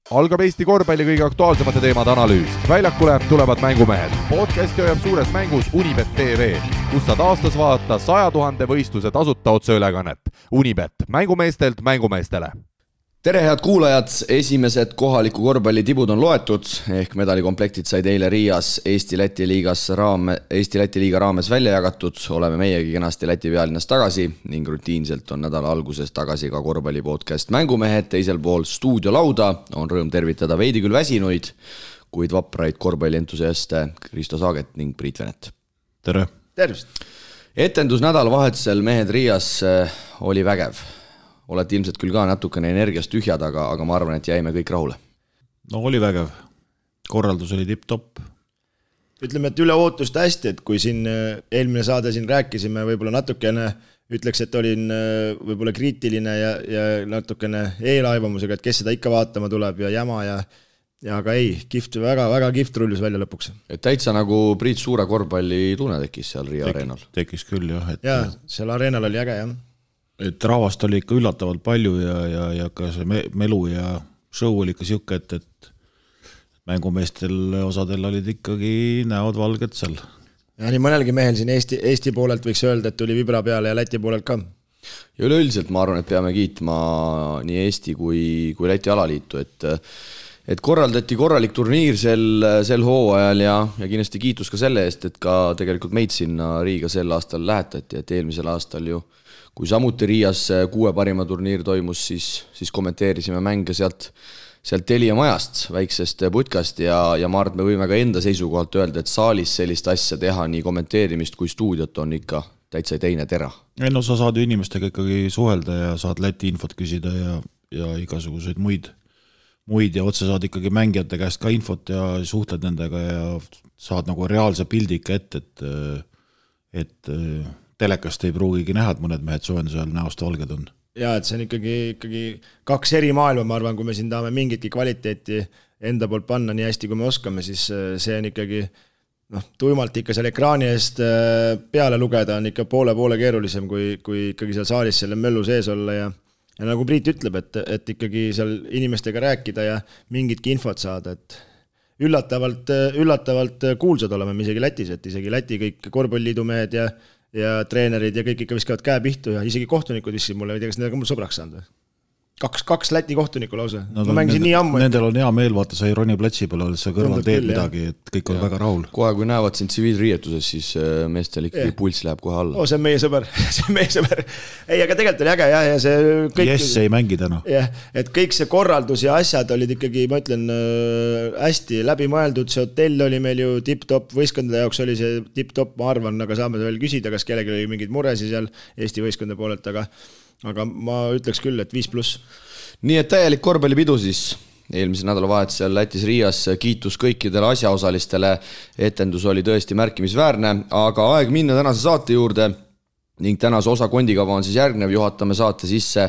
Algab Eesti korvpalli kõige aktuaalsemate teemade analüüs. Väljakule tulevad mängumehed. Podcasti hoiab suures mängus Unibet TV, kus saad aastas vaadata 100 000 võistluse tasuta otseülekannet. Unibet, mängumeestelt mängumeestele. Tere head kuulajad, esimesed kohaliku korvpalli tibud on loetud, ehk medalikomplektid said eile Riias Eesti-Läti liiga raames välja jagatud. Oleme meiegi kenasti Läti pealinnas tagasi ning rutiinselt on nädala alguses tagasi ka korvpalli podcast Mängumehed. Teisel pool stuudiolauda on rõõm tervitada veidi küll väsinuid, kuid vapraid korvpallientusiaste Kristo Saaget ning Priit Venet. Tere! Tervist! Etendus nädalavahetusel mehed Riias oli vägev. Olete ilmselt küll ka natukene energiast tühjad, aga ma arvan, et jäime kõik rahule. No oli vägev. Korraldus oli tipp-topp. Ütleme, et üle ootust hästi, et kui siin eelmine saade siin rääkisime, võib-olla natukene ütleks, et olin võib-olla kriitiline ja natukene eelaivamusega, et kes seda ikka vaatama tuleb ja jama ja aga ei, väga kihvt rullus välja lõpuks. Et täitsa nagu Priit suure korvpalli tunne tekkis seal Riia areenal. Tekkis küll, jah. Ja, seal areenal oli äge, jah. Et rahvast oli ikka üllatavalt palju ja ka see melu ja show oli ikka siuke, et mängumeestel osadel olid ikkagi näod valged seal. Ja nii mõnelgi mehel siin Eesti poolelt võiks öelda, et tuli vibra peale ja Läti poolelt ka. Ja üleüldiselt ma arvan, et peame kiitma nii Eesti kui Läti alaliitu, et korraldati korralik turniir sel hooajal ja kindlasti kiitus ka selle eest, et ka tegelikult meid sinna Riiga sel aastal lähetati, et eelmisel aastal ju kui samuti Riias 6 parima turniir toimus, siis kommenteerisime mänge sealt Telia majast, väiksest putkast ja ma arvan, et me võime ka enda seisukohalt öelda, et saalis sellist asja teha, nii kommenteerimist kui stuudiot on ikka täitsa teine tera. No sa saad ju inimestega ikkagi suhelda ja saad Läti infot küsida ja igasuguseid muid ja otse saad ikkagi mängijate käest ka infot ja suhtled nendega ja saad nagu reaalse pildi ikka et telekast ei pruugigi näha, et mõned mehed soojenduse ajal näost valged on. Ja, et see on ikkagi 2 eri maailma, ma arvan, kui me siin tahame mingitki kvaliteeti enda poolt panna nii hästi, kui me oskame, siis see on ikkagi tuimalt ikka seal ekraani eest peale lugeda on ikka poole keerulisem, kui ikkagi seal saalis selle möllu sees olla ja nagu Priit ütleb, et ikkagi seal inimestega rääkida ja mingitki infot saada, et üllatavalt kuulsad oleme me isegi Lätis, et isegi Läti kõik korvpalliliidu mehed ja treenerid ja kõik ikka viskavad käe pihtu ja isegi kohtunikud viskasid mulle, ei tea, kas need on mul sõbraks saanud või? 2 Läti kohtunikku lausa. No, ma mängisin nii ammu. Nendel on hea meel, vaata, sa ei roni platsi peale, oled sa kõrval teed midagi, et kõik on väga rahul. Kohe, kui näevad sind tsiviilriietuses, siis meestel ikkagi puls läheb kohe alla. See on meie sõber. Ei, aga tegelikult oli äge ja see kõik... Jess ei mängi täna. Jah, et kõik see korraldus ja asjad olid ikkagi, ma ütlen, hästi läbimõeldud. See hotell oli meil ju tipp-top, võistkondade jaoks oli see tipp-top, ma arvan, aga saame veel küsida, kas kellelgi oli mingid muresi seal Eesti võistkondade poolelt, aga ma ütleks küll, et 5+. Nii et täielik korvpallipidu siis eelmise nädalavahetusel Lätis Riias, kiitus kõikidele asjaosalistele, etendus oli tõesti märkimisväärne, aga aeg minna tänase saate juurde ning tänase osa kondikava on siis järgnev, juhatame saate sisse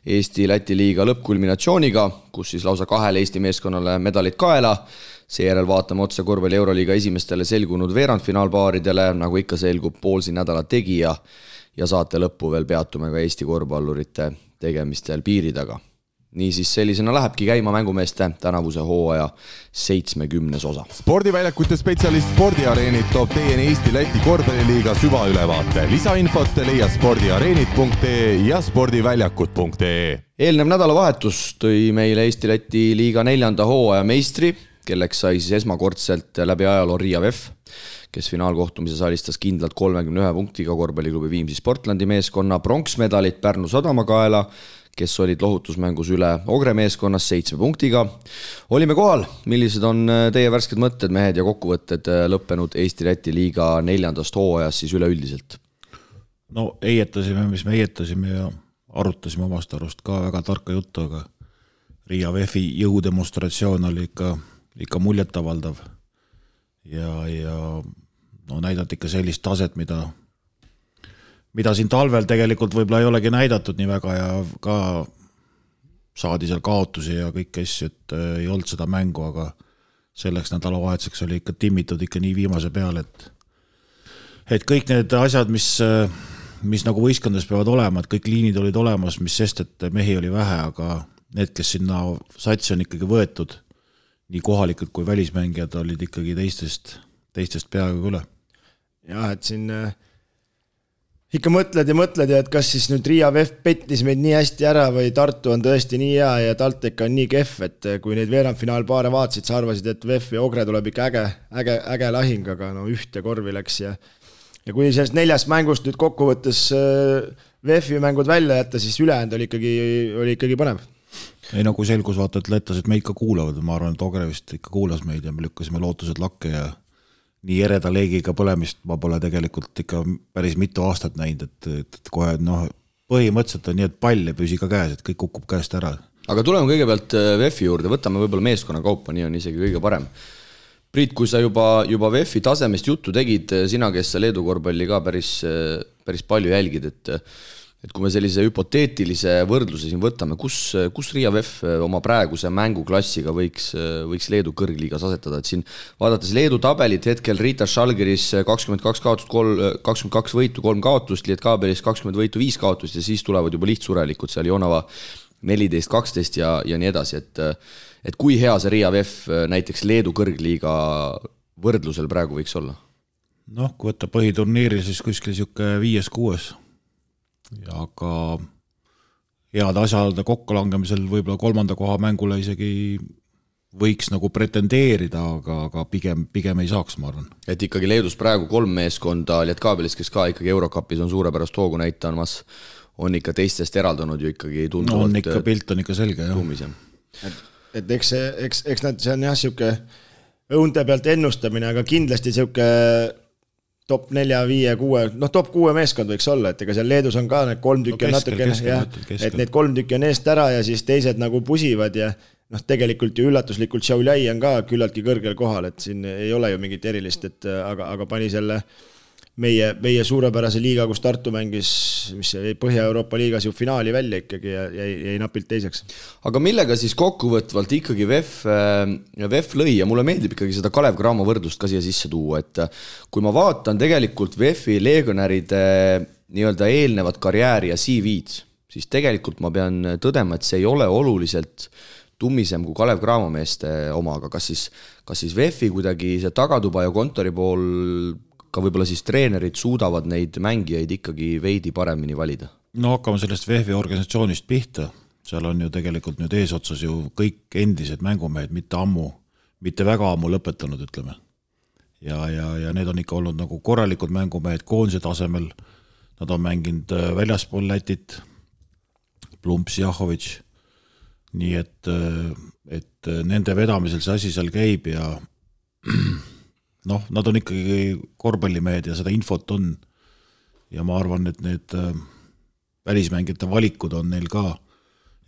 Eesti-Läti liiga lõppkulminatsiooniga, kus siis lausa 2 Eesti meeskonnale medalid kaela, seejärel vaatame otse korvpalli Euroliiga esimestele selgunud veerandfinaalpaaridele, nagu ikka selgub poolsi nädala tegija ja saate lõppu veel peatume ka Eesti korvpallurite tegemistel piiri taga. Niisiis sellisena lähebki käima mängumeeste tänavuse hooaja 70. osa. Spordiväljakute spetsialist Spordiareenid toob teieni Eesti-Läti korvpalliliiga süvaülevaate. Lisainfot leiad spordiareenid.ee ja spordiväljakud.ee. Eelnev nädalavahetus tõi meile Eesti-Läti liiga 4. hooaja meistri, kelleks sai siis esmakordselt läbi ajaloo Riia VEF, kes finaalkohtumises alistas kindlalt 31 punktiga korvpalliklubi Viimsi Sportlandi meeskonna, pronksmedalit Pärnu Sadama kaela, kes olid lohutusmängus üle Ogre meeskonnas 7 punktiga. Olime kohal, millised on teie värsked mõtted, mehed ja kokkuvõtted lõppenud Eesti-Läti liiga 4. hooajas siis üleüldiselt? No eietasime, mis me eietasime ja arutasime omast arust ka väga tarka juttu, aga Riia VEF-i jõudemonstratsioon oli ikka muljetavaldav ja näidati ikka sellist taset, mida siin talvel tegelikult võib-olla ei olegi näidatud nii väga ja ka saadi seal kaotusi ja kõik asju, et ei olnud seda mängu, aga selleks nädalavahetuseks oli ikka timmitud ikka nii viimase peale, et kõik need asjad, mis nagu võistkondades peavad olema, et kõik liinid olid olemas, mis sest, et mehi oli vähe, need, kes sinna satsi on ikkagi võetud, nii kohalikud kui välismängijad olid ikkagi teistest peaaegu üle. Jah, et siin ikka mõtled ja et kas siis nüüd Riia VEF pettis meid nii hästi ära või Tartu on tõesti nii hea ja TalTech on nii kehv, et kui neid veerandfinaalpaare vaatasid, sa arvasid, et VEF ja Ogre tuleb ikka äge lahing, aga no ühte korvi läks ja kui sellest 4 mängust nüüd kokkuvõttes VEF-i mängud välja jätta, siis ülejäänud oli ikkagi põnev. Ei nagu selgus vaata, et lätlased meid ka kuulavad, ma arvan, et Ogre vist ikka kuulas meid ja me lükkasime lootused lakke ja nii ereda leegiga põlemist ma pole tegelikult ikka päris mitu aastat näinud, et kohe põhimõtteliselt on nii, et pall ei püsi ka käes, et kõik kukub käest ära. Aga tuleme kõigepealt VEF-i juurde, võtame võib-olla meeskonna kaupa, nii on isegi kõige parem. Priit, kui sa juba VEF-i tasemest juttu tegid, sina, kes sa Leedu korvpalli ka päris palju jälgid, et kui me sellise hüpoteetilise võrdluse siin võtame, kus Riia VEF oma praeguse mänguklassiga võiks Leedu kõrgliigas asetada, et siin vaadates Leedu tabelit hetkel Ritas Žalgiris 22 kaotust, 22 võitu, 3 kaotust, Lietkaabelis 20 võitu, 5 kaotust ja siis tulevad juba lihtsurelikud seal Jonava 14, 12 ja nii edasi, et kui hea see Riia VEF näiteks Leedu kõrgliiga võrdlusel praegu võiks olla? Kui võtta põhiturniiri, siis kuskil siuke 5-6 ja aga head asjade kokkulangemisel võib-olla 3. koha mängule isegi võiks nagu pretendeerida, aga pigem ei saaks, ma arvan. Et ikkagi Leedus praegu 3 meeskonda Lietkaabelis, kes ka ikkagi Eurokapis on suurepärast hoogu näitamas, on ikka teistest eraldunud ju ikkagi tunduvalt. On ikka pilt on ikka selge, jah. Et eks see on jah siuke õunte pealt ennustamine, aga kindlasti siuke top 4, 5, 6, top 6 meeskond võiks olla, et ega seal Leedus on ka need 3 tükki on natukene, et need 3 tükki on eest ära ja siis teised nagu pusivad ja tegelikult ju üllatuslikult Šiauliai on ka küllaltki kõrgel kohal, et siin ei ole ju mingit erilist, et aga pani selle meie suurepärase liiga, kus Tartu mängis, mis Põhja-Euroopa liigas ju finaali välja ikkagi ja jäi napilt teiseks. Aga millega siis kokkuvõtvalt ikkagi VEF lõi ja mulle meeldib ikkagi seda Kalev Cramo võrdlust ka siia sisse tuua, et kui ma vaatan tegelikult VEF-i legionäride nii-öelda eelnevat karjääri ja CV-d, siis tegelikult ma pean tõdema, et see ei ole oluliselt tummisem kui Kalev Cramo meeste oma, aga kas siis VEF-i kuidagi see tagatuba ja kontori pool ka võib-olla siis treenerid suudavad neid mängijaid ikkagi veidi paremini valida? Hakkame sellest VEF-i organisatsioonist pihta. Seal on ju tegelikult nüüd eesotsas ju kõik endised mängumehed, mitte väga ammu lõpetanud, ütleme. Ja need on ikka olnud nagu korralikud mängumehed koondise tasemel. Nad on mänginud väljaspool Lätit, Plumps, Jahovitš. Nii et nende vedamisel see asi seal käib ja nad on ikkagi korvpallimehed ja seda infot on ja ma arvan, et need välismängijate valikud on neil ka.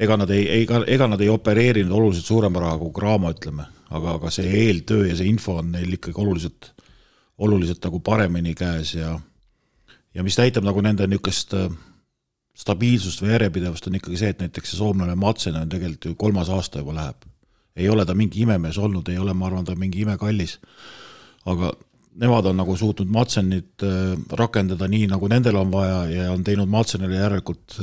Ega nad ei opereerinud oluliselt suurema raha kui Cramo, ütleme, aga see eeltöö ja see info on neil ikkagi oluliselt nagu paremini käes ja mis näitab nagu nende niisugust stabiilsust või järjepidevust on ikkagi see, et näiteks see soomlane Matsen on tegelikult ju 3. aasta juba läheb. Ei ole ta mingi imemees olnud, ei ole, ma arvan, ta mingi imekallis. Aga nemad on nagu suutnud Matsenit rakendada nii, nagu nendel on vaja ja on teinud Matsenile järelikult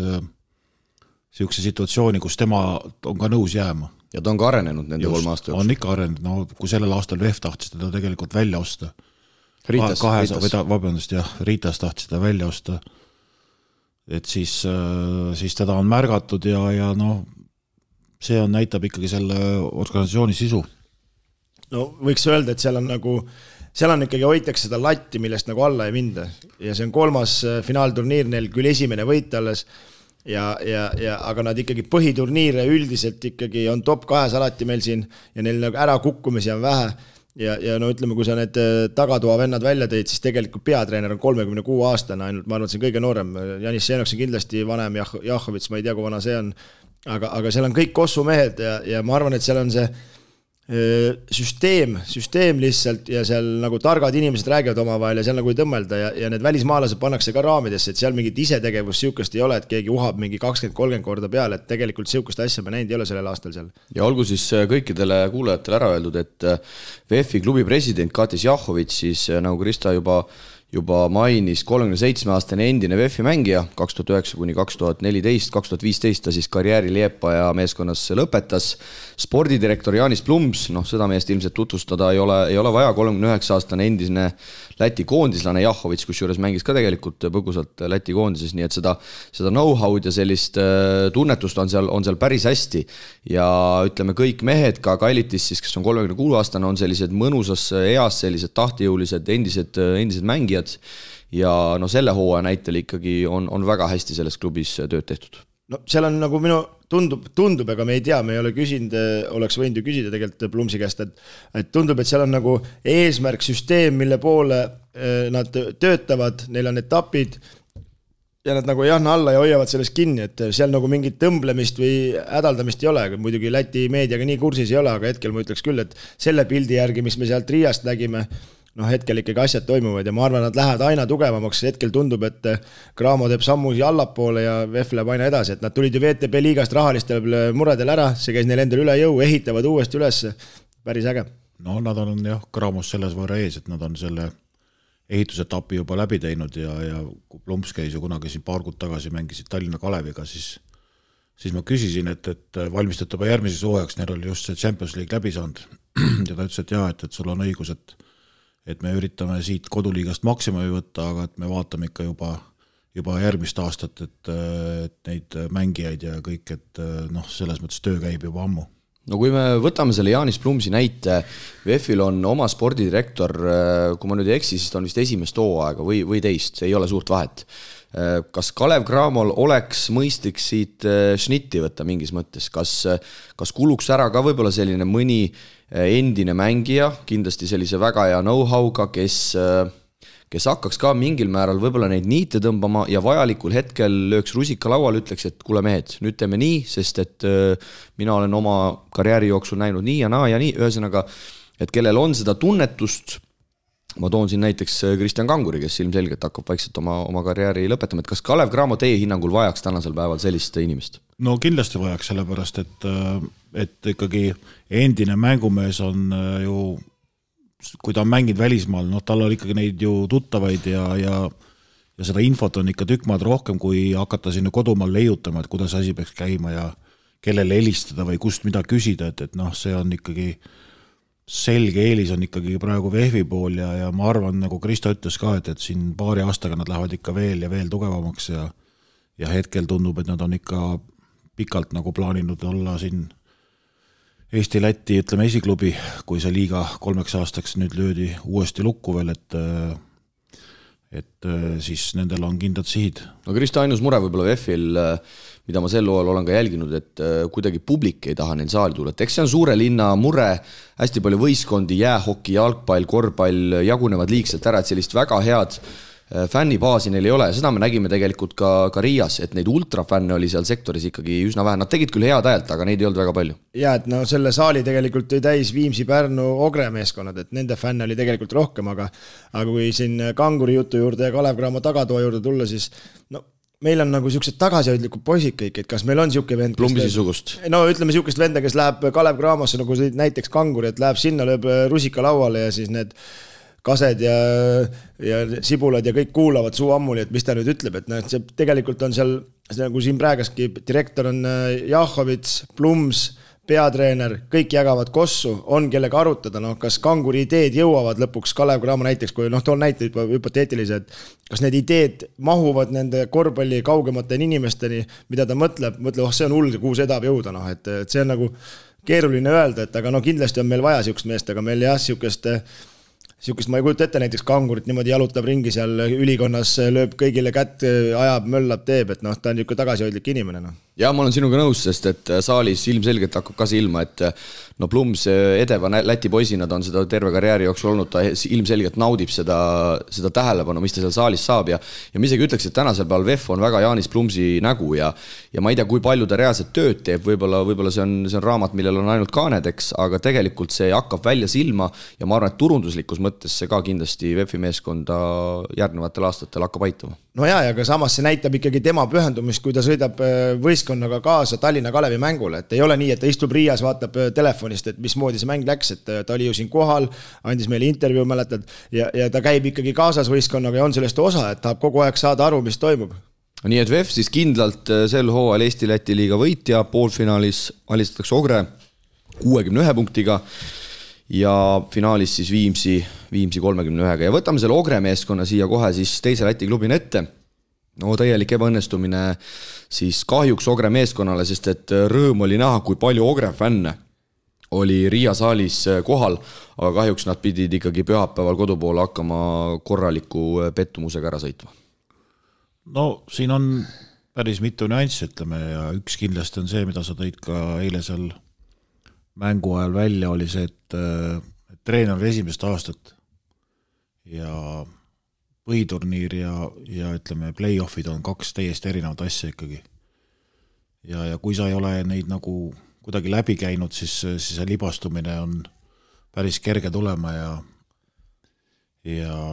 siukse situatsiooni, kus tema on ka nõus jääma. Ja ta on ka arenenud nende 3 aasta jooksul. On ikka arenenud, kui sellel aastal VEF tahtis teda tegelikult välja osta. Ritas. Ritas tahtis teda välja osta. Et siis teda on märgatud ja see näitab ikkagi selle organisatsiooni sisu. Võiks öelda, et seal on ikkagi hoitakse seda latti, millest nagu alla ei minda. Ja see on 3. finaalturniir, neil küll esimene võit alles, aga nad ikkagi põhiturniire üldiselt ikkagi on top 2 alati meil siin ja neil nagu ära kukkumisi on vähe. Ja ütleme, kui sa need tagatoa vennad välja teid, siis tegelikult peatreener on 36 aastane, ainult ma arvan, et see on kõige noorem. Janis Seenoks on kindlasti vanem, Jahovits, ma ei tea, kui vana see on, aga seal on kõik kossumehed ja ma arvan, et seal on see süsteem lihtsalt ja seal nagu targad inimesed räägivad omavahel ja seal nagu ei tõmmelda ja need välismaalased pannakse ka raamidesse, et seal mingit isetegevust siukest ei ole, et keegi uhab mingi 20-30 korda peale, et tegelikult siukest asja me näinud ei ole sellel aastal seal. Ja olgu siis kõikidele kuulajatele ära öeldud, et VEF-i klubi president Katis Jahovitš siis nagu Krista juba juba mainis, 37-aastane endine VEF-i mängija, 2009 kuni 2014, 2015 ta siis karjääri Liepaja meeskonnas lõpetas. Spordidirektor Jaanis Plums, seda meest ilmselt tutvustada ei ole vaja, 39-aastane endine Läti koondislane Jahovits, kusjuures mängis ka tegelikult põgusalt Läti koondises, nii et seda know-how'd ja sellist tunnetust on seal päris hästi. Ja ütleme, kõik mehed, ka Kailitis siis, kes on 36-aastane, on sellised mõnusas eas, sellised tahtejõulised endised mängijad ja selle hooaja näitel ikkagi on väga hästi selles klubis tööd tehtud. No seal on nagu minu tundub, aga me ei tea, me ei ole küsinud, oleks võinud ju küsida tegelikult Plumsi käest, et tundub, et seal on nagu eesmärk, süsteem, mille poole nad töötavad, neil on etapid ja nad nagu jahna alla ja hoiavad sellest kinni, et seal nagu mingit tõmblemist või hädaldamist ei ole, muidugi Läti meediaga nii kursis ei ole, aga hetkel ma ütleks küll, et selle pildi järgi, mis me sealt Riiast nägime, hetkel ikkagi asjad toimuvad ja ma arvan, nad lähevad aina tugevamaks, hetkel tundub, et Cramo teeb sammusi allapoole ja VEF läheb aina edasi, et nad tulid ju VTB liigast rahalistel muredel ära, see käis neil endal üle jõu, ehitavad uuesti üles, päris äge. No nad on Cramos selles võrra ees, et nad on selle ehitusetapi juba läbi teinud ja kui Plumps käis ju kunagi siin paar kuud tagasi mängisid Tallinna Kaleviga, siis ma küsisin, et valmistate juba järgmises hooajaks, neil oli just see Champions League läbi saanud ja ta ütles, et sul on õigus, et me üritame siit koduliigast maksimumi võtta, aga et me vaatame ikka juba järgmist aastat, et neid mängijaid ja kõik, et selles mõttes töö käib juba ammu. No kui me võtame selle Jaanis Plumsi näite, VEF-il on oma spordidirektor, kui ma nüüd ei eksi, siis ta on vist esimest hooaega või teist, ei ole suurt vahet. Kas Kalev Cramol oleks mõistlik siit šnitti võtta mingis mõttes? Kas kuluks ära ka võib-olla selline mõni endine mängija, kindlasti sellise väga hea know-how'ga, kes hakkaks ka mingil määral võib-olla neid niite tõmbama ja vajalikul hetkel lööks rusika laual, ütleks, et kuule mehed, nüüd teeme nii, sest et mina olen oma karjääri jooksul näinud nii ja naa ja nii, ühesõnaga, et kellel on seda tunnetust, ma toon siin näiteks Kristjan Kanguri, kes ilmselgelt hakkab vaikselt oma karjääri lõpetama, et kas Kalev Cramo teie hinnangul vajaks tänasel päeval sellist inimest? No kindlasti vajaks, sellepärast, et ikkagi endine mängumees on ju, kui ta on mänginud välismaal, tal on ikkagi neid ju tuttavaid ja seda infot on ikka tükk maad rohkem, kui hakata sinna kodumaal leiutama, et kuidas asi peaks käima ja kellele helistada või kust mida küsida, et see on ikkagi selge eelis on ikkagi praegu VEF-i pool ja ma arvan, nagu Kristo ütles ka, et siin paari aastaga nad lähevad ikka veel ja veel tugevamaks ja hetkel tundub, et nad on ikka pikalt nagu plaaninud olla siin Eesti-Läti, ütleme esiklubi, kui see liiga 3 aastaks nüüd löödi uuesti lukku veel, et siis nendel on kindlad sihid. No Kristo, ainus mure võib-olla VEF-il, mida ma sel loal olen ka jälginud, et kuidagi publik ei taha neil saali tulla. Et eks see on suure linna mure, hästi palju võistkondi, jäähoki, jalgpall, korvpall jagunevad liigselt ära, et sellist väga head fännibaasi neil ei ole. Seda me nägime tegelikult ka Riias, et neid ultrafänne oli seal sektoris ikkagi üsna vähe. Nad tegid küll head ajalt, aga neid ei olnud väga palju. Ja, et selle saali tegelikult tõi täis Viimsi, Pärnu, Ogre meeskonnad, et nende fänne oli tegelikult rohkem, aga kui siin Kanguri jutu juurde ja Kalev Cramo tagatoa juurde tulla, siis meil on nagu siuksed tagasihoidlikud poisid kõik, et kas meil on siuke vend, Plumbisisugust. No ütleme siukest venda, kes läheb Kalev Cramosse, nagu näiteks Kanguri, et läheb sinna, lööb rusika lauale ja siis need kased ja sibulad ja kõik kuulavad suu ammuli, et mis ta nüüd ütleb, et see tegelikult on seal, nagu siin praegaski direktor on Jahovits, Plums, peatreener, kõik jagavad kossu, on kellega arutada, kas Kanguri ideed jõuavad lõpuks Kalev Cramo näiteks, kui toon näite juba hüpoteetilise, et kas need ideed mahuvad nende korvpalli kaugemateni inimesteni, mida ta mõtleb, see on hull, kuhu see tahab jõuda, et see on nagu keeruline öelda, et aga kindlasti on meil vaja siukest meest, aga meil jah, siukest ma ei kujuta ette näiteks Kangurit niimoodi jalutab ringi seal ülikonnas, lööb kõigile kätt, ajab, möllab, teeb, et ta on niisugune tagasihoidlik inimene. Ja ma olen sinuga nõus, sest et saalis ilmselgelt hakkab ka silma, et Plums edeva Läti poisina ta on seda terve karjääri jooksul olnud, ta ilmselgelt naudib seda tähelepanu, mis ta seal saalis saab ja ma isegi ütleks, et tänasel päeval VEF on väga Jaanis Plumsi nägu ja ma ei tea, kui palju ta reaalselt tööd teeb, võib-olla see on raamat, millel on ainult kaanedeks, aga tegelikult see hakkab välja silma ja ma arvan, et turunduslikus mõttes see ka kindlasti VEF-i meeskonda järgnevatel aastatel hakkab aitama. no ja ka samas see näitab ikkagi tema pühendumist, kui ta sõidab võistkonnaga kaasa Tallinna Kalevi mängule, et ei ole nii, et ta istub Riias, vaatab telefonist, et mismoodi see mäng läks, et ta oli ju siin kohal, andis meile intervjuu, mäletad, ja ta käib ikkagi kaasas võistkonnaga ja on sellest osa, et tahab kogu aeg saada aru, mis toimub. Nii et VEF siis kindlalt sel hooajal Eesti-Läti liiga võitja, poolfinaalis alistatakse Ogre 61 punktiga ja finaalis siis Viimsi 31-ga ja võtame selle Ogre meeskonna siia kohe siis teise Läti klubina ette. No täielik ebaõnnestumine siis kahjuks Ogre meeskonnale, sest et rõõm oli näha, kui palju Ogre fänne oli Riia saalis kohal, aga kahjuks nad pidid ikkagi pühapäeval kodupoole hakkama korraliku pettumusega ära sõitma. No siin on päris mitu nüanssi, ütleme, ja üks kindlasti on see, mida sa tõid ka eile seal mängu ajal välja, oli see, et treener oli esimest aastat ja põhiturniir ja ütleme, play-offid on kaks täiesti erinevat asja ikkagi. Ja kui sa ei ole neid nagu kuidagi läbi käinud, siis see libastumine on päris kerge tulema ja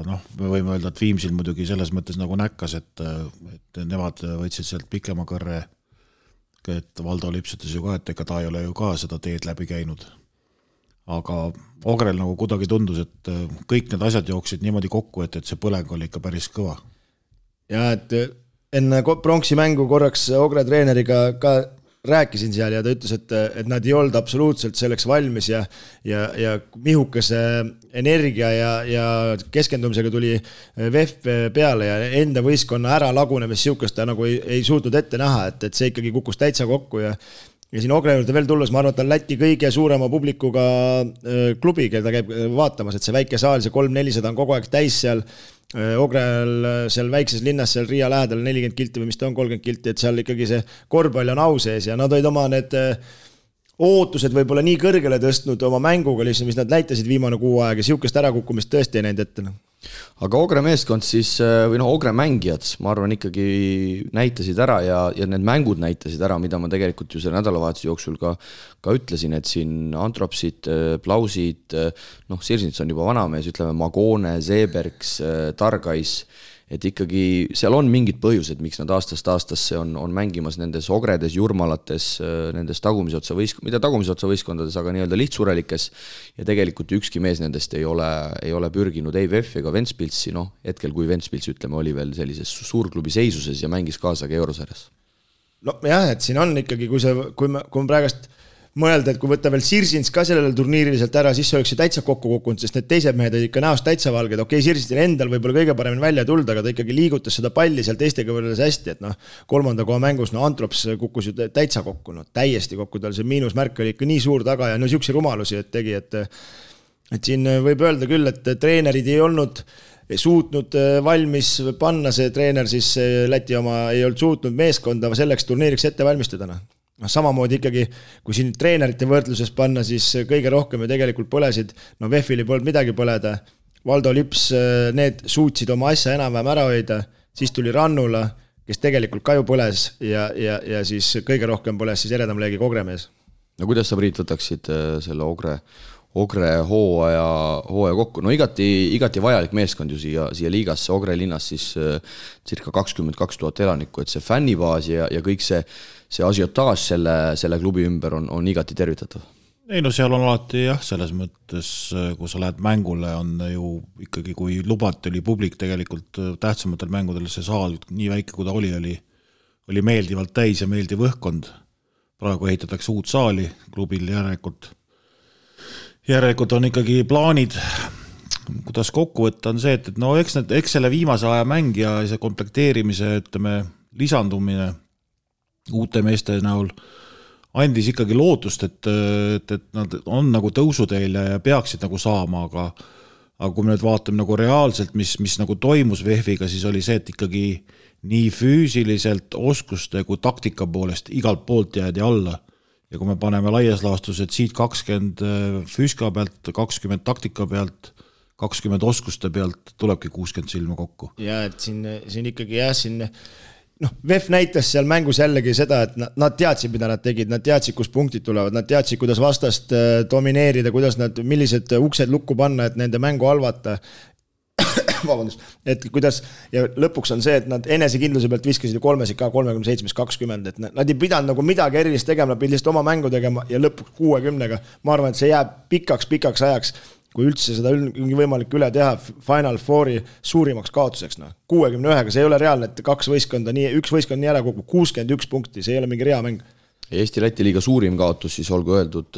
noh, me võime öelda, et Viimsil muidugi selles mõttes nagu näkkas, et nemad võtsid sealt pikema kõrre, et Valdo Lips ütles ju ka, et ega ta ei ole ju ka seda teed läbi käinud. Aga Ogrel nagu kuidagi tundus, et kõik need asjad jooksid niimoodi kokku, et see põleng oli ikka päris kõva. Ja et enne pronksi mängu korraks Ogre treeneriga ka rääkisin seal ja ta ütles, et nad ei olnud absoluutselt selleks valmis ja mihukese energia ja keskendumisega tuli VEF peale ja enda võistkonna ära lagunemis siukest ta nagu ei suutnud ette näha, et see ikkagi kukkus täitsa kokku ja siin Ogre juurde veel tulles, ma arvan, et on Läti kõige suurema publikuga klubi, keda käib vaatamas, et see väike saal, see 3-400 on kogu aeg täis seal Ogrel seal väikses linnas, seal Riia lähedal 40 kilti või mis ta on, 30 kilti, et seal ikkagi see korvpall on au sees ja nad olid oma need ootused võib-olla nii kõrgele tõstnud oma mänguga, mis nad näitasid viimane kuu aeg ja siukest ärakukkumist tõesti ei näinud ette. Aga Ogre meeskond siis, või Ogre mängijad, ma arvan ikkagi näitasid ära ja need mängud näitasid ära, mida ma tegelikult ju selle nädalavahetuse jooksul ka ütlesin, et siin Antropsid, Plausid, Sirsnits on juba vanamees, ütleme Magone, Zeebergs, Targais, et ikkagi seal on mingid põhjused, miks nad aastast aastasse on mängimas nendes Ogredes, Jurmalates, nendes tagumisotsa võistkondades, aga nii-öelda lihtsurelikes ja tegelikult ükski mees nendest ei ole pürginud ei VEF ega Ventspilsi, hetkel kui Ventspils, ütleme, oli veel sellises suurklubi seisuses ja mängis kaasa ka Eurosarjas. No jah, et siin on ikkagi, kui me praegast mõelda, et kui võtta veel Sirsins ka sellele turniiriliselt ära, siis oleks see täitsa kokku kukkunud, sest need teised mehed olid ikka näost täitsa valged. Okei, Sirsinsil endal võib-olla kõige paremini välja tulda, aga ta ikkagi liigutas seda palli seal teistega võrreldes hästi, et kolmanda koha mängus, Antrops kukkus ju täitsa kokku, täiesti kokku, tal see miinusmärk oli ikka nii suur taga ja siukse rumalusi, et tegi, et siin võib öelda küll, et treenerid ei olnud suutnud valmis panna, see treener siis Läti oma ei olnud suutnud meeskonda selleks turniiriks ette valmistada. Samamoodi ikkagi, kui siin treenerite võrdluses panna, siis kõige rohkem ju tegelikult põlesid, VEF-il ei polnud midagi põleda, Valdo Lips, need suutsid oma asja enam-vähem ära hoida, siis tuli Rannula, kes tegelikult ka ju põles ja siis kõige rohkem põles siis eredam leegi Ogre mees. No kuidas sa, Priit, võtaksid selle Ogre hooaja kokku? No igati vajalik meeskond ju siia liigasse, Ogre linnas siis circa 22 000 elanikku, et see fännibaas ja kõik see asiotaaž selle klubi ümber on igati tervitatav. Ei no seal on alati jah, selles mõttes, kui sa lähed mängule, on ju ikkagi, kui lubati, oli publik tegelikult tähtsamatel mängudel, see saal nii väike, kui ta oli meeldivalt täis ja meeldiv õhkkond. Praegu ehitatakse uut saali klubil järelikult on ikkagi plaanid, kuidas kokku võtta, on see, et eks selle viimase aja mäng ja see komplekteerimise, ütleme, lisandumine uute meeste näol andis ikkagi lootust, et nad on nagu tõusuteel ja peaksid nagu saama, aga kui me nüüd vaatame nagu reaalselt, mis nagu toimus VEF-iga, siis oli see, et ikkagi nii füüsiliselt oskuste kui taktika poolest igalt poolt jäädi alla. Ja kui me paneme laias laastus, et siit 20 füüska pealt, 20 taktika pealt, 20 oskuste pealt tulebki 60 silma kokku. Ja et siin ikkagi VEF näitas seal mängus jällegi seda, et nad teadsid, mida nad tegid, nad teadsid, kus punktid tulevad, nad teadsid, kuidas vastast domineerida, millised uksed lukku panna, et nende mängu halvata. vabandust, et kuidas ja lõpuks on see, et nad enesekindluse pealt viskasid 3-sid ka 37-20, et nad ei pidanud nagu midagi erilist tegema, nad pidid lihtsalt oma mängu tegema ja lõpuks 60-ga. Ma arvan, et see jääb pikaks ajaks, kui üldse seda võimalik üle teha Final Fouri suurimaks kaotuseks. 61-ga, see ei ole reaalne, et üks võistkond nii ära kukub, 61 punkti, see ei ole mingi rea mäng. Eesti-Läti liiga suurim kaotus siis olgu öeldud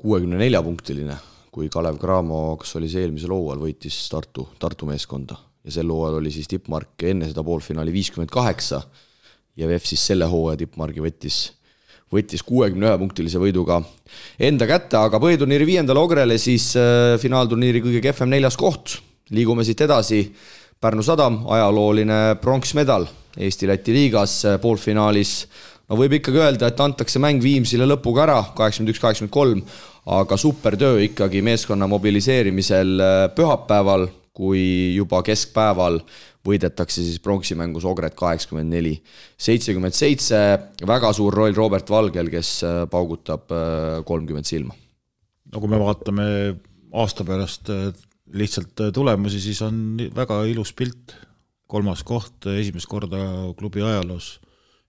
64-punktiline, kui Kalev Cramo, kas oli see eelmisel hooajal, võitis Tartu meeskonda ja sel hooajal oli siis tippmark enne seda poolfinaali 58 ja VEF siis selle hooaja tippmargi võttis 61-punktilise võiduga enda kätte, aga põhiturniiri 5. Ogrele siis finaalturniiri kõige kehvem 4. koht. Liigume siit edasi. Pärnu Sadam, ajalooline pronksmedal Eesti-Läti liigas poolfinaalis. No võib ikkagi öelda, et antakse mäng Viimsile lõpuga ära, 81-83, aga supertöö ikkagi meeskonna mobiliseerimisel pühapäeval, kui juba keskpäeval võidetakse siis pronksimängus Ogret 84-77, väga suur roll Robert Valgel, kes paugutab 30 silma. No kui me vaatame aasta pärast lihtsalt tulemusi, siis on väga ilus pilt. 3. koht, esimest korda klubi ajaloos,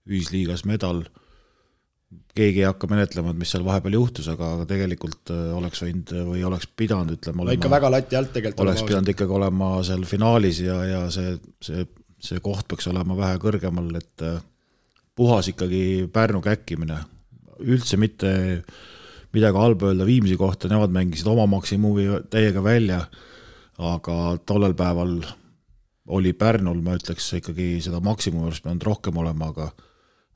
ühisliigas medal. Keegi ei hakka menetlema, mis seal vahepeal juhtus, aga tegelikult oleks võinud või oleks pidanud, ütleme, olema, ikka väga lati alt tegelikult oleks pidanud ikkagi olema seal finaalis ja see koht peaks olema vähe kõrgemal, et puhas ikkagi Pärnu käkkimine. Üldse mitte midagi halba öelda Viimsi kohta, nemad mängisid oma maksimumi täiega välja, aga tollel päeval oli Pärnul, ma ütleks, ikkagi seda maksimumi peanud rohkem olema,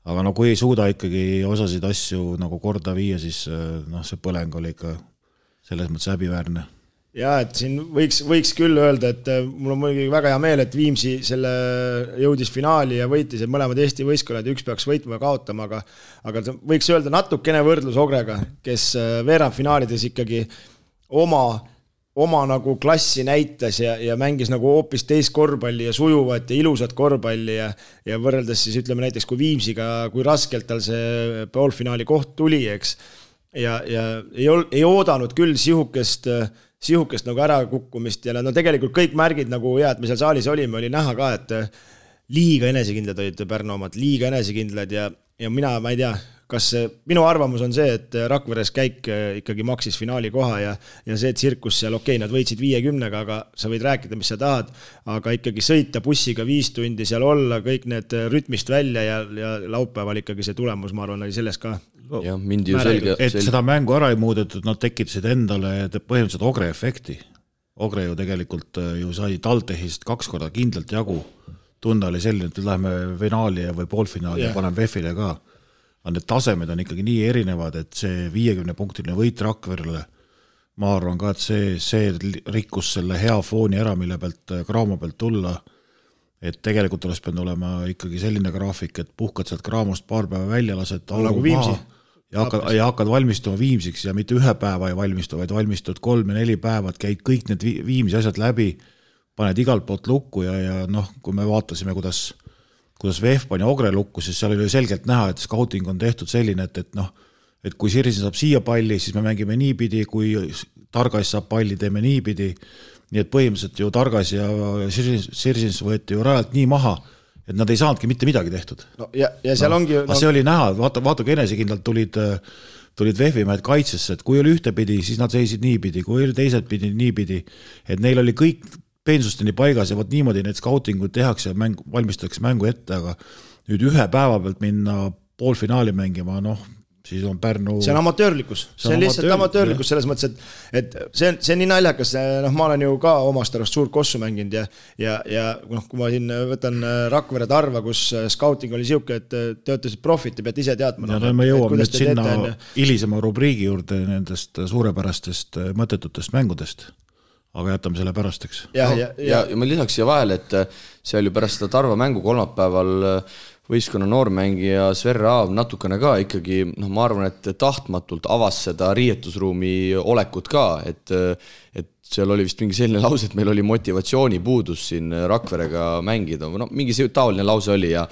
aga no kui ei suuda ikkagi osasid asju nagu korda viia, siis see põleng oli ikka selles mõttes häbiväärne. Ja, et siin võiks küll öelda, et mul on muidugi väga hea meel, et Viimsi selle jõudis finaali ja võitis, et mõlemad Eesti võistkonnad, üks peaks võitma ja kaotama, aga võiks öelda natukene võrdlus Ogrega, kes veerandfinaalides ikkagi oma nagu klassi näitas ja mängis nagu hoopis teist korvpalli ja sujuvat ja ilusat korvpalli ja võrreldes siis ütleme näiteks kui Viimsiga, kui raskelt tal see poolfinaali koht tuli, eks. Ja ei oodanud küll sihukest nagu ära kukkumist ja no tegelikult kõik märgid nagu et me seal saalis olime, oli näha ka, et liiga enesekindlad olid Pärnu omad, liiga enesekindlad ja ma ei tea, kas minu arvamus on see, et Rakveres käik ikkagi maksis finaali koha ja see tsirkus seal, nad võitsid 50-ga, aga sa võid rääkida, mis sa tahad, aga ikkagi sõita bussiga 5 tundi seal olla, kõik need rütmist välja ja laupäeval ikkagi see tulemus, ma arvan, oli selles ka. Ja, mindi ju selge. Et seda mängu ära ei muudetud, nad tekitasid endale põhimõtteliselt Ogre efekti. Ogre ju tegelikult ju sai Taltehist 2 korda kindlalt jagu. Tunda oli selline, et läheme finaali või poolfinaali ja panen VEF-ile ka. Need tasemed on ikkagi nii erinevad, et see 50-punktiline võit Rakverele, ma arvan ka, et see rikkus selle hea fooni ära, mille pealt Cramo pealt tulla, et tegelikult oleks pidanud olema ikkagi selline graafik, et puhkad sealt Cramost paar päeva välja, lased nagu Viimsi ja hakkad valmistuma Viimsiks ja mitte 1 päeva ei valmistu, vaid valmistud 3 ja 4 päevad, käid kõik need Viimsi asjad läbi, paned igalt poolt lukku ja kui me vaatasime, kuidas VEF pani Ogre lukku, siis seal oli selgelt näha, et scouting on tehtud selline, et kui Sirsin saab siia palli, siis me mängime niipidi, kui Targas saab palli, teeme niipidi, nii et põhimõtteliselt ju Targas ja Sirsins võeti ju rajalt nii maha, et nad ei saanudki mitte midagi tehtud. No, ja seal ongi... See oli näha, vaata kui enesekindlalt tulid VEF-i mehed kaitsesse, et kui oli ühtepidi, siis nad seisid niipidi, kui oli teiselt pidi niipidi, et neil oli kõik peensusteni paigas ja võt niimoodi need scoutingud tehakse ja valmistatakse mängu ette, aga nüüd 1 päeva pealt minna poolfinaali mängima, siis on Pärnu... See on amatöörlikkus, see on lihtsalt amatöörlikkus selles mõttes, et see on nii naljakas, ma olen ju ka omast arvast suurt kossu mänginud ja kui ma siin võtan Rakvere Tarva, kus scouting oli siuke, et te olete profid, te peate ise teadma. Ja me jõuame nüüd sinna hilisema rubriigi juurde nendest suurepärastest mõttetutest mängudest. Aga jätame selle pärasteks. Ja ma lisaks siia vahel, et see oli pärast seda Tarva mängu kolmapäeval võistkonna noormängija Sver Raav natukene ka ikkagi, ma arvan, et tahtmatult avas seda riietusruumi olekut ka, et seal oli vist mingi selline lause, et meil oli motivatsioonipuudus siin Rakverega mängida, no mingi taoline lause oli ja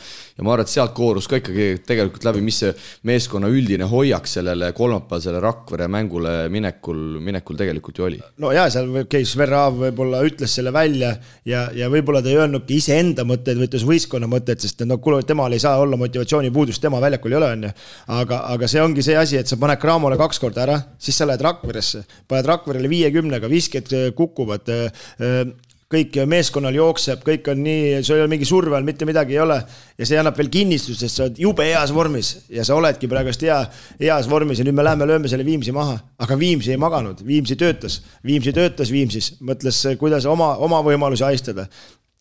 ma arvan, et sealt koorus ka ikkagi tegelikult läbi, mis see meeskonna üldine hoiak sellele kolmapäevasele Rakvere mängule minekul tegelikult ju oli. No jaa, seal käis Verrav võib-olla ütles selle välja ja võib-olla ta ei öelnudki ise enda mõtteid, või ütles võistkonna mõtteid, sest temal ei saa olla motivatsioonipuudus, tema väljakul ei ole, on ju. Aga see ongi see asi, et sa paned Cramole 2 korda ära, siis sa lähed Rakveresse, paned Rakverele 50-ga, visked kukuvad, kõik meeskonnal jookseb, kõik on nii, sul ei ole mingi surve all, mitte midagi ei ole ja see annab veel kinnistust, sest sa oled jube heas vormis ja sa oledki praegust heas vormis ja nüüd me lööme selle Viimsi maha, aga Viimsi ei maganud, Viimsi töötas Viimsis, mõtles, kuidas oma võimalusi haistada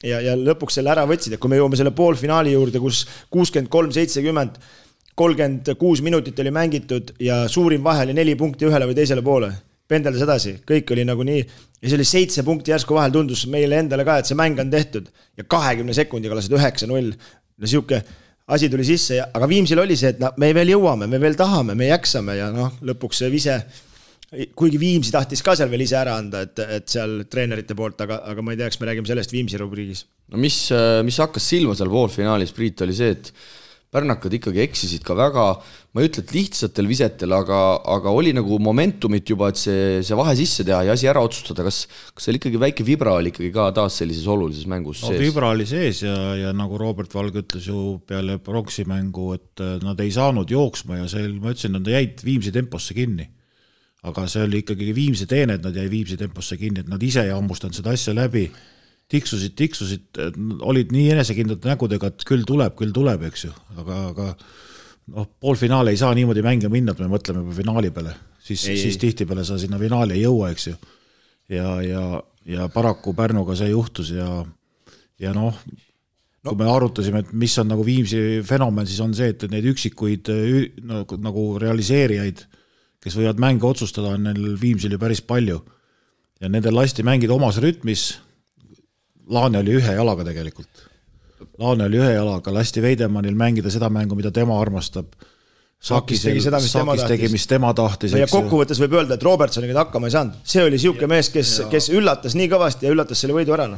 ja lõpuks selle ära võtsid, et kui me jõuame selle poolfinaali juurde, kus 63-70 36 minutit oli mängitud ja suurim vahe oli 4 punkti ühele või teisele poole. Pendeldas edasi, kõik oli nagu nii ja see oli 7 punkti järsku vahel, tundus meile endale ka, et see mäng on tehtud ja 20 sekundiga lasid 9-0. No siuke asi tuli sisse, aga Viimsil oli see, et me veel jõuame, me veel tahame, me jäksame ja lõpuks see vise, kuigi Viimsi tahtis ka seal veel ise ära anda, et seal treenerite poolt, aga ma ei tea, eks me räägime sellest Viimsi rubriigis. No mis hakkas silma seal poolfinaalis, Priit, oli see, et pärnakad ikkagi eksisid ka väga, ma ei ütle, et lihtsatel visetel, aga oli nagu momentumit juba, et see vahe sisse teha ja asi ära otsustada. Kas seal ikkagi väike vibra oli ikkagi ka taas sellises olulises mängus sees? Vibra oli sees ja nagu Robert Valge ütles ju peale Pronksi mängu, et nad ei saanud jooksma ja ma ütlesin, nad jäid Viimsi temposse kinni. Aga see oli ikkagi Viimsi teene, et nad jäi Viimsi temposse kinni, et nad ise ei hammustanud seda asja läbi. Tiksusid, olid nii enesekindlad nägudega, et küll tuleb, eks ju, aga poolfinaale ei saa niimoodi mänge minna, et me mõtleme finaali peale, siis tihti peale sa sinna finaali ei jõua, eks ju, ja paraku Pärnuga see juhtus ja kui me arutasime, et mis on nagu Viimsi fenomen, siis on see, et neid üksikuid nagu realiseerijaid, kes võivad mänge otsustada, on neil Viimsil ju päris palju ja nendel lasti mängida omas rütmis. Laane oli ühe jalaga tegelikult. Lasti Veidemannil mängida seda mängu, mida tema armastab. Sakis tegi, mis tema tahtis. Ja kokkuvõttes võib öelda, et Robertsoniga hakkama ei saanud. See oli siuke mees, kes üllatas nii kõvasti ja üllatas selle võidu ära.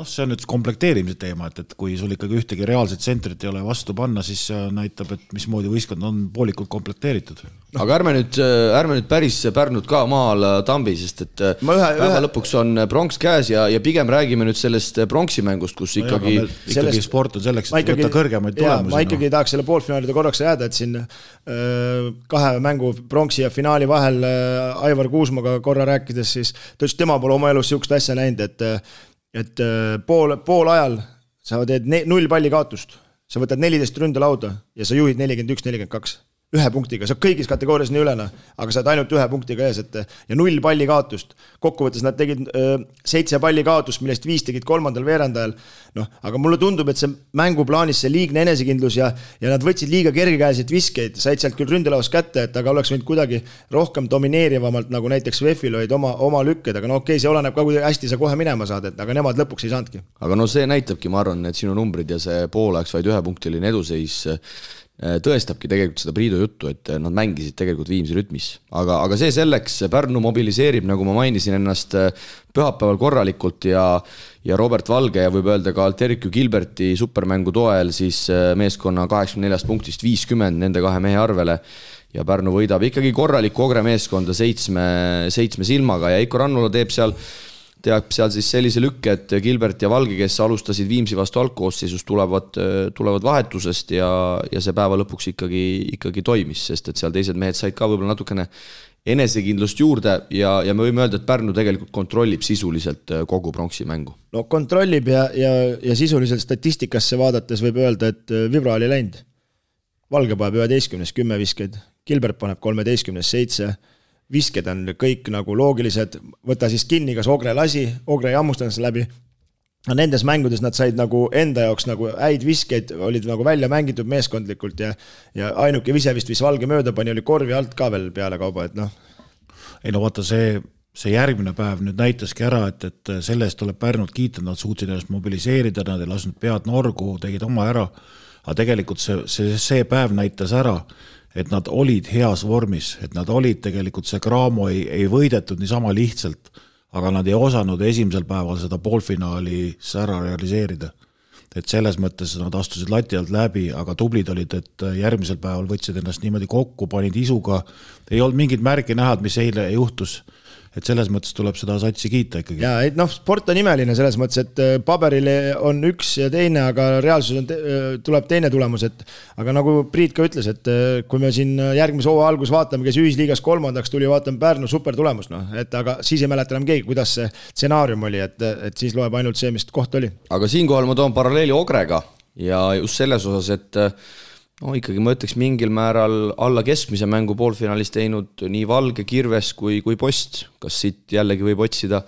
See on nüüd komplekteerimise teema, et kui sul ikkagi ühtegi reaalset tsentrit ei ole vastu panna, siis see näitab, et mismoodi võistkond on poolikult komplekteeritud. Aga ärme nüüd päris Pärnud ka maal tambi, sest et päeva lõpuks on pronks käes ja pigem räägime nüüd sellest pronksi mängust, kus ikkagi sport on selleks, et võtta kõrgemaid tulemusi. Ma ikkagi tahaks selle poolfinaalide korraks jääda, et siin 2 mängu pronksi ja finaali vahel Aivar Kuusmaga korra rääkides, siis ta ütles, tema pole oma elus siukest asja näinud, et pool ajal sa teed 0 palli kaotust, sa võtad 14 ründelauda ja sa juhid 41-42. 1 punktiga, sa kõigis kategoorias nii ülena, aga sa oled ainult 1 punktiga ees, ja 0 palli kaotust. Kokkuvõttes nad tegid 7 palli kaotust, millest 5 tegid 3. veerandajal. Aga mulle tundub, et see mänguplaanis see liigne enesekindlus ja nad võtsid liiga kergekäeliselt viskeid, said sealt küll ründelaus kätte, et aga oleks võinud kuidagi rohkem domineerivamalt, nagu näiteks Vefil olid oma lükked, aga see oleneb ka, kui hästi sa kohe minema saad, aga nemad lõpuks ei saanudki. Aga see näitabki, ma arvan, et sinu numbrid ja see pooleks vaid 1 punktiline eduseis tõestabki tegelikult seda Priidu juttu, et nad mängisid tegelikult Viimsi rütmis. Aga see selleks, Pärnu mobiliseerib, nagu ma mainisin ennast, pühapäeval korralikult ja Robert Valge ja võib öelda ka Alterikju Gilberti supermängu toel siis meeskonna 84 punktist 50 nende 2 mehe arvele ja Pärnu võidab ikkagi korralikku Ogre meeskonda 7 silmaga ja Eiko Rannula teeb seal siis sellise lükke, et Gilbert ja Valge, kes alustasid Viimsi vastu algkoosseisus, tulevad vahetusest ja see päeva lõpuks ikkagi toimis, sest et seal teised mehed said ka võib-olla natukene enesekindlust juurde ja me võime öelda, et Pärnu tegelikult kontrollib sisuliselt kogu pronksi mängu. Kontrollib ja sisuliselt statistikasse vaadates võib öelda, et vibra oli läinud. Valge paneb 11-10 viskeid, Gilbert paneb 13-7, visked on kõik nagu loogilised, võta siis kinni, kas Ogre lasi, Ogre ei hammustanud seda läbi. Nendes mängudes nad said nagu enda jaoks nagu häid viskeid, olid nagu välja mängitud meeskondlikult ja ainuke vise vist Valge mööda pani, oli korvi alt ka veel peale kauba, et Ei vaata, see järgmine päev nüüd näitaski ära, et sellest tuleb Pärnud kiita, nad suutsid ennast mobiliseerida, nad ei lasknud pead norgu, tegid oma ära, aga tegelikult see päev näitas ära, et nad olid heas vormis, et nad olid tegelikult see Cramo ei võidetud niisama lihtsalt, aga nad ei osanud esimesel päeval seda poolfinaali ära realiseerida. Et selles mõttes nad astusid lati alt läbi, aga tublid olid, et järgmisel päeval võtsid ennast niimoodi kokku, panid isuga, ei olnud mingit märki näha, mis eile juhtus. Et selles mõttes tuleb seda satsi kiita ikkagi. Ja, et sport on imeline selles mõttes, et paberile on üks ja teine, aga reaalsus tuleb teine tulemus. Aga nagu Priit ka ütles, et kui me siin järgmise hooaja algus vaatame, kes ühisliigas 3. tuli, vaatame Pärnu super tulemus. Aga siis ei mäleta enam keegi, kuidas see stsenaarium oli, et siis loeb ainult see, mis koht oli. Aga siinkohal ma toon paralleeli Ogrega ja just selles osas, et ikkagi ma ütleks mingil määral alla keskmise mängu poolfinaalis teinud nii Valge, Kirves kui Post. Kas siit jällegi võib otsida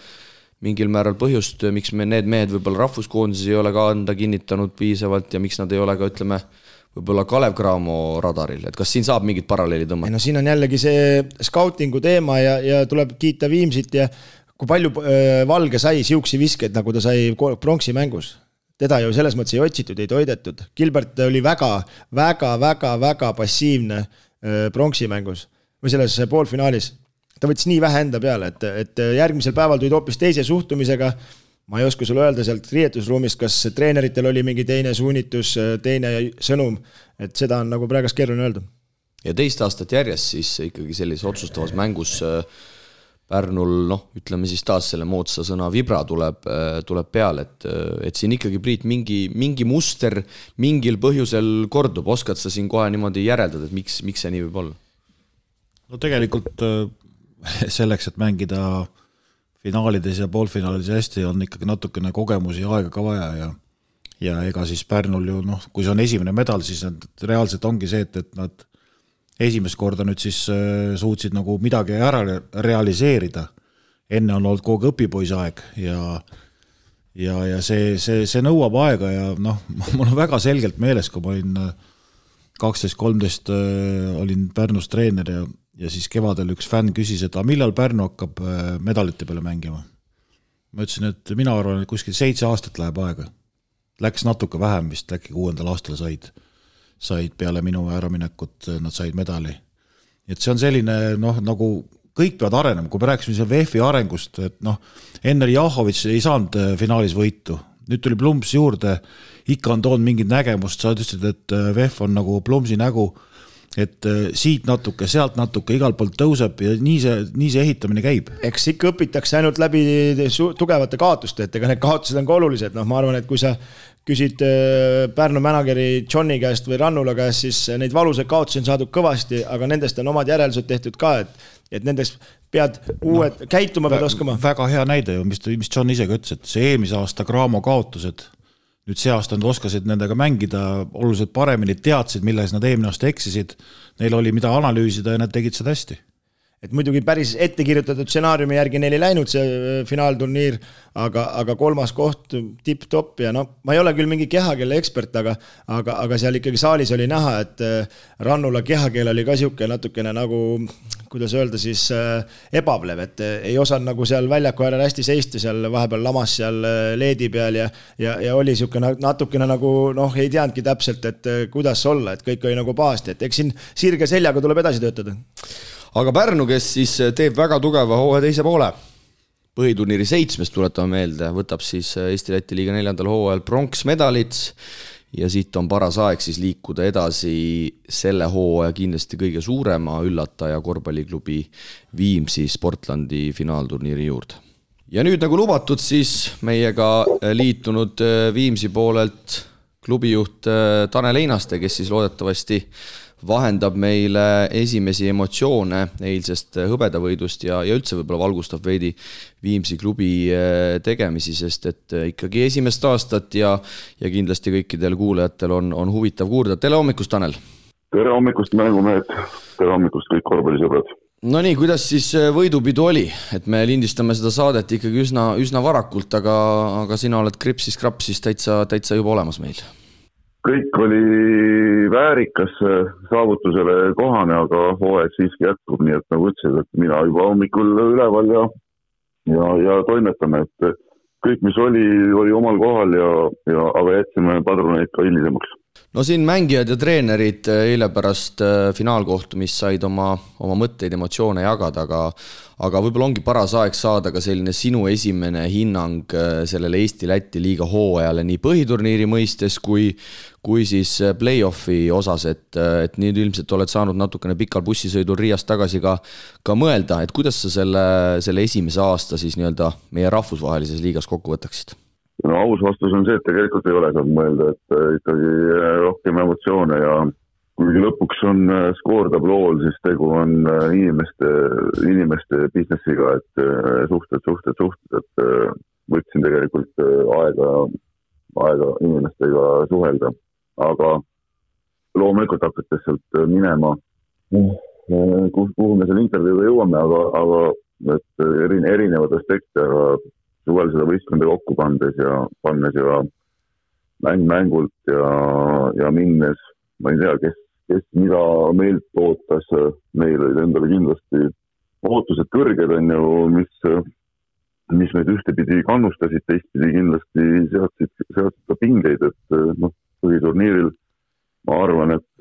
mingil määral põhjust, miks me need mehed võib-olla rahvuskoonduses ei ole ka anda kinnitanud piisavalt ja miks nad ei ole ka, ütleme, võib-olla Kalev Cramo radaril. Et kas siin saab mingit paralleeli tõmmata? No siin on jällegi see scoutingu teema ja tuleb kiita Viimsit ja kui palju Valge sai siuksi viskeid, nagu ta sai pronksi mängus. Teda ju selles mõttes ei otsitud, ei toidetud. Gilbert oli väga passiivne pronksi mängus või selles poolfinaalis. Ta võttis nii vähe enda peale, et järgmisel päeval tulid hoopis teise suhtumisega. Ma ei oska sulle öelda sealt riietusruumist, kas treeneritel oli mingi teine suunitus, teine sõnum, et seda on nagu praegas keeruline öelda. Ja teist aastat järjest siis ikkagi sellise otsustavas mängus Pärnul, ütleme siis taas selle moodsa sõna vibra tuleb peale, et siin ikkagi Priit mingi muster mingil põhjusel kordub, oskad sa siin kohe niimoodi järeldada, et miks see nii võib olla? No tegelikult selleks, et mängida finaalides ja poolfinaalides hästi, on ikkagi natukene kogemusi ja aega ka vaja ja ega siis Pärnul ju, kui see on esimene medal, siis reaalselt ongi see, et nad esimest korda nüüd siis suutsid nagu midagi ära realiseerida. Enne on olnud kogu õpipoisaeg ja see nõuab aega ja mul on väga selgelt meeles, kui ma olin 12-13 olin Pärnus treener ja siis kevadel üks fänn küsis, et millal Pärnu hakkab medalite peale mängima. Ma ütlesin, et mina arvan, et kuskil 7 aastat läheb aega. Läks natuke vähem vist, äkki 6. aastal said peale minu äraminekut, nad said medali. Et see on selline, nagu kõik peavad arenema, kui me rääksime seal VF-i arengust, et enne Jahovitš ei saanud finaalis võitu. Nüüd tuli Plums juurde, ikka on toonud mingit nägemust, sa ütlesid, et VF on nagu Plumsi nägu, et siit natuke, sealt natuke, igal poolt tõuseb ja nii see ehitamine käib. Eks ikka õpitakse ainult läbi tugevate kaotuste, et ega need kaotused on ka olulised. Ma arvan, et kui sa küsid Pärnu mänageri Johni käest või Rannula käest, siis neid valuseid kaotusi on saadud kõvasti, aga nendest on omad järeldused tehtud ka, et nendest pead uued käituma pead oskama. Väga hea näide ju, mis John ise ka ütles, et see eelmise aasta Cramo kaotused, nüüd see aasta nad oskasid nendega mängida oluliselt paremini, teadsid, milles nad eelmine aasta eksisid, neil oli mida analüüsida ja nad tegid seda hästi. Et muidugi päris ette kirjutatud stsenaariumi järgi neil ei läinud see finaalturniir, aga 3. koht tipp-top ja ma ei ole küll mingi kehakelle ekspert, aga seal ikkagi saalis oli näha, et Rannula kehakeel oli ka siuke natukene nagu, kuidas öelda siis, ebavlev, et ei osanud nagu seal väljaku äärel hästi seista, seal vahepeal lamas seal leedi peal ja oli siuke natukene nagu, ei teadnudki täpselt, et kuidas olla, et kõik oli nagu pahasti, et eks siin sirge seljaga tuleb edasi töötada. Aga Pärnu, kes siis teeb väga tugeva hooaja teise poole, põhiturniiri 7. tuletame meelde, võtab siis Eesti-Läti liiga 4. hooajal pronksmedalit ja siit on paras aeg siis liikuda edasi selle hooaja kindlasti kõige suurema üllataja korvpalliklubi Viimsi Sportlandi finaalturniiri juurde. Ja nüüd nagu lubatud siis meiega liitunud Viimsi poolelt klubijuht Tanel Einaste, kes siis loodetavasti vahendab meile esimesi emotsioone eilsest hõbedavõidust ja üldse võib-olla valgustab veidi Viimsi klubi tegemisi, sest et ikkagi esimest aastat ja kindlasti kõikidel kuulajatel on huvitav kuulda. Tere hommikust, Tanel! Tere hommikust, mängumehed! Tere hommikust, kõik korvpallisõbrad! No nii, kuidas siis võidupidu oli? Et me lindistame seda saadet ikkagi üsna varakult, aga sina oled kripsis-krapsis täitsa juba olemas meil. Kõik oli väärikas saavutusele kohane, aga hooaeg siiski jätkub, nii et nagu ütlesid, et mina juba hommikul üleval ja toimetame, et kõik, mis oli omal kohal aga jätsime padruneid ka hilisemaks. no siin mängijad ja treenerid eile pärast finaalkohtumist said oma mõtteid, emotsioone jagada, aga võib-olla ongi paras aeg saada ka selline sinu esimene hinnang sellele Eesti-Läti liiga hooajale nii põhiturniiri mõistes kui siis play-offi osas, et nüüd ilmselt oled saanud natukene pikal bussisõidul Riiast tagasi ka mõelda, et kuidas sa selle esimese aasta siis nii-öelda meie rahvusvahelises liigas kokku võtaksid? No aus vastus on see, et tegelikult ei ole saanud mõelda, et ikkagi rohkem emotsioone ja kuigi lõpuks on skoortablool, siis tegu on inimeste businessiga, et suhted, et võtsin tegelikult aega inimestega suhelda, aga loomulikult hakates sealt minema, kuhu me selle intervjuuga jõuame, aga et erinevad aspekte, aga suvel seda võistkonda kokku pannes ja mängult ja minnes, ma ei tea, kes mida meilt ootas, meil olid endale kindlasti ootused kõrged on ju, mis meid ühtepidi kannustasid, teistpidi kindlasti seadsid ka pingeid, et põhiturniiril ma arvan, et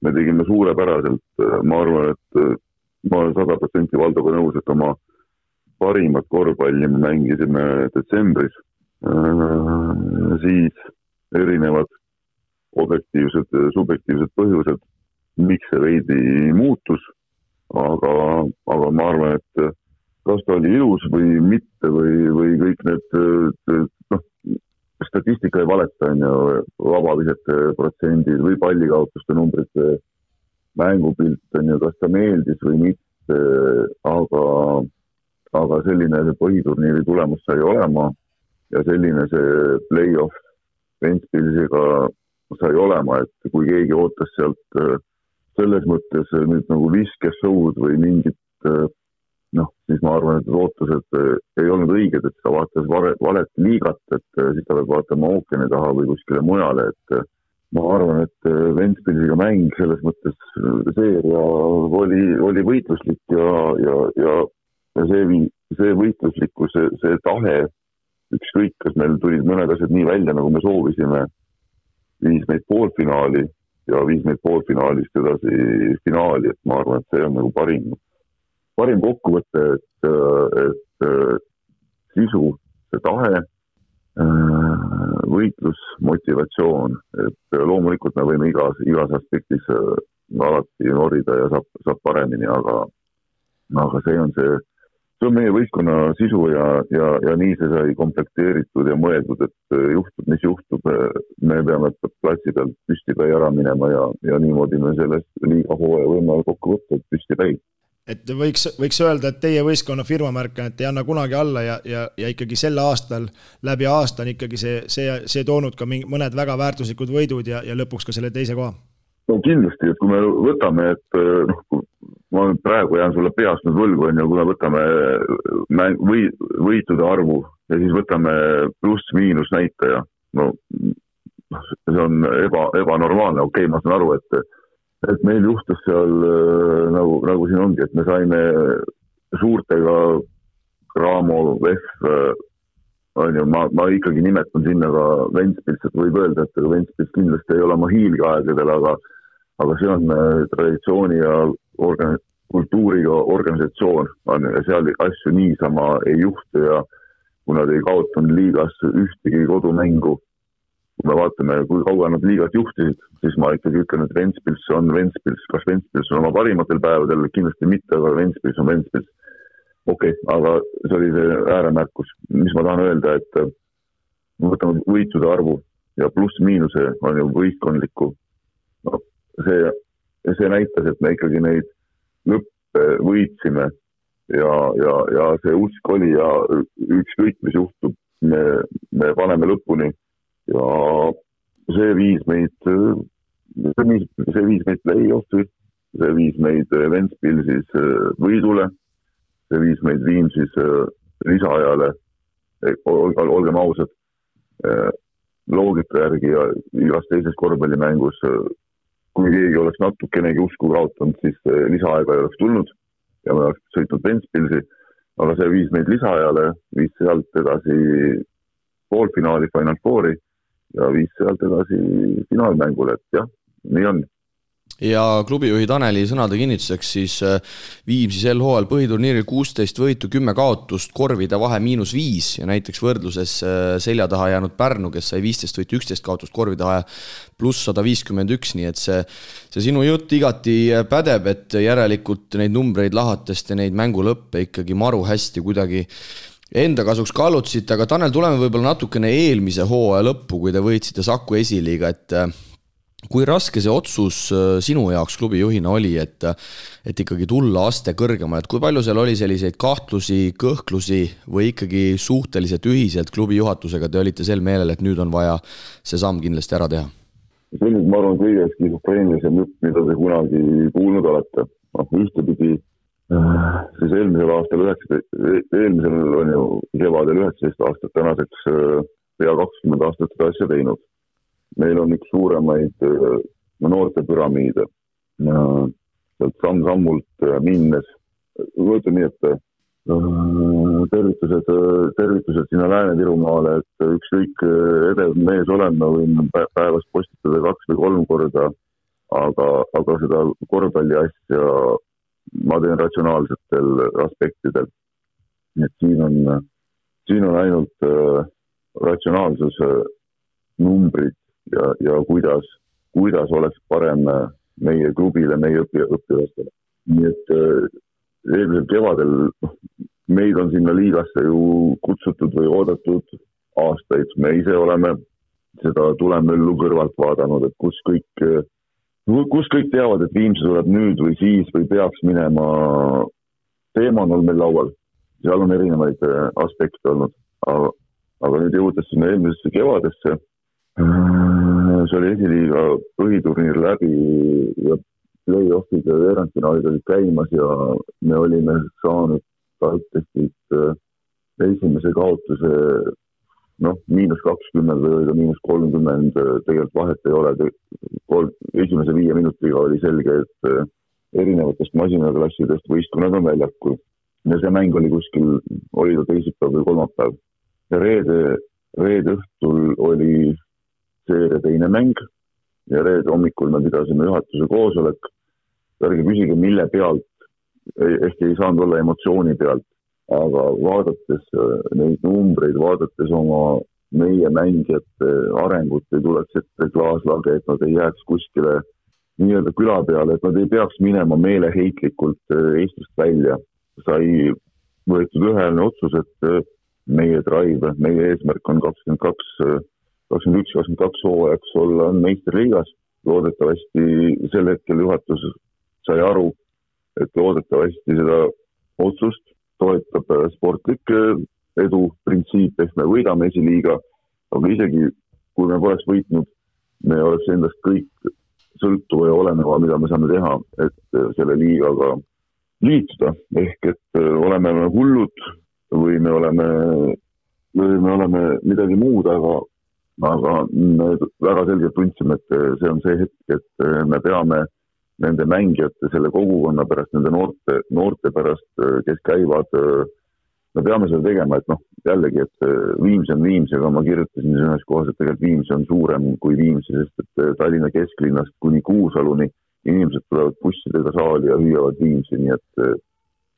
me tegime suurepäraselt, ma arvan, et ma olen 100% Valdoga nõus, et oma parimat korvpalli me mängisime detsembris, siis erinevad objektiivsed, subjektiivsed põhjused, miks see veidi muutus, aga ma arvan, et kas ta oli ilus või mitte või kõik need, statistika ei valeta, on ju, vabavisete protsendid või pallikaotuste numbrid, mängupilt, on ju, kas ta meeldis või mitte, aga selline see põhiturniiri tulemus sai olema ja selline see play-off Ventspilsiga sai olema, et kui keegi ootas sealt selles mõttes nüüd nagu viskeshow'd või mingit, siis ma arvan, et ootused ei olnud õiged, et ta vaatas valet liigat, et siis ta peab vaatama ookeani taha või kuskile mujale, et ma arvan, et Ventspilsiga mäng selles mõttes seeria oli võitluslik ja see võitluslikkus, see tahe, ükskõik, kas meil tulid mõned asjad nii välja, nagu me soovisime, viis meid poolfinaali ja viis meid poolfinaalist edasi finaali, et ma arvan, et see on nagu parim kokkuvõte, et sisu, see tahe, võitlus, motivatsioon, et loomulikult me võime igas aspektis alati norida ja saab paremini, aga see on meie võistkonna sisu ja nii see sai komplekteeritud ja mõeldud, et juhtub, mis juhtub, me peame platsi pealt püstipäi ära minema ja niimoodi me sellest liiga hooaja võime kokku võtta, et püstipäi. Et võiks öelda, et teie võistkonna firmamärk, et ei anna kunagi alla ja ikkagi sel aastal, läbi aasta on ikkagi see toonud ka mõned väga väärtuslikud võidud ja lõpuks ka selle teise koha? No kindlasti, et kui me võtame, et ma praegu jään sulle peast nüüd võlgu, on ju, kui me võtame võitude arvu ja siis võtame pluss-miinus näitaja, see on ebanormaalne, okei, ma saan aru, et meil juhtus seal nagu siin ongi, et me saime suurtega Raamo, VEF, on ju, ma ikkagi nimetan sinna ka Ventspils, et võib öelda, et Ventspils kindlasti ei ole oma hiilgeaegadel, aga see on traditsiooni ja kultuuriga organisatsioon, ja seal asju niisama ei juhtu ja kui nad ei kaotanud liigas ühtegi kodumängu, kui me vaatame, kui kaua nad liigat juhtisid, siis ma ikkagi ütlen, et Ventspils on Ventspils, kas Ventspils on oma parimatel päevadel, kindlasti mitte, aga Ventspils on Ventspils. Okei, aga see oli see ääremärkus, mis ma tahan öelda, et me võtame võitude arvu ja pluss-miinuse on ju võistkondlikku. See näitas, et me ikkagi neid lõppe võitsime ja see usk oli ja ükskõik, mis juhtub, me paneme lõpuni ja see viis meid play-offi, see viis meid Ventspilsis võidule, see viis meid Viimsis lisaajale, olgem ausad, loogika järgi ja igas teises korvpallimängus, kui keegi oleks natukenegi usku kaotanud, siis lisaaega ei oleks tulnud ja me oleks sõitnud Ventspilsi, aga see viis meid lisaajale, viis sealt edasi poolfinaali, Final Fouri ja viis sealt edasi finaalmängule, et jah, nii on. Ja klubijuhi Taneli sõnade kinnituseks siis Viimsi sel hooajal põhiturniiril 16 võitu, 10 kaotust, korvide vahe -5 ja näiteks võrdluses selja taha jäänud Pärnu, kes sai 15 võitu, 11 kaotust, korvide vahe +151, nii et see sinu jutt igati pädeb, et järelikult neid numbreid lahatest ja neid mängulõppe ikkagi maru hästi kuidagi enda kasuks kallutasite, aga Tanel, tuleme võib-olla natukene eelmise hooaja lõppu, kui te võitsite Saku esiliiga, et kui raske see otsus sinu jaoks klubijuhina oli, et ikkagi tulla aste kõrgemale, et kui palju seal oli selliseid kahtlusi, kõhklusi või ikkagi suhteliselt ühiselt klubi juhatusega te olite sel meelel, et nüüd on vaja see samm kindlasti ära teha? See on, ma arvan, kõige skisofreenilisem jutt, mida te kunagi kuulnud olete. Ühtepidi siis eelmisel on ju kevadel 19 aastat, tänaseks pea 20 aastat seda asja teinud. Meil on üks suuremaid noorte püramiide. Sealt samm-sammult minnes, võetud nii, et tervitused sinna Lääne-Virumaale, et ükskõik edev mees olema võin päevas postitada 2 või 3 korda, aga seda korvpalli asja ma teen ratsionaalsetel aspektidel. Et siin on ainult ratsionaalsus, numbrid, ja kuidas oleks parem meie klubile, meie õppivastele. Nii et eelmisel kevadel meid on sinna liigasse ju kutsutud või oodatud aastaid. Me ise oleme seda tulemöllu kõrvalt vaadanud, et kus kõik teavad, et Viimsi tuleb nüüd või siis või peaks minema. Teema on meil laual. Seal on erinevaid aspekte olnud. Aga nüüd jõudes sinna eelmisesse kevadesse, see oli esiliiga põhiturniir läbi ja play-offid ja veerandfinaalid olid käimas ja me olime saanud TalTechist esimese kaotuse -20 või -30, tegelikult vahet ei ole. Esimese 5 minutiga oli selge, et erinevatest masinaklassidest võistkonnad on väljakul. Ja see mäng oli kuskil, oli ta teisipäev või kolmapäev. Ja reede õhtul oli seeria teine mäng ja reede hommikul me pidasime juhatuse koosolek. Ärge küsige, mille pealt, ehk ei saanud olla emotsiooni pealt, aga vaadates neid numbreid, vaadates oma meie mängijate arengut, ei tuleks ette klaaslage, et nad ei jääks kuskile nii-öelda küla peale, et nad ei peaks minema meeleheitlikult Eestist välja. Sai võetud üheline otsus, et meie drive, meie eesmärk on 21-22 hooajaks olla meisterliigas. Loodetavasti sel hetkel juhatus sai aru, et loodetavasti seda otsust toetab sportlik edu printsiip, ehk me võidame esiliiga, aga isegi kui me poleks võitnud, me oleks endast kõik sõltuva ja oleneva, mida me saame teha, et selle liigaga liituda, ehk et oleme hullud või me oleme midagi muud, aga me väga selgelt tundsime, et see on see hetk, et me peame nende mängijate, selle kogukonna pärast, nende noorte pärast, kes käivad, me peame seda tegema, et jällegi, et Viimsi on Viimsi, aga ma kirjutasin ühes kohas, et tegelikult Viimsi on suurem kui Viimsi, sest et Tallinna kesklinnast kuni Kuusaluni inimesed tulevad bussidega saali ja hüüavad Viimsi, nii et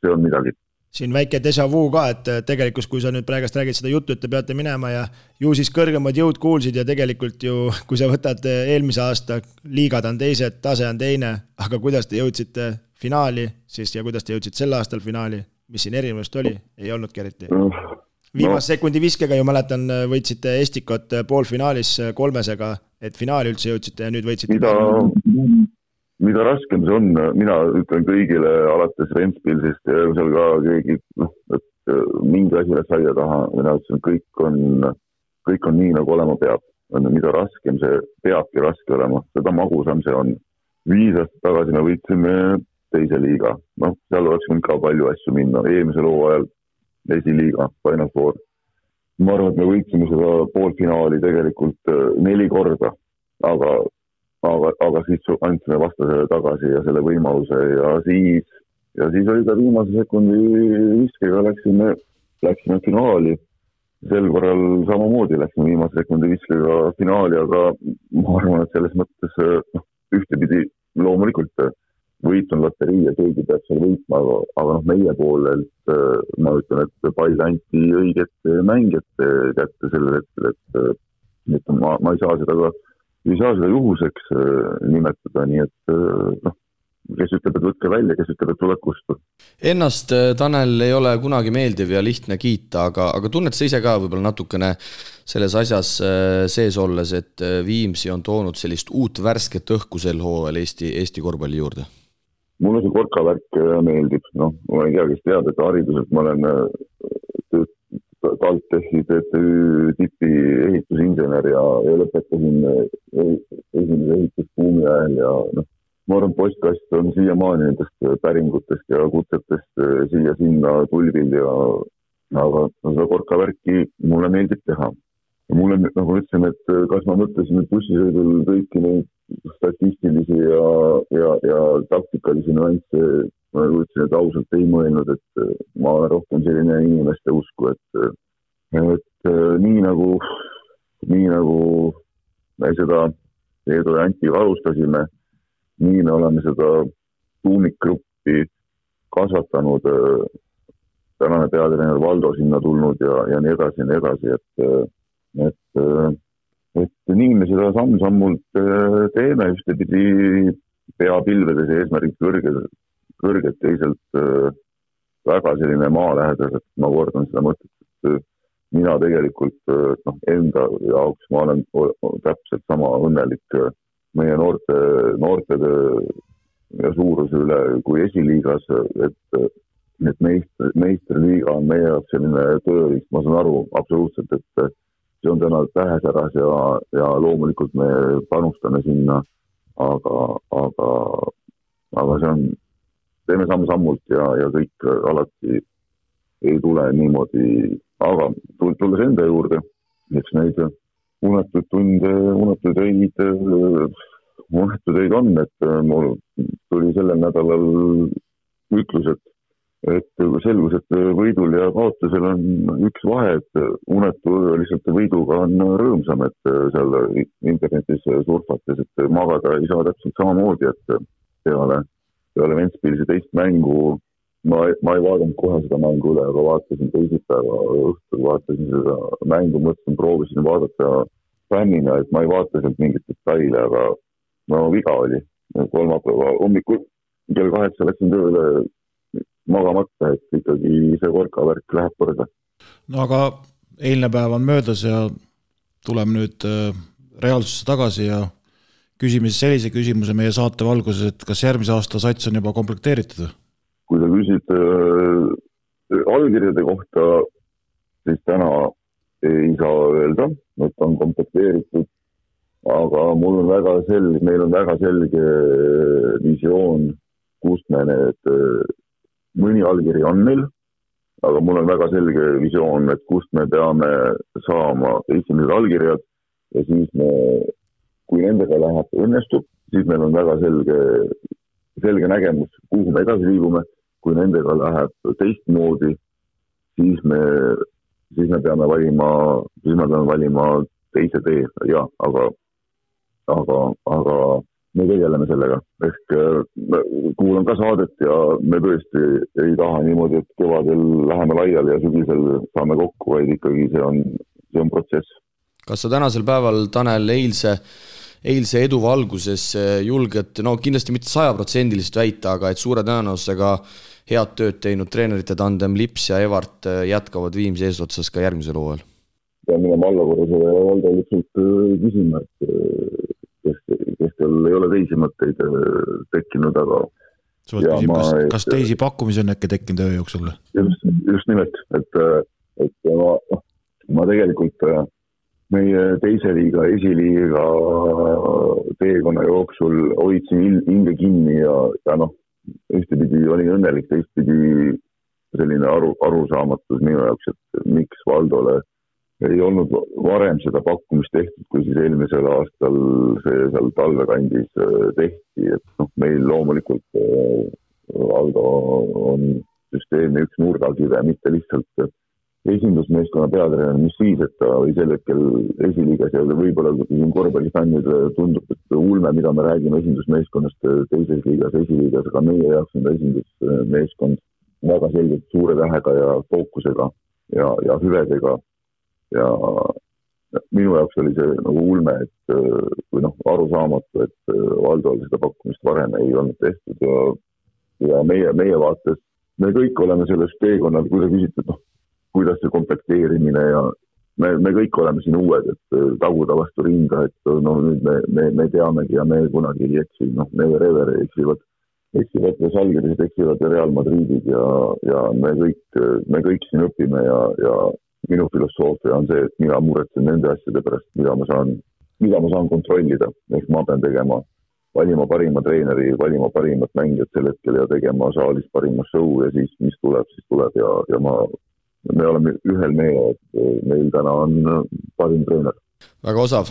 see on midagi. Siin väike déjà vu ka, et tegelikult kui sa nüüd praegast räägid seda juttu, et te peate minema ja ju siis kõrgemad jõud kuulsid ja tegelikult ju, kui sa võtad eelmise aasta, liigad on teised, tase on teine, aga kuidas te jõudsite finaali siis ja kuidas te jõudsid sel aastal finaali, mis siin erinevust oli, ei olnudki eriti. Viimase sekundi viskega ju mäletan, võitsite Estikot poolfinaalis 3-sega, et finaali üldse jõudsite ja nüüd võitsite. Mida raskem see on, mina ütlen kõigile alates Ventspilsist ja seal ka keegi, et mingi asi läks aia taha, mina ütlesin, kõik on nii, nagu olema peab. Mida raskem see peabki raske olema, seda magusam see on. 5 aastat tagasi me võitsime teise liiga. Seal oleks võinud ka palju asju minna. Eelmisel hooajal esiliiga, Final Four. Ma arvan, et me võitsime seda poolfinaali tegelikult 4 korda, aga siis andsime vastasele tagasi ja selle võimaluse ja siis oli ta viimase sekundi viskega läksime finaali sel korral samamoodi läksime viimase sekundi viskega finaali, aga ma arvan, et selles mõttes ühtepidi loomulikult võit on loterii ja keegi peab seal võitma, aga meie poolelt ma ütlen, et pall anti õiget mängijate kätte sellel hetkel, et ma ei saa seda juhuseks nimetada, nii et kes ütleb, et võtke välja, kes ütleb, et tuleb kustu. Ennast, Tanel, ei ole kunagi meeldiv ja lihtne kiita, aga tunned sa ise ka võib-olla natukene selles asjas sees olles, et Viimsi on toonud sellist uut värsket õhku sel hooajal Eesti korvpalli juurde? Mulle see korkavärk meeldib. Ma ei tea, kes teab, et hariduselt ma olen TalTechi TTÜ tipi ehitusinsener ja lõpetasin esimese ehitusbuumi ajal ja ma arvan, postkast on siiamaani nendest päringutest ja kutsetest siia-sinna tulvil aga seda korkavärki mulle meeldib teha. Ja mulle, nagu ütlesin, et kas ma mõtlesin bussisõidul kõiki neid statistilisi ja taktikalisi nüansse, ma ütlesin, et ausalt ei mõelnud, et ma olen rohkem selline inimeste usku, et nii nagu me seda Eedu ja Antiga alustasime, nii me oleme seda tuumikgruppi kasvatanud, tänane peatreener Valdo sinna tulnud ja nii edasi, et nii me seda samm-sammult teeme, ühtepidi peapilvedes eesmärgid kõrged, teisalt väga selline maalähedas, et ma kordan seda mõtet, et mina tegelikult enda jaoks ma olen täpselt sama õnnelik meie noorte ja suuruse üle kui esiliigas, et meistriliiga on meie jaoks selline tööriist, ma saan aru absoluutselt, et see on täna tähesäras ja loomulikult me panustame sinna, aga see on, teeme samm-sammult ja kõik alati ei tule niimoodi, aga tulles enda juurde, eks neid unetud tunde, unetud öid on, et mul tuli sellel nädalal ütlus, et selgus, et võidul ja kaotusel on üks vahe, et unetu lihtsalt võiduga on rõõmsam, et seal internetis surfates, et magada ei saa täpselt samamoodi, et peale Ventspilsi teist mängu ma ei vaadanud kohe seda mängu üle, aga vaatasin teisipäeva õhtul, vaatasin seda mängu, mõtlesin, proovisin vaadata fännina, et ma ei vaata sealt mingit detaile, aga viga oli. Kolmapäeva hommikul kell 8 läksin tööle magamata, et ikkagi see korkavärk läheb korda. No aga eilne päev on möödas ja tuleme nüüd reaalsusse tagasi ja küsime siis sellise küsimuse meie saate valguses, et kas järgmise aasta sats on juba komplekteeritud? Kui sa küsid allkirjade kohta, siis täna ei saa öelda, et on komplekteeritud, aga meil on väga selge visioon, kust me need mõni allkiri on meil, aga mul on väga selge visioon, et kust me peame saama esimesed allkirjad ja siis kui nendega läheb õnnestub, siis meil on väga selge nägemus, kuhu me edasi liigume. Kui nendega läheb teistmoodi, siis me peame valima teise tee, ja, aga me tegeleme sellega. Ehk kuulan ka saadet ja me tõesti ei taha niimoodi, et kevadel läheme laiali ja sügisel saame kokku, vaid ikkagi see on protsess. Kas sa tänasel päeval, Tanel, eilse edu valguses julged, kindlasti mitte 100% väita, aga et suure tõenäosusega head tööd teinud treenerite tandem Lips ja Evart jätkavad Viimsi eesotsas ka järgmisel hooajal? Pean minema allakorrusele ja Valdo lihtsalt küsima, kes teil ei ole teisi mõtteid tekkinud, aga kas teisi pakkumisi on äkki tekkinud öö jooksul? Just nimelt, et ma tegelikult meie teise liiga, esiliiga teekonna jooksul hoidsin hinge kinni ja ühtepidi olin õnnelik, teistpidi selline arusaamatus minu jaoks, et miks Valdole ei olnud varem seda pakkumist tehtud, kui siis eelmisel aastal see seal talvekandis tehti, et meil loomulikult Valdo on süsteemi üks nurgakive, mitte lihtsalt esindusmeeskonna peatreener, mis siis, et ta oli sel hetkel esiliigas ja võib-olla korvpallifännidele tundub, et ulme, mida me räägime esindusmeeskonnast teises liigas, esiliigas, aga meie jaoks on ta esindusmeeskond väga selgelt suure tähega ja fookusega ja hüvedega ja minu jaoks oli see nagu ulme, et või arusaamatu, et Valdol seda pakkumist varem ei olnud tehtud ja meie vaates, me kõik oleme selles teekonnal, kui sa küsid, et kuidas see komplekteerimine ja me kõik oleme siin uued, et taguda vastu rinda, et nüüd me teamegi ja me kunagi ei eksi, Never Ever eksivad ja Žalgirised eksivad ja Real Madridid ja me kõik siin õpime ja minu filosoofia on see, et mina muretsen nende asjade pärast, mida ma saan kontrollida, ehk ma pean valima parima treeneri, valima parimat mängijat sel hetkel ja tegema saalis parima show ja siis mis tuleb ja me oleme ühel meele, et meil täna on parim treener. Väga osav.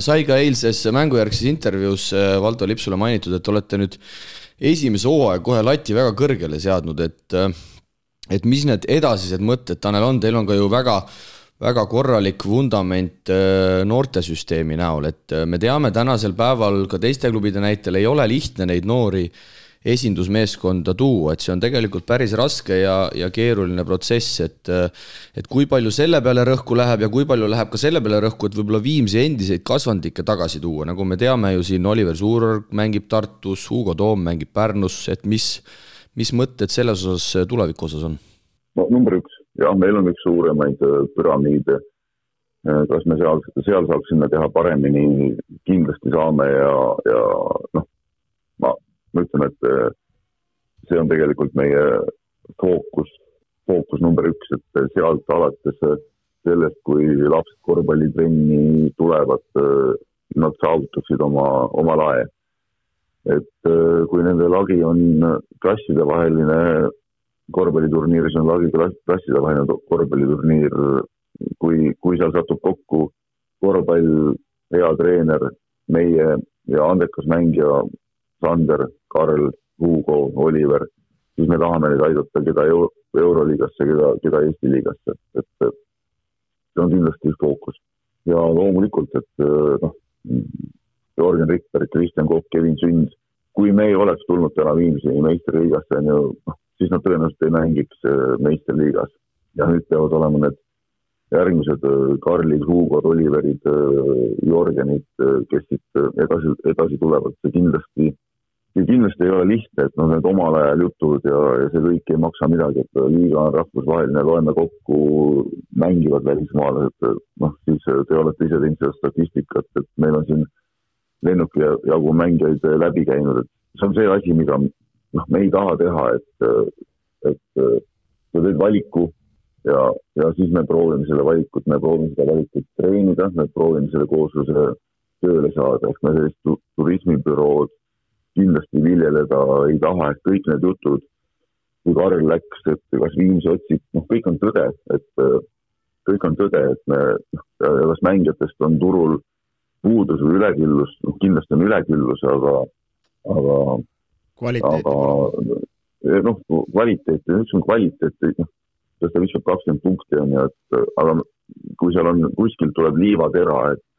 Sai ka eilses mängujärgses intervjuus Valdo Lipsule mainitud, et olete nüüd esimese hooaja kohe lati väga kõrgele seadnud, et mis need edasised mõtted, Tanel, on? Teil on ka ju väga korralik vundament noortesüsteemi näol, et me teame tänasel päeval ka teiste klubide näitel ei ole lihtne neid noori esindusmeeskonda tuua, et see on tegelikult päris raske ja keeruline protsess, et kui palju selle peale rõhku läheb ja kui palju läheb ka selle peale rõhku, et võib-olla Viimsi endiseid kasvandikke tagasi tuua, nagu me teame ju siin Oliver Suurorg mängib Tartus, Hugo Toom mängib Pärnus, et mis mõtted selles osas tuleviku osas on? Number 1, jah, meil on üks suuremaid püramiide, kas me seal saaksime teha paremini, kindlasti saame ja ma ütlen, et see on tegelikult meie fookus number 1, et sealt alates sellest, kui lapsed korvpallitrenni tulevad, nad saavutaksid oma lae. Et kui nende lagi on klassidevaheline korvpalliturniir, see on lagi klassidevaheline korvpalliturniir, kui seal satub kokku korvpall, hea treener, meie ja andekas mängija Sander, Karl, Hugo, Oliver, siis me tahame neid aidata, keda Euroliigasse, keda Eesti liigasse. Et see on kindlasti fookus. Ja loomulikult, et Jörgen Rikberg, Kristjan Kopp, Kevin Sünd, kui me ei oleks tulnud täna Viimsi meisterliigasse, siis nad tõenäoliselt ei mängiks meisterliigas. Ja nüüd peavad olema need järgmised Karlid, Hugod, Oliverid, Jörgenid, kes siit edasi tulevad. See kindlasti ei ole lihtne, et need omal ajal jutud ja see kõik ei maksa midagi, et liiga on rahvusvaheline, loeme kokku, mängivad välismaalased, siis te olete ise teinud seda statistikat, et meil on siin lennuki jagu mängijaid läbi käinud, et see on see asi, mida me ei taha teha, et sa teed valiku ja siis me proovime seda valikut treenida, me proovime selle koosluse tööle saada, ehk me sellist turismibürood kindlasti viljeleda ei taha, et kõik need jutud, kui Karl läks, et kas Viimsi otsib, kõik on tõde, et me, kas mängijatest on turul puudus või üleküllus, kindlasti on üleküllus, aga kvaliteet, kas ta viskab 20 punkti on ja, aga kui seal on, kuskil tuleb liivatera, et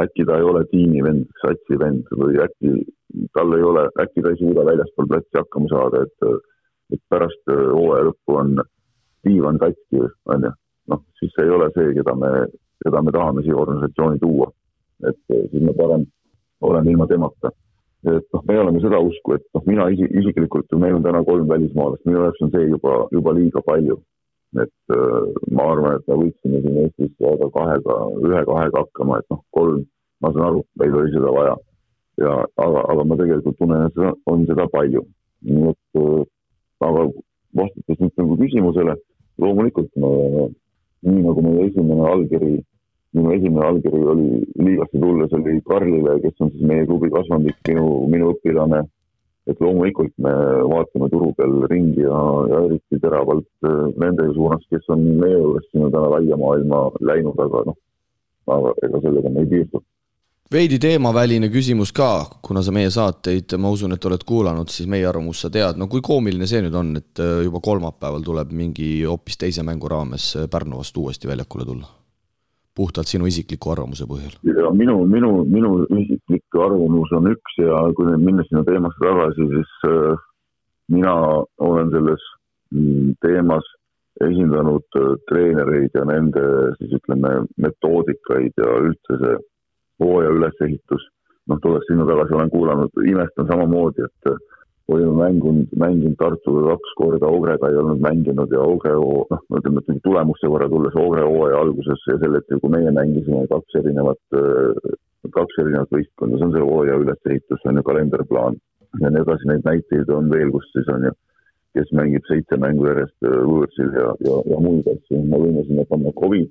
äkki ta ei ole tiimivend, satsivend või äkki ta ei suuda väljaspool platsi hakkama saada, et pärast hooaja lõppu on diivan katki, siis see ei ole see, keda me tahame siia organisatsiooni tuua. Et siis me parem oleme ilma temata. Et me oleme seda usku, et mina isiklikult, meil on täna 3 välismaalast, minu jaoks on see juba liiga palju. Et ma arvan, et me võiksime siin Eestis jääda 1-2 hakkama, et 3, ma saan aru, meil oli seda vaja. Aga ma tegelikult tunnen, et on seda palju. Aga vastates nüüd küsimusele, loomulikult nii nagu meie esimene allkiri oli liigasse tulles, oli Karlile, kes on siis meie klubi kasvandik, minu õpilane, et loomulikult me vaatame turu peal ringi ja eriti teravalt nende suunas, kes on meie juures sinna täna laia maailma läinud, aga ega sellega me ei piirdu. Veidi teemaväline küsimus ka, kuna sa meie saateid, ma usun, et oled kuulanud, siis meie arvamus sa tead. No kui koomiline see nüüd on, et juba kolmapäeval tuleb mingi hoopis teise mängu raames Pärnu vastu uuesti väljakule tulla? Puhtalt sinu isikliku arvamuse põhjal. Ja minu isiklik arvamus on üks ja kui nüüd minna sinna teemasse tagasi, siis mina olen selles teemas esindanud treenereid ja nende siis ütleme metoodikaid ja üldse see hooaja ülesehitus. Tulles sinna tagasi olen kuulanud, imestan samamoodi, et olime mänginud Tartuga 2 korda, Ogrega ei olnud mänginud ja Ogre, ütleme, et tulemuste võrra tulles Ogre hooaja alguses ja selle, et kui meie mängisime 2 erinevat võistkonda, see on see hooaja ülesehitus, on ju kalenderplaan ja nii edasi, neid näiteid on veel, kus siis on ju, kes mängib 7 mängu järjest võõrsil ja muid asju. Ma võime sinna panna COVID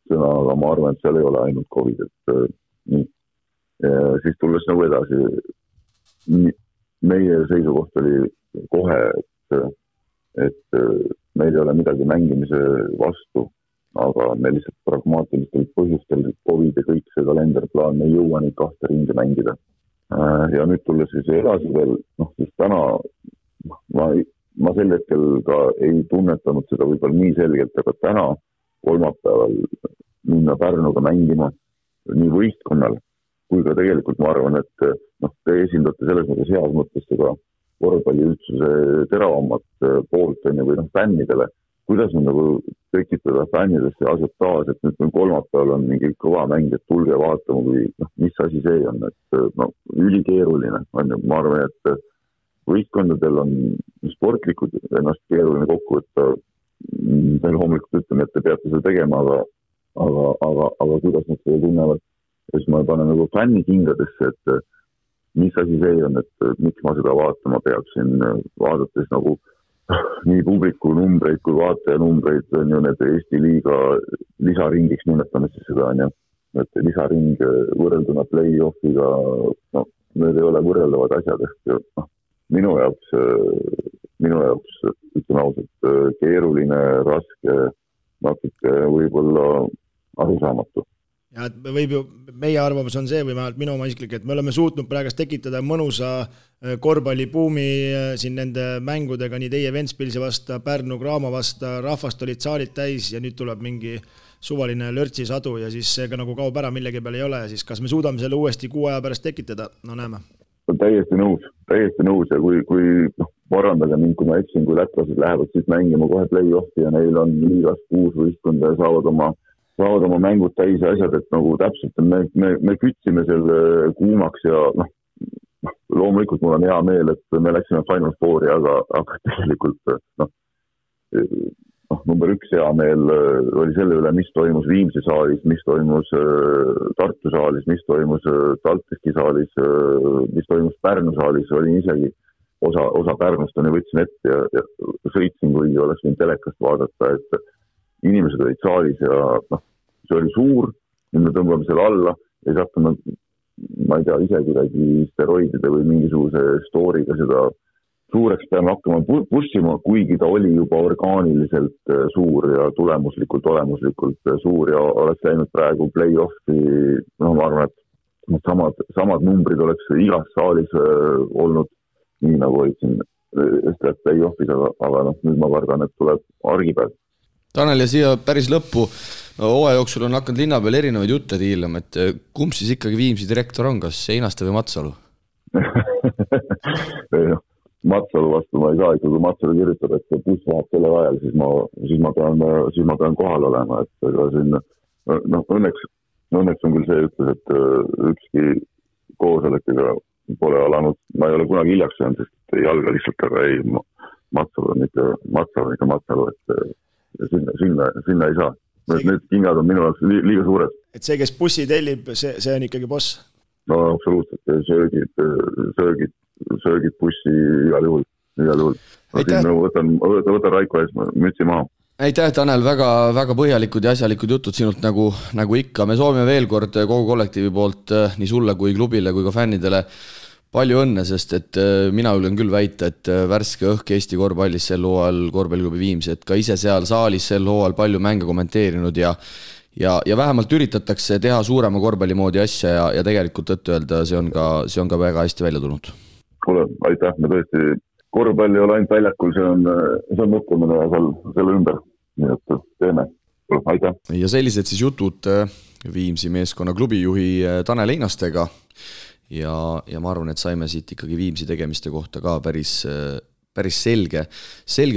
sõna, aga ma arvan, et seal ei ole ainult COVID, et nii. Siis tulles nagu edasi, meie seisukoht oli kohe, et meil ei ole midagi mängimise vastu, aga me lihtsalt pragmaatilistel põhjustel COVID ja kõik see kalenderplaan, me ei jõua neid 2 ringi mängida. Ja nüüd tulles siis edasi veel, siis täna ma sel hetkel ka ei tunnetanud seda võib-olla nii selgelt, aga täna kolmapäeval minna Pärnuga mängima nii võistkonnal, kui ka tegelikult ma arvan, et te esindate selles mõttes heas mõttes seda korvpalli üldsuse teravamat poolt või fännidele. Kuidas on nagu tekitada fännidesse asjataas, et nüüd kolmapäeval on mingi kõva mäng, et tulge vaatama, kui mis asi see on, et ülikeeruline on. Ma arvan, et võistkondadel on sportlikud ennast keeruline kokku, et veel hommikul ütleme, et te peate seda tegema, aga kuidas nad seda tunnevad. Ja siis ma panen nagu fänni kingadesse, et mis asi see on, et miks ma seda vaatama peaksin, vaadates nagu nii publiku numbreid kui vaataja numbreid, on ju need Eesti liiga lisaringiks nimetame siis seda, on ju, et lisaring võrrelduna play-offiga, need ei ole võrreldavad asjad, ehk minu jaoks ütleme ausalt keeruline, raske, natuke võib-olla arusaamatu. Ja meie arvamus on see, või vähemalt minu oma isiklik, et me oleme suutnud praegust tekitada mõnusa korvpallibuumi siin nende mängudega, nii teie Ventspilsi vasta, Pärnu Graamo vasta, rahvast olid saalid täis ja nüüd tuleb mingi suvaline lörtsisadu ja siis see ka nagu kaob ära, millegi peal ei ole ja siis kas me suudame selle uuesti 6 aja pärast tekitada, näeme. Täiesti nõus ja kui parandage mind, kui ma eksin, kui lätlased lähevad siis mängima kohe play-offi ja neil on liigas 6 võistkonda ja saavad oma mängud täis ja asjad, et nagu täpselt me kütsime selle kuumaks ja loomulikult mul on hea meel, et me läksime Final Fouri, aga tegelikult number 1 hea meel oli selle üle, mis toimus Viimsi saalis, mis toimus Tartu saalis, mis toimus Taltiski saalis, mis toimus Pärnu saalis, olin isegi osa Pärnust on ja võtsin ette ja sõitsin, kui oleks võinud telekast vaadata, et inimesed olid saalis ja see oli suur, nüüd me tõmbame selle alla ja siis hakkame, ma ei tea, ise kuidagi steroidide või mingisuguse storyga seda suureks peame hakkama pushima, kuigi ta oli juba orgaaniliselt suur ja tulemuslikult suur ja oleks läinud praegu play-offi, ma arvan, et samad numbrid oleks igas saalis olnud nii nagu olid siin play-offis, aga nüüd ma kardan, et tuleb argipäev. Tanel, ja siia päris lõppu, hooaja jooksul on hakanud linna peal erinevaid jutte tiilama, et kumb siis ikkagi Viimsi direktor on, kas Einaste või Matsalu? Matsalu vastu ma ei saa, kui Matsalu kirjutab, et buss läheb selle ajal, siis ma pean kohal olema, et õnneks on küll see ütles, et ükski koosolekega pole alanud, ma ei ole kunagi hiljaks jäänud, sest ei alga lihtsalt, aga ei, Matsalu on ikka Matsalu, et sinna ei saa. Need kingad on minu jaoks liiga suured. Et see, kes bussi tellib, see on ikkagi boss? No absoluutselt, söögid bussi igal juhul. Võtan Raiko ees, mütsi maha. Aitäh, Tanel, väga põhjalikud ja asjalikud jutud sinult nagu ikka. Me soovime veel kord kogu kollektiivi poolt nii sulle kui klubile kui ka fännidele palju õnne, sest et mina julgen küll väita, et värske õhk Eesti korvpallis sel hooajal korvpalliklubi Viimsi, et ka ise seal saalis sel hooajal palju mänge kommenteerinud ja ja vähemalt üritatakse teha suurema korvpalli moodi asja ja tegelikult tõtt-öelda see on ka väga hästi välja tulnud. Kuule, aitäh, me tõesti korvpalli ei ole ainult väljakul, see on mõtlemine ja selle ümber, nii et teeme. Aitäh. Ja sellised siis jutud Viimsi meeskonna klubijuhi Tanel Einastega ja ma arvan, et saime siit ikkagi Viimsi tegemiste kohta ka päris selge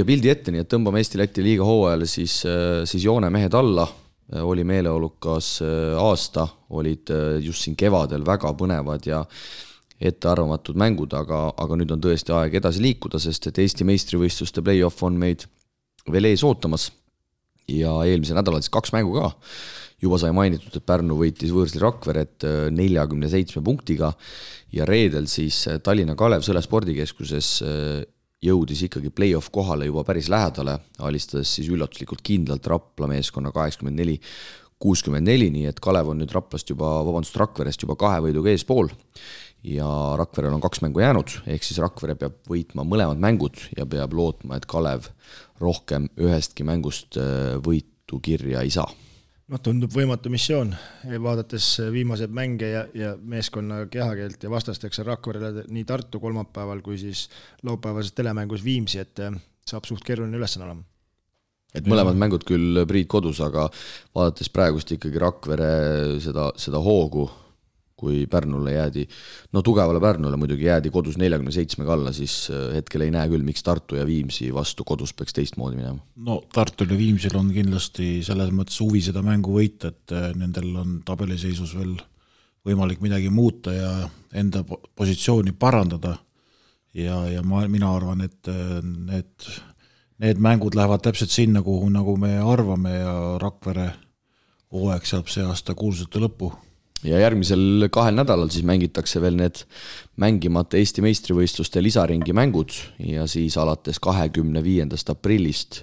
pildi ette, nii et tõmbame Eesti-Läti liiga hooajale siis joone mehed alla. Oli meeleolukas aasta, olid just siin kevadel väga põnevad ja ettearvamatud mängud, aga nüüd on tõesti aeg edasi liikuda, sest et Eesti meistrivõistluste play-off on meid veel ees ootamas ja eelmise nädalal siis 2 mängu ka. Juba sai mainitud, et Pärnu võitis võõrsli Rakveret 47 punktiga ja reedel siis Tallinna Kalev Sõle spordikeskuses jõudis ikkagi play-off kohale juba päris lähedale, alistades siis üllatuslikult kindlalt Rapla meeskonna 84-64, nii et Kalev on nüüd Rakverest juba 2 võiduga eespool ja Rakverel on 2 mängu jäänud, ehk siis Rakvere peab võitma mõlemad mängud ja peab lootma, et Kalev rohkem ühestki mängust võitu kirja ei saa. Tundub võimatu missioon, vaadates viimased mänge ja meeskonna kehakeelt ja vastasteks Rakverele nii Tartu kolmapäeval kui siis laupäevases telemängus Viimsi, et saab suht keeruline ülesanne olema. Et mõlemad mängud küll Priit kodus, aga vaadates praegust ikkagi Rakvere seda hoogu, kui Pärnule jäädi, tugevale Pärnule muidugi jäädi kodus 47 alla, siis hetkel ei näe küll, miks Tartu ja Viimsi vastu kodus peaks teistmoodi minema. Tartul ja Viimsil on kindlasti selles mõttes huvi seda mängu võita, et nendel on tabeliseisus veel võimalik midagi muuta ja enda positsiooni parandada ja mina arvan, et need mängud lähevad täpselt sinna, kuhu nagu me arvame ja Rakvere hooaeg saab see aasta kuulsate lõppu. Ja järgmisel 2 nädalal siis mängitakse veel need mängimata Eesti meistrivõistluste lisaringi mängud ja siis alates 25. aprillist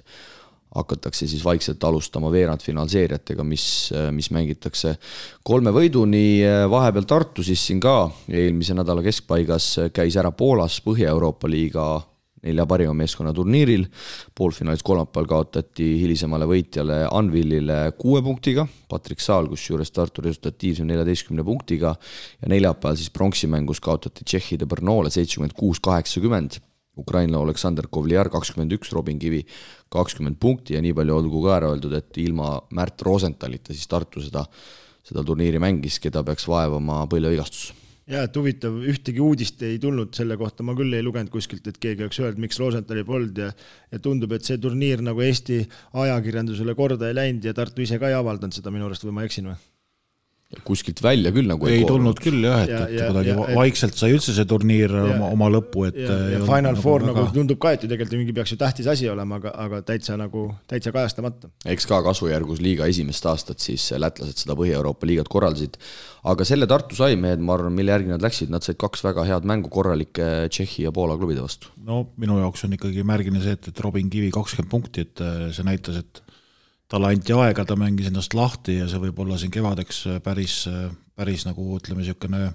hakatakse siis vaikselt alustama veerandfinaalseeriatega, mis mängitakse 3 võiduni. Vahepeal Tartu siis siin ka eelmise nädala keskpaigas käis ära Poolas Põhja-Euroopa liiga 4 parima meeskonna turniiril. Poolfinaalis kolmapäeval kaotati hilisemale võitjale Anvilile 6 punktiga, Patrik Saal, kus juures Tartu resultatiivsem 14 punktiga ja neljapäeval siis pronksimängus kaotati Tšehhide Brnole 76-80, Ukraina Aleksander Kovliar 21, Robin Kivi 20 punkti ja nii palju olgu ka ära öeldud, et ilma Märt Rosenthalita siis Tartu seda turniiri mängis, keda peaks vaevama põlvevigastus. Ja, et huvitav, ühtegi uudist ei tulnud selle kohta, ma küll ei lugenud kuskilt, et keegi oleks öelnud, miks Rosenthali polnud ja tundub, et see turniir nagu Eesti ajakirjandusele korda ei läinud ja Tartu ise ka ei avaldanud seda minu arust või ma eksin või? Kuskilt välja küll nagu ei tulnud küll jah, et kuidagi vaikselt sai üldse see turniir oma lõppu, et ja Final Four nagu tundub ka, et tegelikult mingi peaks ju tähtis asi olema, aga täitsa kajastamata. Eks ka kasvujärgus liiga esimest aastat siis lätlased seda Põhja-Euroopa liigat korraldasid, aga selle Tartu sai mehed, ma arvan, mille järgi nad läksid, nad said 2 väga head mängu korralike Tšehhi ja Poola klubide vastu. Minu jaoks on ikkagi märgine see, et Robin Kivi 20 punkti, et see näitas, et talle anti aega, ta mängis ennast lahti ja see võib olla siin kevadeks päris nagu ütleme niisugune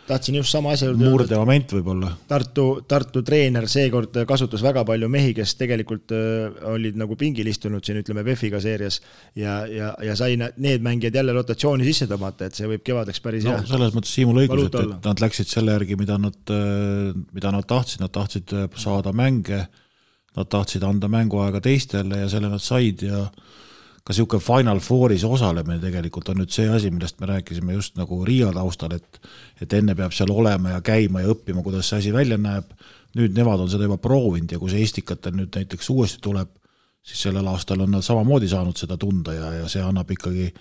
tahtsin just sama asja murde moment võib-olla. Tartu treener seekord kasutas väga palju mehi, kes tegelikult olid nagu pingil istunud siin, ütleme, VEF-iga seerias ja sai need mängijad jälle rotatsiooni sisse tõmmata, et see võib kevadeks päris hea. Selles mõttes Siimul õigus, et nad läksid selle järgi, mida nad tahtsid saada mänge, nad tahtsid anda mänguaega teistele ja selle nad said ja ka niisugune Final Fouris osalemine tegelikult on nüüd see asi, millest me rääkisime just nagu Riia taustal, et enne peab seal olema ja käima ja õppima, kuidas see asi välja näeb. Nüüd nemad on seda juba proovinud ja kui see Estikatel nüüd näiteks uuesti tuleb, siis sellel aastal on nad samamoodi saanud seda tunda ja see annab ikkagi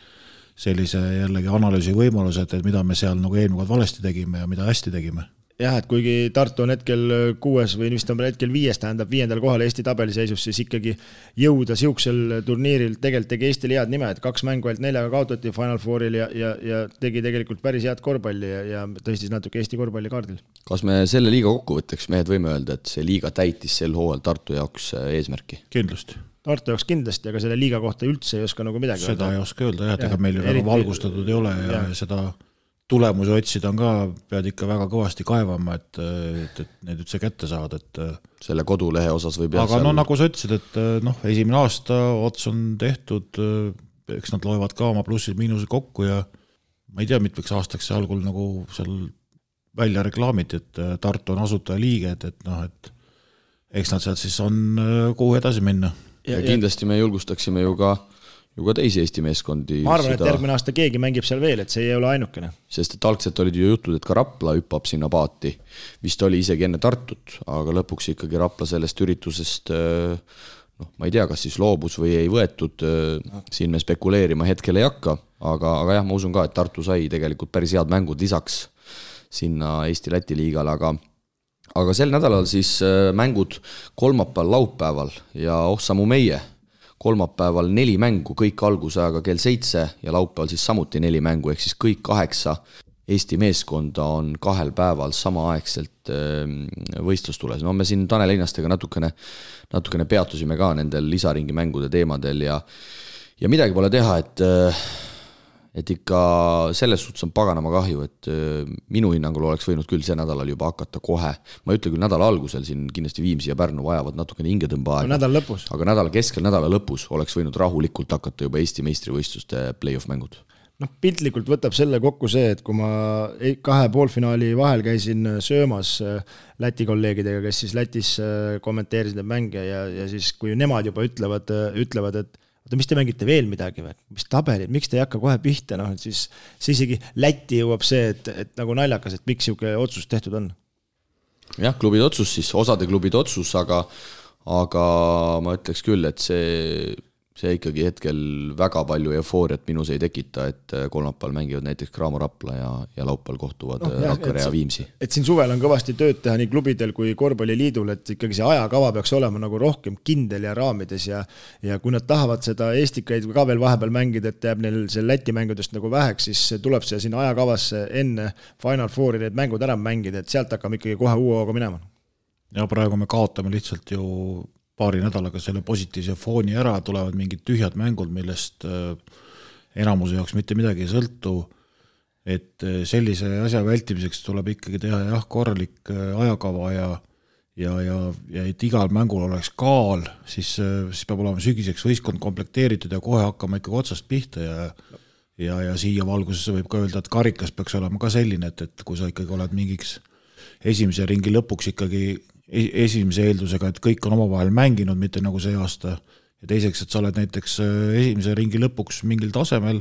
sellise jällegi analüüsi võimalused, et mida me seal nagu eelmine valesti tegime ja mida hästi tegime. Jah, et kuigi Tartu on hetkel 6 või vist on hetkel 5, tähendab 5. kohal Eesti tabeliseisus, siis ikkagi jõuda siuksel turniiril tegelikult tegi Eestile head nime, et 2 mängu ainult 4 kaotati Final Fouril ja tegi tegelikult päris head korvpalli ja tõstis natuke Eesti korvpalli kaardil. Kas me selle liiga kokkuvõtteks mehed võime öelda, et see liiga täitis sel hooajal Tartu jaoks eesmärki? Kindlasti. Tartu jaoks kindlasti, aga selle liiga kohta üldse ei oska nagu midagi seda ei oska öelda, et ega meil väga valgustatud ei ole ja seda tulemusi otsida on ka, pead ikka väga kõvasti kaevama, et need üldse kätte saad, et selle kodulehe osas võib aga nagu sa ütlesid, et esimene aasta ots on tehtud, eks nad loevad ka oma plussid-miinused kokku ja ma ei tea, mitmeks aastaks see algul nagu seal välja reklaamiti, et Tartu on asutajaliige, et eks nad sealt siis on kuhu edasi minna. Ja kindlasti me julgustaksime ju ka teisi Eesti meeskondi. Ma arvan, et järgmine aasta keegi mängib seal veel, et see ei ole ainukene. Sest et algselt olid ju jutud, et ka Rapla hüppab sinna paati. Vist oli isegi enne Tartut, aga lõpuks ikkagi Rapla sellest üritusest, ma ei tea, kas siis loobus või ei võetud, siin me spekuleerima hetkel ei hakka, aga jah, ma usun ka, et Tartu sai tegelikult päris head mängud lisaks sinna Eesti-Läti liigale, aga sel nädalal siis mängud kolmapäeval, laupäeval ja sammu meie kolmapäeval 4 mängu, kõik algusajaga kell 7 ja laupäeval siis samuti 4 mängu, ehk siis kõik 8 Eesti meeskonda on 2 päeval samaaegselt võistlustules. No me siin Tanel Einastega natukene peatusime ka nendel lisaringi mängude teemadel ja midagi pole teha, et ikka selles suhtes on paganama kahju, et minu hinnangul oleks võinud küll see nädalal juba hakata kohe. Ma ei ütle küll nädala algusel, siin kindlasti Viimsi ja Pärnu vajavad natukene hingetõmba aega. Nädala lõpus. Aga nädala keskel, nädala lõpus oleks võinud rahulikult hakata juba Eesti meistrivõistluste play-off mängud. Piltlikult võtab selle kokku see, et kui ma 2 poolfinaali vahel käisin söömas Läti kolleegidega, kes siis Lätis kommenteerisid need mänge ja siis kui nemad juba ütlevad, et mis te mängite veel midagi või? Mis tabelid, miks te ei hakka kohe pihta? Siis isegi Läti jõuab see, et nagu naljakas, et miks siuke otsus tehtud on. Jah, klubid otsus siis, osade klubid otsus, aga ma ütleks küll, et see ikkagi hetkel väga palju eufooriat minus ei tekita, et kolmapäeval mängivad näiteks Graamo Rapla ja laupäeval kohtuvad Rakvere ja Viimsi. Et siin suvel on kõvasti tööd teha nii klubidel kui korvpalliliidul, et ikkagi see ajakava peaks olema nagu rohkem kindel ja raamides ja kui nad tahavad seda Eestikaid ka veel vahepeal mängida, et jääb neil see Läti mängudest nagu väheks, siis tuleb see sinna ajakavasse enne Final Fouri need mängud ära mängida, et sealt hakkame ikkagi kohe uue hooga minema. Ja praegu me kaotame lihtsalt ju paari nädalaga selle positiivse fooni ära, tulevad mingid tühjad mängud, millest enamuse jaoks mitte midagi ei sõltu, et sellise asja vältimiseks tuleb ikkagi teha korralik ajakava ja et igal mängul oleks kaal, siis peab olema sügiseks võistkond komplekteeritud ja kohe hakkama ikkagi otsast pihta ja siia valgusesse võib ka öelda, et karikas peaks olema ka selline, et kui sa ikkagi oled mingiks esimese ringi lõpuks ikkagi esimese eeldusega, et kõik on omavahel mänginud, mitte nagu see aasta. Ja teiseks, et sa oled näiteks esimese ringi lõpuks mingil tasemel,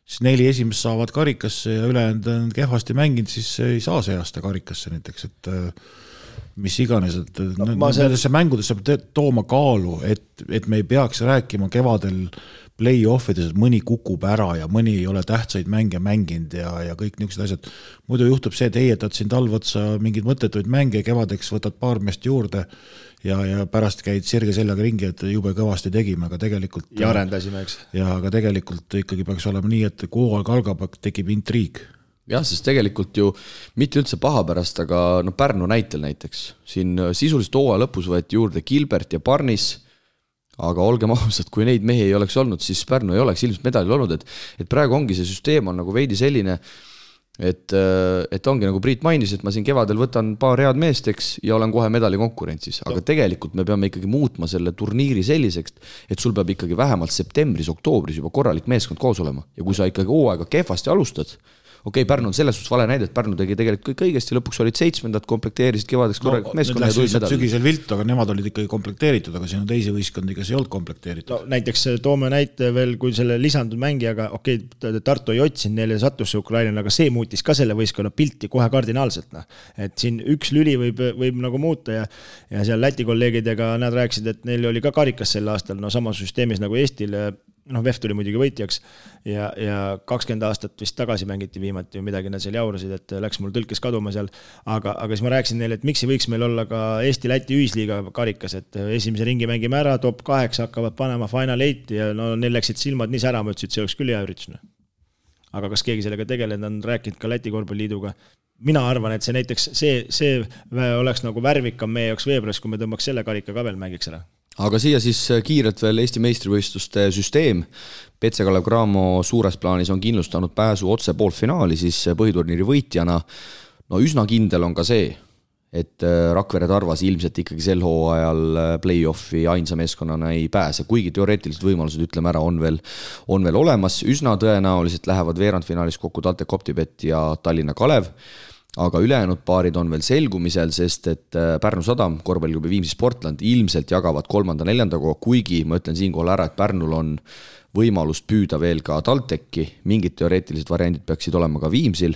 siis 4 esimest saavad karikasse ja ülejäänud on kehvasti mänginud, siis ei saa see aasta karikasse näiteks, et mis iganes, et nendesse mängudesse peab tooma kaalu, et me ei peaks rääkima kevadel play-offides, et mõni kukub ära ja mõni ei ole tähtsaid mänge mänginud ja kõik niisugused asjad. Muidu juhtub see, et heietad siin talvotsa mingid mõttetuid mänge, kevadeks võtad paar meest juurde ja pärast käid sirge seljaga ringi, et jube kõvasti tegime, aga tegelikult ja arendasime, eks. Ja aga tegelikult ikkagi peaks olema nii, et kui hooaeg algab, tekib intriig. Jah, sest tegelikult ju mitte üldse paha pärast, aga Pärnu näitel näiteks. Siin sisuliselt hooaja lõpus võeti juurde Gilbert ja Parnis, aga olgem ausad, kui neid mehi ei oleks olnud, siis Pärnu ei oleks ilmselt medalil olnud, et praegu ongi see süsteem on nagu veidi selline, et ongi nagu Priit mainis, et ma siin kevadel võtan paar head meesteks ja olen kohe medali konkurentsis, aga tegelikult me peame ikkagi muutma selle turniiri selliseks, et sul peab ikkagi vähemalt septembris, oktoobris juba korralik meeskond koos olema ja kui sa ikkagi hooaega kehvasti alustad, okei, Pärnu on selles suhtes vale näide, et Pärnu tegi tegelikult kõik õigesti, lõpuks olid 7, komplekteerisid kevadeks korralikult meeskonna ja tulid medali. Sügisel viltu, aga nemad olid ikkagi komplekteeritud, aga siin on teisi võistkondi, kes ei olnud komplekteeritud. Näiteks toome näite veel, kui selle lisandud mängijaga, okei, Tartu ei otsinud, neile sattus see Ukraina, aga see muutis ka selle võistkonna pilti kohe kardinaalselt. Et siin üks lüli võib nagu muuta ja seal Läti kolleegidega nad rääkisid, et neil oli ka karikas sel aastal, samas süsteemis nagu Eestile, VEF tuli muidugi võitjaks ja 20 aastat vist tagasi mängiti viimati midagi nad seal jaurasid, et läks mul tõlkes kaduma seal, aga siis ma rääkisin neile, et miks ei võiks meil olla ka Eesti-Läti ühisliiga karikas, et esimese ringi mängime ära, top 8 hakkavad panema Final 8 ja neil läksid silmad nii sära, ma ütlesin, et see oleks küll hea üritus. Aga kas keegi sellega tegelenud on rääkinud ka Läti korvpalliliiduga? Mina arvan, et see näiteks see oleks nagu värvikam meie jaoks veebruaris, kui me tõmbaks selle karika ka veel mängiks ära. Aga siia siis kiirelt veel Eesti meistrivõistluste süsteem. Petse-Kalev Cramo suures plaanis on kindlustanud pääsu otse poolfinaali siis põhiturniiri võitjana. No üsna kindel on ka see, et Rakvere Tarvas ilmselt ikkagi sel hooajal play-offi ainsa meeskonnana ei pääse, kuigi teoreetilised võimalused, ütleme ära, on veel olemas. Üsna tõenäoliselt lähevad veerandfinaalis kokku TalTech Optibet ja Tallinna Kalev, aga ülejäänud paarid on veel selgumisel, sest et Pärnu Sadam, korvpalliklubi Viimsi Sportland ilmselt jagavad 3.-4. koha, kuigi ma ütlen siinkohal ära, et Pärnul on võimalust püüda veel ka TalTechi, mingid teoreetilised variandid peaksid olema ka Viimsil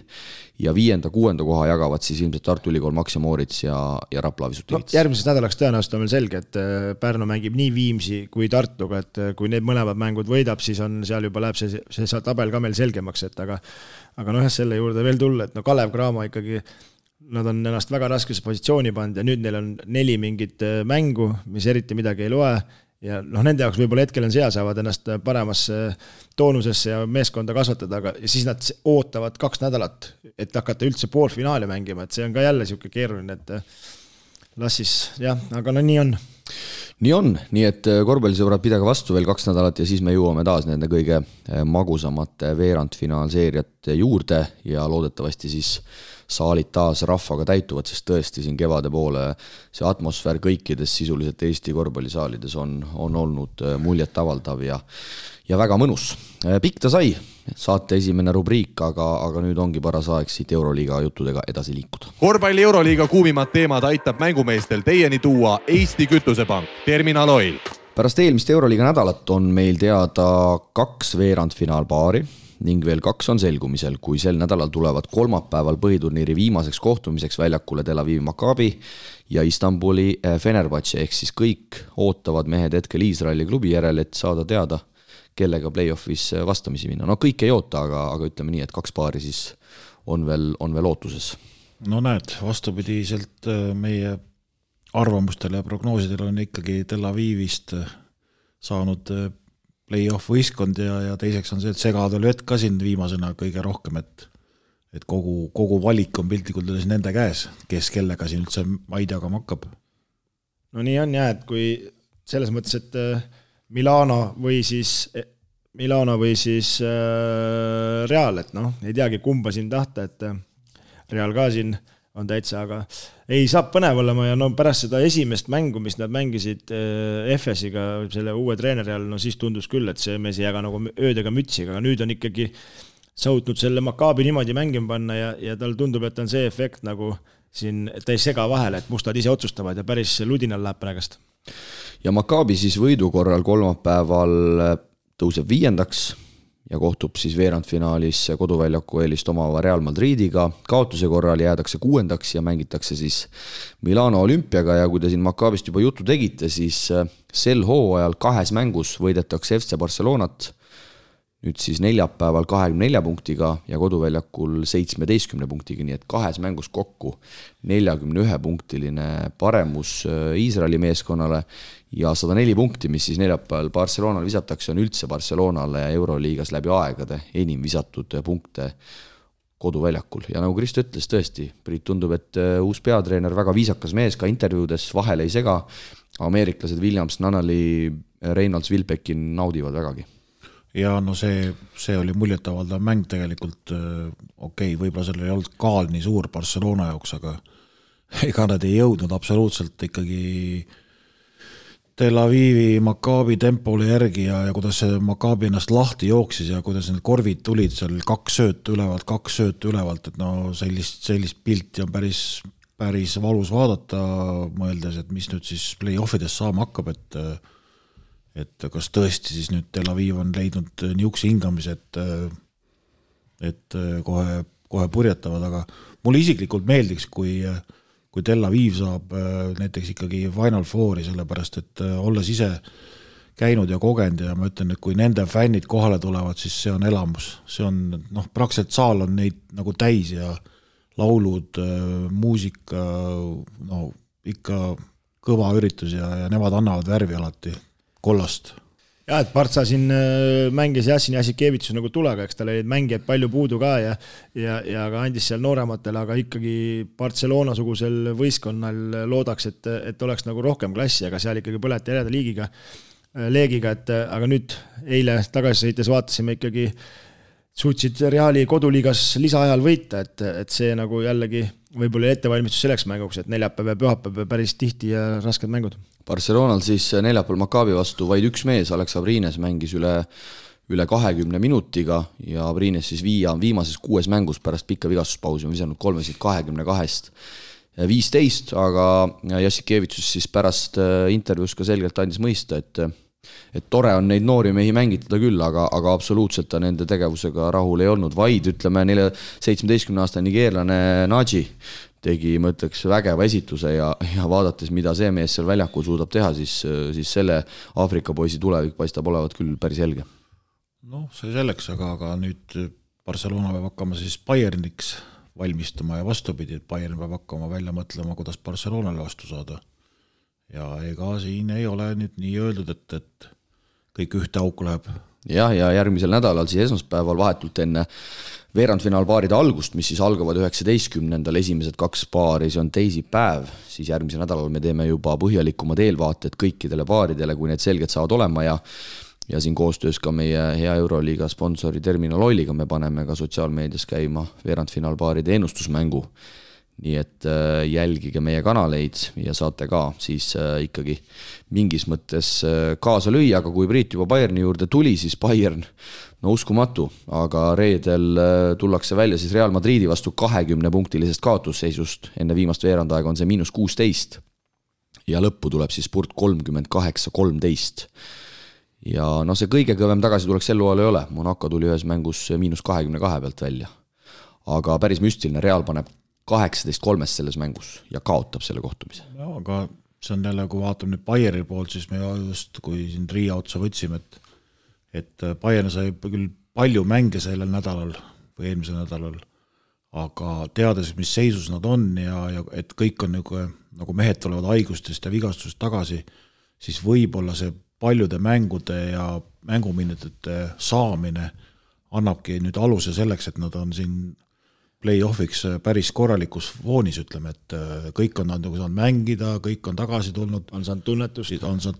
ja 5.-6. koha jagavad siis ilmselt Tartu Ülikool Max ja Moritz ja Rapla Visutivits. Järgmiseks nädalaks tõenäoliselt on veel selge, et Pärnu mängib nii Viimsi kui Tartuga, et kui need mõlemad mängud võidab, siis on seal juba läheb see tabel ka meil selgemaks, et aga selle juurde veel tulla, et Kalev Cramo ikkagi nad on ennast väga raskesse positsiooni pannud ja nüüd neil on 4 mingit mängu, mis eriti midagi ei loe ja nende jaoks võib-olla hetkel on seal, saavad ennast paremasse toonusesse ja meeskonda kasvatada, aga siis nad ootavad 2 nädalat, et hakata üldse poolfinaali mängima, et see on ka jälle siuke keeruline, et las siis aga nii on. Nii on, nii et korvpallisõbrad, pidage vastu veel 2 nädalat ja siis me jõuame taas nende kõige magusamate veerandfinaalseeriate juurde ja loodetavasti siis saalid taas rahvaga täituvad, sest tõesti siin kevade poole see atmosfäär kõikides sisuliselt Eesti korvpallisaalides on olnud muljetavaldav ja väga mõnus. Pikk ta sai, saate esimene rubriik, aga nüüd ongi paras aeg siit Euroliiga juttudega edasi liikuda. Korvpalli Euroliiga kuumimad teemad aitab mängumeestel teieni tuua Eesti Kütusepank, Terminal Oil. Pärast eelmist Euroliiga nädalat on meil teada 2 veerandfinaalpaari ning veel 2 on selgumisel, kui sel nädalal tulevad kolmapäeval põhiturniiri viimaseks kohtumiseks väljakule Tel Avivi Maccabi ja Istanbuli Fenerbahce, ehk siis kõik ootavad mehed hetkel Iisraeli klubi järel, et saada teada, kellega play-offis vastamisi minna. Kõik ei oota, aga ütleme nii, et 2 paari siis on veel ootuses. Näed, vastupidiselt meie arvamustele ja prognoosidele on ikkagi Tel Avivist saanud play-off võistkond ja teiseks on see, et segadel vett ka siin viimasena kõige rohkem, et kogu valik on piltlikult üles nende käes, kes kellega siin üldse maid jagama hakkab. Nii on et kui selles mõttes, et Milano või siis Real, et ei teagi kumba siin tahta, et Real ka siin on täitsa, aga ei saab põnev olema ja pärast seda esimest mängu, mis nad mängisid FS-iga selle uue treeneri all, siis tundus küll, et see mees ei jaga nagu öödega mütsiga, aga nüüd on ikkagi sautnud selle Maccabi niimoodi mängima panna ja tal tundub, et on see efekt nagu siin, et ta ei sega vahele, et mustad ise otsustavad ja päris ludinal läheb praegast. Ja Maccabi siis võidu korral kolmapäeval tõuseb 5. ja kohtub siis veerandfinaalis koduväljaku eelist omava Real Madridiga. Kaotuse korral jäädakse 6. ja mängitakse siis Milano Olümpiaga ja kui te siin Maccabist juba juttu tegite, siis sel hooajal 2 mängus võidetakse FC Barcelonat, nüüd siis neljapäeval 24 punktiga ja koduväljakul 17 punktiga, nii et 2 mängus kokku 41-punktiline paremus Iisraeli meeskonnale ja 104 punkti, mis siis neljapäeval Barcelonal visatakse, on üldse Barcelonale Euroliigas läbi aegade enim visatud punkte koduväljakul. Ja nagu Kristo ütles, tõesti, Priit tundub, et uus peatreener, väga viisakas mees, ka intervjuudes vahele ei sega, ameeriklased Williams, Nannali, Reynolds, Wilbekin naudivad vägagi. Ja see oli muljetavaldav mäng tegelikult, võib-olla sellel ei olnud kaal nii suur Barcelona jaoks, aga ega nad ei jõudnud absoluutselt ikkagi Tel Avivi Maccabi tempole järgi ja kuidas see Maccabi ennast lahti jooksis ja kuidas need korvid tulid seal 2 söötu ülevalt, et sellist pilti on päris valus vaadata, mõeldes, et mis nüüd siis play-offides saama hakkab, et kas tõesti siis nüüd Tel Aviv on leidnud niukse hingamise, et kohe purjetavad, aga mulle isiklikult meeldiks, kui Tel Aviv saab näiteks ikkagi Final Fouri, sellepärast et olles ise käinud ja kogenud ja ma ütlen, et kui nende fännid kohale tulevad, siis see on elamus. See on, praktiliselt saal on neid nagu täis ja laulud, muusika, ikka kõva üritus ja nemad annavad värvi alati kollast. Ja, et Partsa siin mängis Jassin Jasikevitus nagu tulega, eks tal olid mängijaid palju puudu ka ja ka andis seal noorematele, aga ikkagi Barcelona-sugusel võistkonnal loodaks, et oleks nagu rohkem klassi, aga seal ikkagi põleti järjeda leegiga, et aga nüüd eile tagasi sõites vaatasime ikkagi suutsid Reali koduliigas lisaajal võita, et see nagu jällegi võib-olla ettevalmistus selleks mänguks, et neljapäev ja pühapäev päris tihti ja rasked mängud. Barcelonal siis neljapäeval Maccabi vastu vaid üks mees, Alex Abrines mängis üle 20 minutiga ja Abrines siis viimases 6 mängus pärast pikka vigastuspausi on visanud 3-22-st 15, aga Jassikevitsus siis pärast intervjuus ka selgelt andis mõista, et tore on neid noori mehi mängitada küll, aga absoluutselt ta nende tegevusega rahul ei olnud, vaid ütleme 17-aastane nigeerlane Naji tegi, ma ütleks, vägeva esituse ja vaadates, mida see mees seal väljakul suudab teha, siis selle Aafrika poisi tulevik paistab olevat küll päris helge. See selleks, aga nüüd Barcelona peab hakkama siis Bayerniks valmistuma ja vastupidi, et Bayern peab hakkama välja mõtlema, kuidas Barcelonale vastu saada. Ja ega siin ei ole nüüd nii öeldud, et kõik ühte auku läheb. Ja järgmisel nädalal siis esmaspäeval vahetult enne veerandfinaalpaaride algust, mis siis algavad 19. esimesed 2 paari, see on teisipäev, siis järgmisel nädalal me teeme juba põhjalikumad eelvaated kõikidele paaridele, kui need selged saavad olema ja siin koostöös ka meie hea Euroliiga sponsori Terminal Oiliga me paneme ka sotsiaalmeedias käima veerandfinaalpaaride ennustusmängu. Nii et jälgige meie kanaleid ja saate ka siis ikkagi mingis mõttes kaasa lüüa, aga kui Priit juba Bayerni juurde tuli, siis Bayern, uskumatu, aga reedel tullakse välja siis Real Madridi vastu 20-punktilisest kaotusseisust, enne viimast veerandaega on see -16 ja lõppu tuleb siis spurt 38-13. Ja see kõige kõvem tagasi tuleks Sellual ei ole, Monaco tuli ühes mängus -22 pealt välja, aga päris müstiline, Real paneb 18-3 selles mängus ja kaotab selle kohtumise. Aga see on jälle, kui vaatame nüüd Bayerni poolt, siis me just, kui siin Riia otsa võtsime, et Bayern sai küll palju mänge sellel nädalal või eelmisel nädalal, aga teades, mis seisus nad on ja et kõik on nagu mehed tulevad haigustest ja vigastust tagasi, siis võib-olla see paljude mängude ja mänguminutite saamine annabki nüüd aluse selleks, et nad on siin play-offiks päris korralikus foonis, ütleme, et kõik on saanud mängida, kõik on tagasi tulnud. On saanud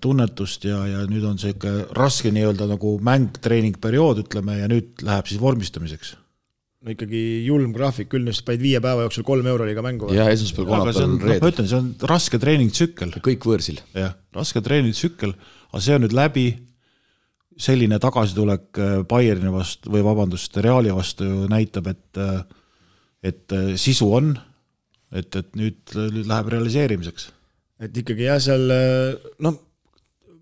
tunnetust ja nüüd on see ikka raske nii-öelda nagu mäng-treeningperiood, ütleme, ja nüüd läheb siis vormistamiseks. No ikkagi julm graafik, küll nüüd paid 5 päeva jooksul 3 euroliiga mängu. Ja esmaspäeval kolmapäeval reedel. Ma ütlen, see on raske treeningtsükkel. Kõik võõrsil. Jah, raske treeningtsükkel, aga see on nüüd läbi selline tagasitulek Bayerni vastu, või vabandust, Reali vastu näitab, et sisu on, et nüüd läheb realiseerimiseks. Et ikkagi seal,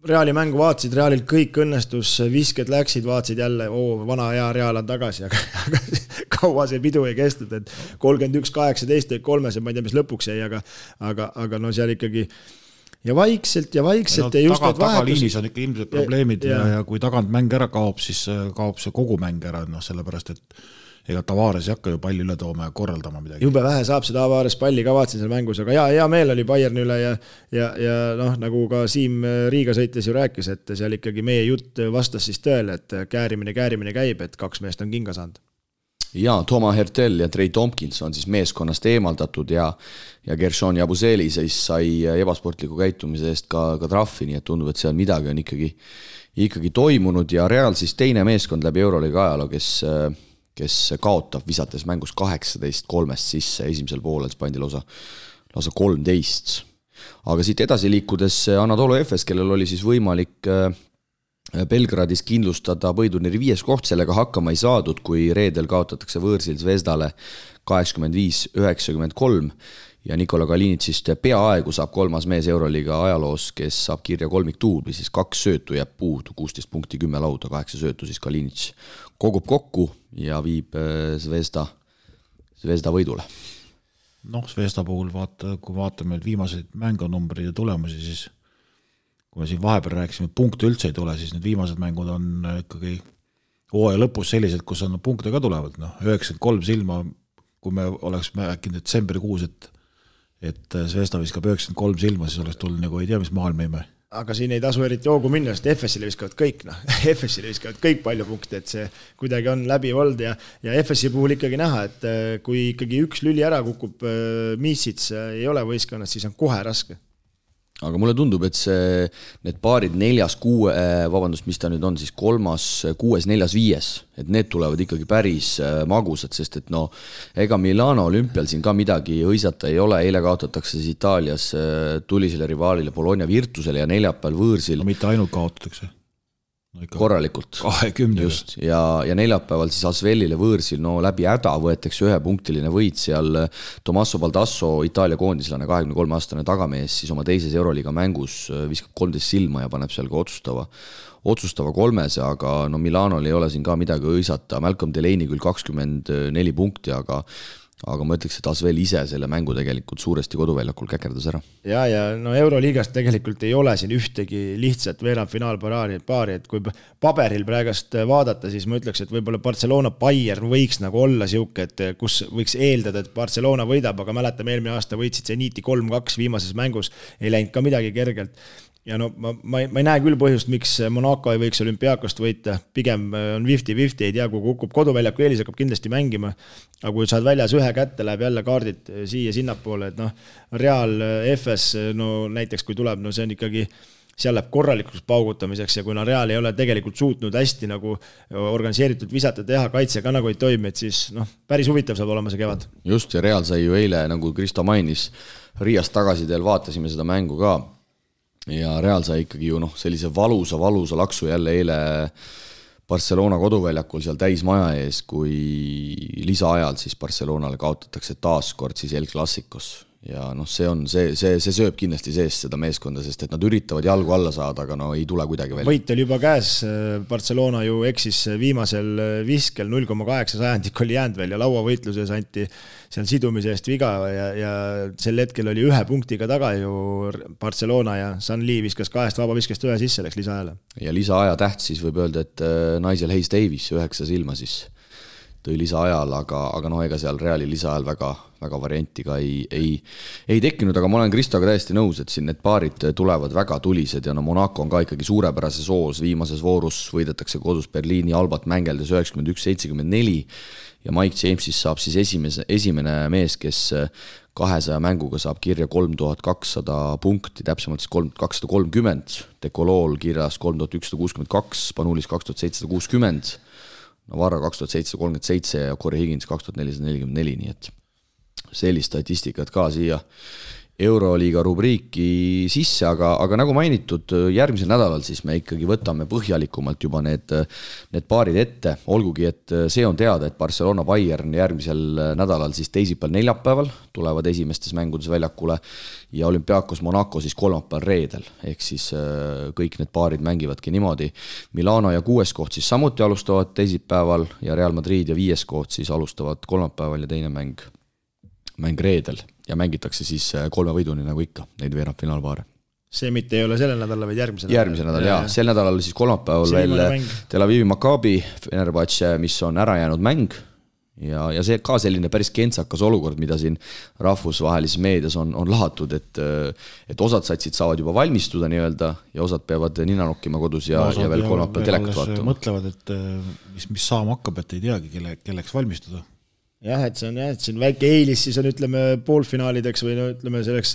Reali mängu vaatasid, Realil kõik õnnestus, visked läksid, vaatasid jälle, vana hea Real on tagasi, aga kaua see pidu ei kestnud, et 31-18 kolmes ja ma ei tea, mis lõpuks jäi, aga seal ikkagi ja vaikselt ja just tagaliinis on ikka ilmselt probleemid ja kui tagant mäng ära kaob, siis kaob see kogu mäng ära, sellepärast, et ega Tavares ei hakka ju palli üle tooma ja korraldama midagi. Jube vähe saab see Tavares palli, kavatsin seal mängus, aga hea meel oli Bayerni üle ja nagu ka Siim Riiga sõites ju rääkis, et seal ikkagi meie jutt vastas siis tõele, et käärimine käib, et 2 meest on kinga saanud. Ja Toma Hertel ja Trey Tompkins on siis meeskonnast eemaldatud ja Gershon Jabuseli siis sai ebasportliku käitumise eest ka trahvi, nii et tundub, et seal midagi on ikkagi toimunud ja Real siis teine meeskond läbi Euroliiga ajaloo, kes kaotab visates mängus 18-3 sisse, esimesel poolel pandi lausa 13. Aga siit edasi liikudes Anadolu Efes, kellel oli siis võimalik Belgradis kindlustada põhiturniiri 5. koht, sellega hakkama ei saadud, kui reedel kaotatakse võõrsil Zvezdale 85-93 ja Nikola Kalinitsist peaaegu saab 3. mees Euroliiga ajaloos, kes saab kirja kolmiktuubli, siis 2 söötu jääb puudu, 16 punkti, 10 lauda, 8 söötu, siis Kalinits kogub kokku ja viib Zvezda võidule. Zvezda puhul kui vaatame viimaseid mängunumbreid ja tulemusi, siis kui me siin vahepeal rääkisime, punkte üldse ei tule, siis need viimased mängud on ikkagi hooaja lõpus sellised, kus on punkte ka tulevad. 93 silma, kui me oleks äkki detsembrikuus, et Zvezda viskab 93 silma, siis oleks tulnud nagu ei tea, mis maailm ime. Aga siin ei tasu eriti hoogu minna, sest FS-ile viskavad kõik, FS-ile viskavad kõik palju punkte, et see kuidagi on läbi olnud ja FS-i puhul ikkagi näha, et kui ikkagi üks lüli ära kukub Miisits ei ole võistkonnas, siis on kohe raske. aga mulle tundub, et need paarid 4, 6, mis ta nüüd on, siis 3, 6, 4, 5, et need tulevad ikkagi päris magusad, sest et ega Milano olümpial siin ka midagi hõisata ei ole, eile kaotatakse siis Itaalias tulisele rivaalile Bologna Virtusele ja neljapäeval võõrsil. No mitte ainult kaotatakse. Korralikult. 20. Just, ja neljapäeval siis Asvelile võõrsil, läbi häda võetakse 1-punktiline võit seal Tommaso Baldasso, Itaalia koondislane, 23-aastane tagamees, siis oma teises Euroliiga mängus viskab 13 silma ja paneb seal ka otsustava 3, aga Milanol ei ole siin ka midagi hõisata. Malcolm Delaney küll 24 punkti, aga ma ütleks, et Asvel ise selle mängu tegelikult suuresti koduväljakul käkerdas ära. Ja Euroliigast tegelikult ei ole siin ühtegi lihtsat veerandfinaalpaari, et kui paberil praegast vaadata, siis ma ütleks, et võib-olla Barcelona Bayern võiks nagu olla siuke, et kus võiks eeldada, et Barcelona võidab, aga mäletame, eelmine aasta võitsid Zeniti 3-2 viimases mängus, ei läinud ka midagi kergelt. Ja ma ei näe küll põhjust, miks Monaco ei võiks Olümpiaakost võita, pigem on 50-50, ei tea, kui kukub koduväljaku eelis, hakkab kindlasti mängima, aga kui saad väljas ühe kätte, läheb jälle kaardid siia sinnapoole, et Real FS, näiteks kui tuleb, see on ikkagi, seal läheb korralikuks paugutamiseks ja kui Real ei ole tegelikult suutnud hästi nagu organiseeritud visata teha, kaitse ka nagu ei toimi, et siis päris huvitav saab olema see kevad. Just, ja Real sai ju eile, nagu Kristo mainis, Riiast tagasi teel vaatasime seda mängu ka, ja Real sai ikkagi ju sellise valusa laksu jälle eile Barcelona koduväljakul seal täismaja ees, kui lisaajal siis Barcelonale kaotatakse taaskord siis El Clasicos. Ja see sööb kindlasti sees seda meeskonda, sest et nad üritavad jalgu alla saada, aga ei tule kuidagi välja. Võit oli juba käes, Barcelona ju eksis viimasel viskel 0,8 sajandikul oli jäänud veel ja lauavõitluses anti seal sidumise eest viga ja sel hetkel oli 1 punktiga taga ju Barcelona ja Sanli viskas 2 vabaviskest 1 sisse, läks lisaaajale. Ja lisaaja täht siis võib öelda, et Nigel Hayes Davis 9 silma siis tõi lisaajal, aga ega seal Reali lisaajal väga varianti ka ei tekkinud, aga ma olen Kristoga täiesti nõus, et siin need paarid tulevad väga tulised ja Monaco on ka ikkagi suurepärases hoos, viimases voorus võidetakse kodus Berliini Albat mängeldes 91-74 ja Mike James siis saab siis esimene mees, kes 200 mänguga saab kirja 3200 punkti, täpsemalt siis 3230, Dekolool kirjas 3162, Spanulis 2760, Navarra 2737 ja Corey Higgins 2444, nii et sellist statistikat ka siia Euroliiga rubriiki sisse, aga nagu mainitud, järgmisel nädalal siis me ikkagi võtame põhjalikumalt juba need paarid ette, olgugi et see on teada, et Barcelona Bayern järgmisel nädalal siis teisipäeval neljapäeval tulevad esimestes mängudes väljakule ja Olympiakos Monaco siis kolmapäeval reedel, ehk siis kõik need paarid mängivadki niimoodi. Milano ja 6. koht siis samuti alustavad teisipäeval ja Real Madrid ja 5. koht siis alustavad kolmapäeval ja teine mäng reedel ja mängitakse siis 3 võiduni nagu ikka, neid veerandfinaalpaare. See mitte ei ole sellel nädalal, vaid järgmisel nädal, jaa. Sel nädalal siis kolmapäeval veel Tel Avivi Maccabi Fenerbahce, mis on ära jäänud mäng ja see ka selline päris kentsakas olukord, mida siin rahvusvahelises meedias on lahatud, et osad satsid saavad juba valmistuda nii-öelda ja osad peavad nina nokkima kodus ja veel kolmapäeval telekat vaatama. Mõtlevad, et mis saama hakkab, et ei teagi, kelleks valmistuda. Jah, et see on väike eelis, siis on ütleme poolfinaalideks või ütleme selleks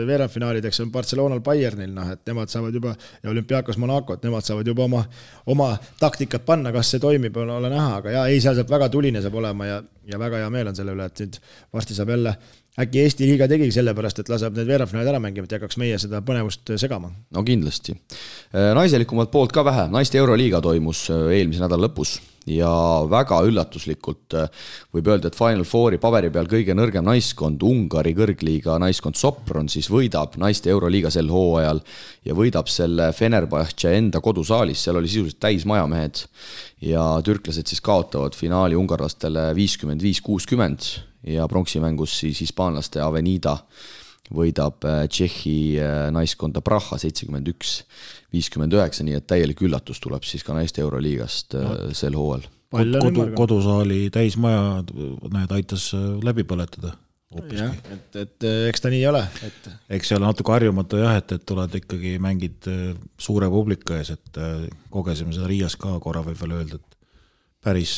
veerandfinaalideks on Barcelonal Bayernil, et nemad saavad juba ja Olympiakos Monaco, et nemad saavad juba oma taktikat panna, kas see toimib, ole näha, aga seal saab väga tuline saab olema ja väga hea meel on selle üle, et nüüd varsti saab jälle äkki Eesti liiga tegigi sellepärast, et laseb need veerandfinaalid ära mängima, et hakkaks meie seda põnevust segama. No kindlasti. Naiselikumalt poolt ka vähe. Naiste Euroliiga toimus eelmise nädala lõpus ja väga üllatuslikult võib öelda, et Final Fouri paberi peal kõige nõrgem naiskond, Ungari kõrgliiga naiskond Sopron siis võidab naiste Euroliiga sel hooajal ja võidab selle Fenerbahce enda kodusaalis, seal oli sisuliselt täismajamehed ja türklased siis kaotavad finaali ungarlastele 55-60 ja pronksimängus siis hispaanlaste Avenida võidab Tšehhi naiskonda Praha 71-59, nii et täielik üllatus tuleb siis ka naiste Euroliigast sel hooajal. Kodusaali täismaja need aitas läbi põletada. Jah, et eks ta nii ei ole. Eks see ole natuke harjumata jah, et tuled ikkagi mängid suure publika ees, et kogesime seda Riias ka korra võib veel öelda, et päris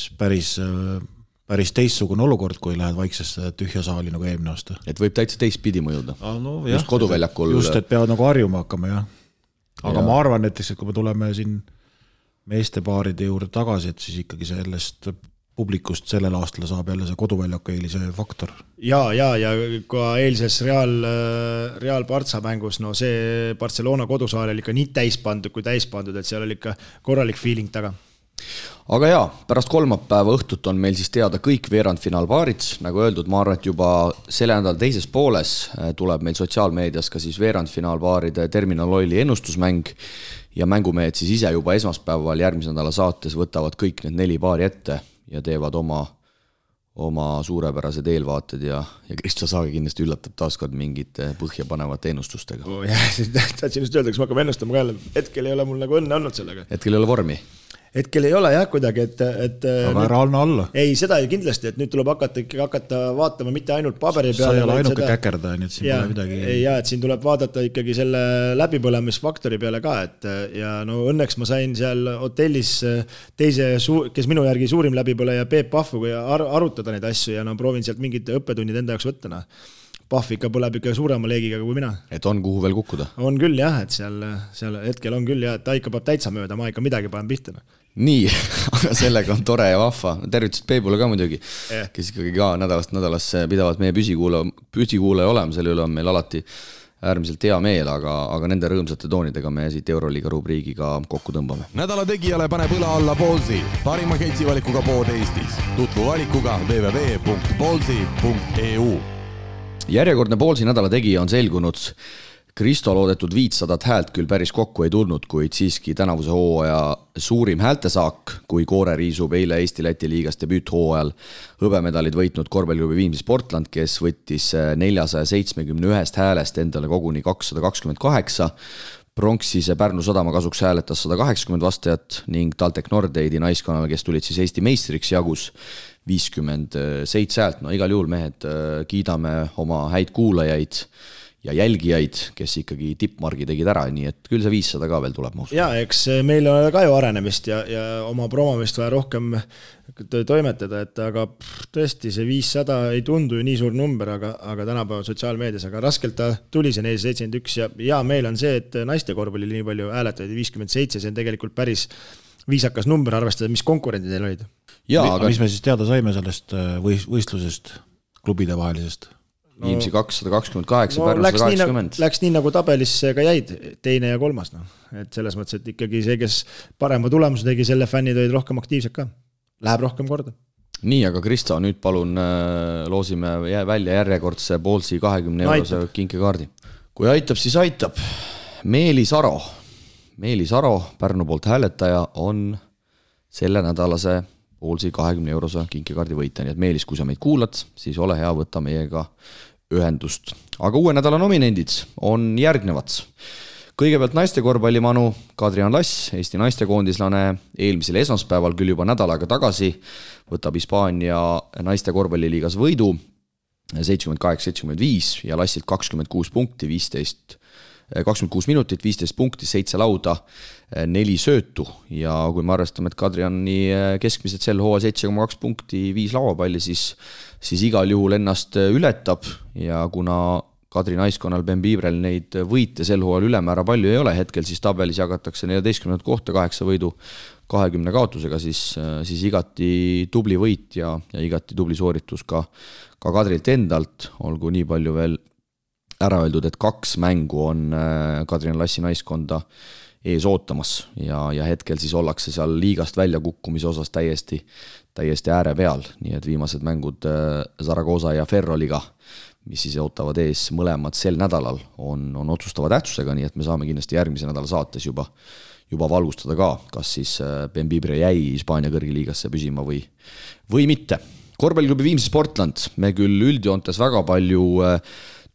päris teistsugune olukord, kui lähed vaiksesse tühja saali nagu eelmine aasta. Et võib täitsa teistpidi mõjuda. No, just koduväljakul. Just, et peavad nagu harjuma hakkama, jah. Aga ma arvan näiteks, et kui me tuleme siin meestepaaride juurde tagasi, et siis ikkagi sellest publikust sellel aastal saab jälle see koduväljaku eelise faktor. Ja ka eilses Real Partsa mängus, no see Barcelona kodusaal oli ikka nii täispandud kui täispandud, et seal oli ikka korralik feeling taga. Aga jaa, pärast kolmapäeva õhtut on meil siis teada kõik veerandfinaalpaarid. Nagu öeldud, ma arvan, et juba selle nädala teises pooles tuleb meil sotsiaalmeedias ka siis veerandfinaalpaaride Terminal Oili ennustusmäng ja mängumehed siis ise juba esmaspäeval järgmise nädala saates võtavad kõik need 4 paari ette ja teevad oma suurepärased eelvaated ja Kristo Saage kindlasti üllatab taaskord mingite põhjapanevate ennustustega. Tahtsin just öelda, kas ma hakkame ennustama ka jälle. Hetkel ei ole mul nagu õnne olnud sellega. Hetkel ei ole vormi. Hetkel ei ole jah kuidagi, et aga ära anna alla. Ei, seda ju kindlasti, et nüüd tuleb hakata vaatama mitte ainult paberi peale. Sa ei ole ainuke käkerda, nii et siin pole midagi. Ja, et siin tuleb vaadata ikkagi selle läbipõlemisfaktori peale ka, et ja no õnneks ma sain seal hotellis kes minu järgi suurim läbipõleja Peep Pahvuga arutada neid asju ja no proovin sealt mingid õppetunnid enda jaoks võtta. Pahv ikka põleb ikka suurema leegiga kui mina. Et on kuhu veel kukkuda? On küll jah, et seal hetkel on küll jah, et ta ikka peab täitsa mööda, ma ikka midagi panen pihta. Nii, aga sellega on tore ja vahva. Tervitust Peebule ka muidugi, kes ikkagi ka nädalasse pidavad meie püsikuulaja olema, selle üle on meil alati äärmiselt hea meel, aga nende rõõmsate toonidega me siit Euroliiga rubriigiga kokku tõmbame. Nädala tegijale paneb õla alla Ballsi, parima ketsivalikuga pood Eestis. Tutvu valikuga www.ballsi.eu. Järjekordne Ballsi nädala tegija on selgunud. Kristo loodetud 500 häält küll päris kokku ei tulnud, kuid siiski tänavuse hooaja suurim häältesaak, kui Koore riisub eile Eesti-Läti liigas debüüthooajal hõbemedalid võitnud korvpalliklubi Viimsi Sportland, kes võttis 471 häälest endale koguni 228. Pronksise Pärnu Sadama kasuks hääletas 180 vastajat ning TalTech Nordeidi naiskonnale, kes tulid siis Eesti meistriks, jagus 57 häält. No igal juhul mehed kiidame oma häid kuulajaid ja jälgijaid, kes ikkagi tippmargi tegid ära, nii et küll see 500 ka veel tuleb. Ja eks meil on ka ju arenemist ja oma promomist vaja rohkem toimetada, et aga tõesti see 500 ei tundu ju nii suur number, aga tänapäeval sotsiaalmeedias, aga raskelt ta tuli see 471 ja meil on see, et naiste korvpalli nii palju hääletajaid 57, see on tegelikult päris viisakas number arvestada, mis konkurendid neil olid. Aga mis me siis teada saime sellest võistlusest, klubide vahelisest? Viimsi 228, Pärnu 180. Läks nii nagu tabelisse ka jäid, teine ja kolmas. No. Et selles mõttes, et ikkagi see, kes parema tulemuse tegi, selle fännid olid rohkem aktiivsed ka. Läheb rohkem korda. Nii, aga Kristo, nüüd palun loosime välja järjekordse Ballsi 20 eurose kinkekaardi. Kui aitab, siis aitab. Meelis Aro, Pärnu poolt hääletaja, on selle nädalase Ballsi 20 eurose kinkekaardi võita, nii et Meelis, kui sa meid kuulad, siis ole hea, võtta meiega ühendust. Aga uue nädala nominendid on järgnevad. Kõigepealt naiste korvpallimanu Kadrian Lass, Eesti naistekoondislane, eelmisel esmaspäeval küll juba nädal aega tagasi võtab Hispaania naiste korvpalliliigas võidu 78-75 ja Lassilt 26 punkti, 26 minutit, 15 punkti, 7 lauda, 4 söötu ja kui me arvestame, et Kadriani keskmiselt sel hooa 7,2 punkti, 5 lauapalli, siis igal juhul ennast ületab ja kuna Kadri naiskonnal Ben Biibrel neid võite sel hooal ülemäära palju ei ole hetkel, siis tabelis jagatakse 14 kohta 8 võidu 20 kaotusega, siis igati tubli võit ja igati tubli sooritus ka Kadrilt endalt, olgu nii palju veel ära öeldud, et 2 mängu on Kadrian Lassi naiskonda ees ootamas ja hetkel siis ollakse seal liigast välja kukkumise osas täiesti ääre peal, nii et viimased mängud Zaragoza ja Ferroliga, mis siis ootavad ees mõlemad sel nädalal, on otsustava tähtsusega, nii et me saame kindlasti järgmise nädala saates juba valgustada ka, kas siis Ben Bibre jäi Hispaania kõrgiliigasse püsima või mitte. Korvpalliklubi Viimsi Sportland, me küll üldjoontes väga palju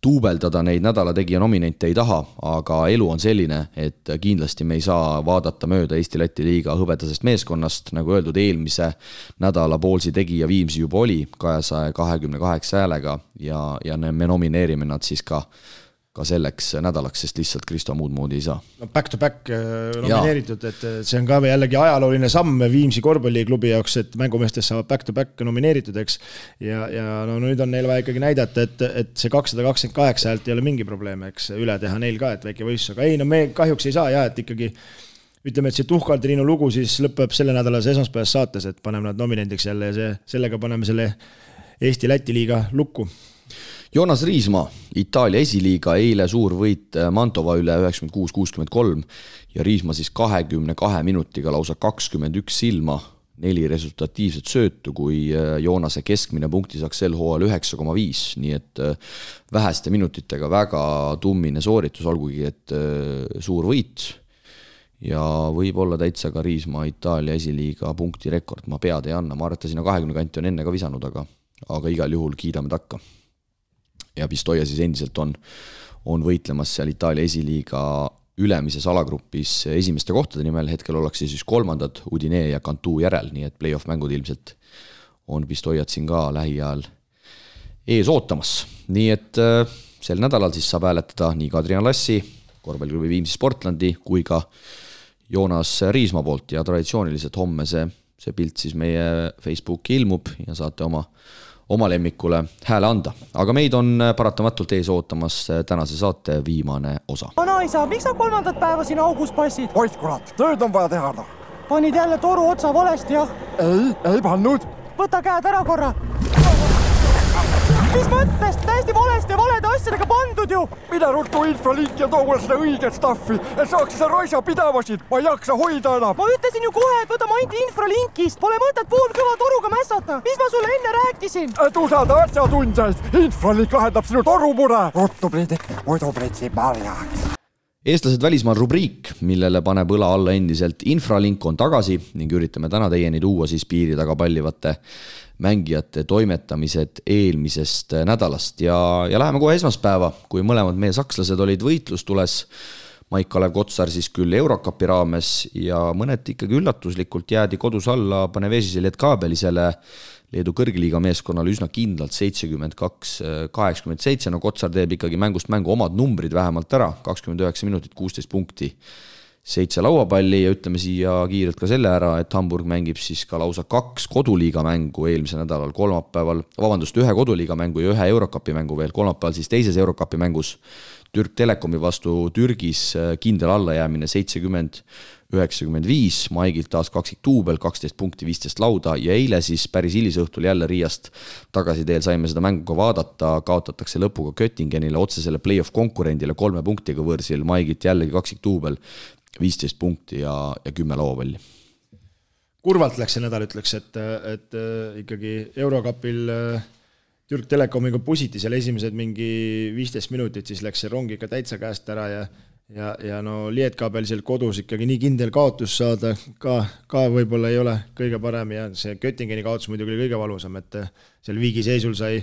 tuubeldada neid nädala tegija nominente ei taha, aga elu on selline, et kindlasti me ei saa vaadata mööda Eesti-Läti liiga hõbedasest meeskonnast, nagu öeldud, eelmise nädala Ballsi tegija Viimsi juba oli 228 häälega ja me nomineerime nad siis ka ka selleks nädalaks, sest lihtsalt Kristo muud moodi ei saa. No back to back nomineeritud, et see on ka jällegi ajalooline samm Viimsi korvpalliklubi jaoks, et mängumeestest saavad back to back nomineeritud, eks. Ja no nüüd on neil vaja ikkagi näidata, et see 228 häält ei ole mingi probleem, eks üle teha neil ka, et väike võistlus, aga ei, no me kahjuks ei saa et ikkagi ütleme, et see Tuhkal-Triinu lugu siis lõpeb selle nädalase esmaspäevas saates, et paneme nad nominendiks jälle ja sellega paneme selle Eesti-Läti liiga lukku. Joonas Riismaa, Itaalia esiliiga, eile suur võit Mantova üle 96-63 ja Riismaa siis 22 minutiga lausa 21 silma, 4 resultatiivset söötu, kui Joonase keskmine punkti saaks sel hooajal 9,5, nii et väheste minutitega väga tummine sooritus, olgugi et suur võit ja võib olla täitsa ka Riismaa Itaalia esiliiga punkti rekord, ma pead ei anna, ma arvan, et ta sinna 20 kanti on enne ka visanud, aga igal juhul kiidame takka. Ja Pistoia siis endiselt on võitlemas seal Itaalia esiliiga ülemises alagrupis esimeste kohtade nimel, hetkel ollakse siis 3. Udinee ja Cantu järel, nii et play-off mängud ilmselt on Pistoiat siin ka lähiajal ees ootamas. Nii et sel nädalal siis saab hääletada nii Kadrian Lassi, korvpalliklubi Viimsi Sportlandi kui ka Joonas Riismaa poolt ja traditsiooniliselt homme see pilt siis meie Facebooki ilmub ja saate oma lemmikule hääle anda. Aga meid on paratamatult ees ootamas tänase saate viimane osa. Vanaisa, miks sa 3. päeva siin augus passid? Oit kurat, tööd on vaja teha. Panid jälle toru otsa valesti, jah? Ei pannud. Võta käed ära korra. Mis mõttes? Täiesti valesti ja valede asjadega pandud ju. Mida ruttu infralink ja too seda õiget staffi, et saaks seda raisa pidavasid. Ma ei jaksa hoida enam. Ma ütlesin ju kohe, et võta mainti infralinkist. Pole mõtet poolkõva toruga mässata. Mis ma sulle enne rääkisin? Et usalda asjatundjaid. Infralink lahendab sinu torumure. Ruttu Priidik, muidu pritsib marjaks. Eestlased välismaal rubriik, millele paneb õla alla endiselt Infralink on tagasi ning üritame täna teieni tuua siis piiri taga pallivate mängijate toimetamised eelmisest nädalast ja läheme kohe esmaspäeva, kui mõlemad meie sakslased olid võitlustules. Maik-Kalev Kotsar siis küll Eurocupi raames ja mõneti ikkagi üllatuslikult jäädi kodus alla Panevėžise Lietkabelisele Leedu kõrgliiga meeskonnale üsna kindlalt 72-87, no Kotsar teeb ikkagi mängust mängu omad numbrid vähemalt ära, 29 minutit, 16 punkti, 7 lauapalli ja ütleme siia kiirelt ka selle ära, et Hamburg mängib siis ka lausa 2 koduliiga mängu eelmise nädalal kolmapäeval, ühe koduliiga mängu ja 1 Eurocupi mängu veel, kolmapäeval siis teises Eurocupi mängus Türk Telekomi vastu Türgis kindel allajäämine 70-95, Maigilt taas kaksik duubel, 12 punkti, 15 lauda ja eile siis päris hilisõhtul jälle Riiast tagasi teel saime seda mängu ka vaadata, kaotatakse lõpuga Göttingenile otsesele play-off konkurendile 3 punktiga võrsil, Maigilt jällegi kaksik duubel, 15 punkti ja 10 lauapalli. Kurvalt läks see nädal, ütleks, et ikkagi Eurocupil Türk Telekomiga pusiti seal esimesed mingi 15 minutit, siis läks see rong ikka täitsa käest ära ja no Lietkabel seal kodus ikkagi nii kindel kaotus saada ka võib-olla ei ole kõige parem ja see Göttingeni kaotus muidugi oli kõige valusam, et seal viigi seisul sai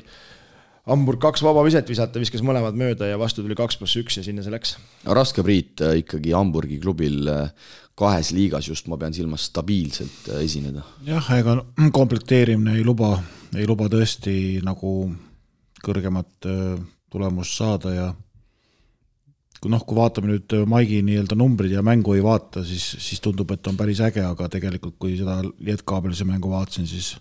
Hamburg 2 vaba viset visata, viskas mõlemad mööda ja vastu tuli 2+1 ja sinna see läks. Raske Priit ikkagi Hamburgi klubil 2 liigas just, ma pean silmas stabiilselt esineda. Jah, ega komplekteerimine ei luba tõesti nagu kõrgemat tulemust saada ja kui vaatame nüüd Maigi nii-öelda numbrid ja mängu ei vaata, siis tundub, et on päris äge, aga tegelikult kui seda Lietkabelise mängu vaatasin, siis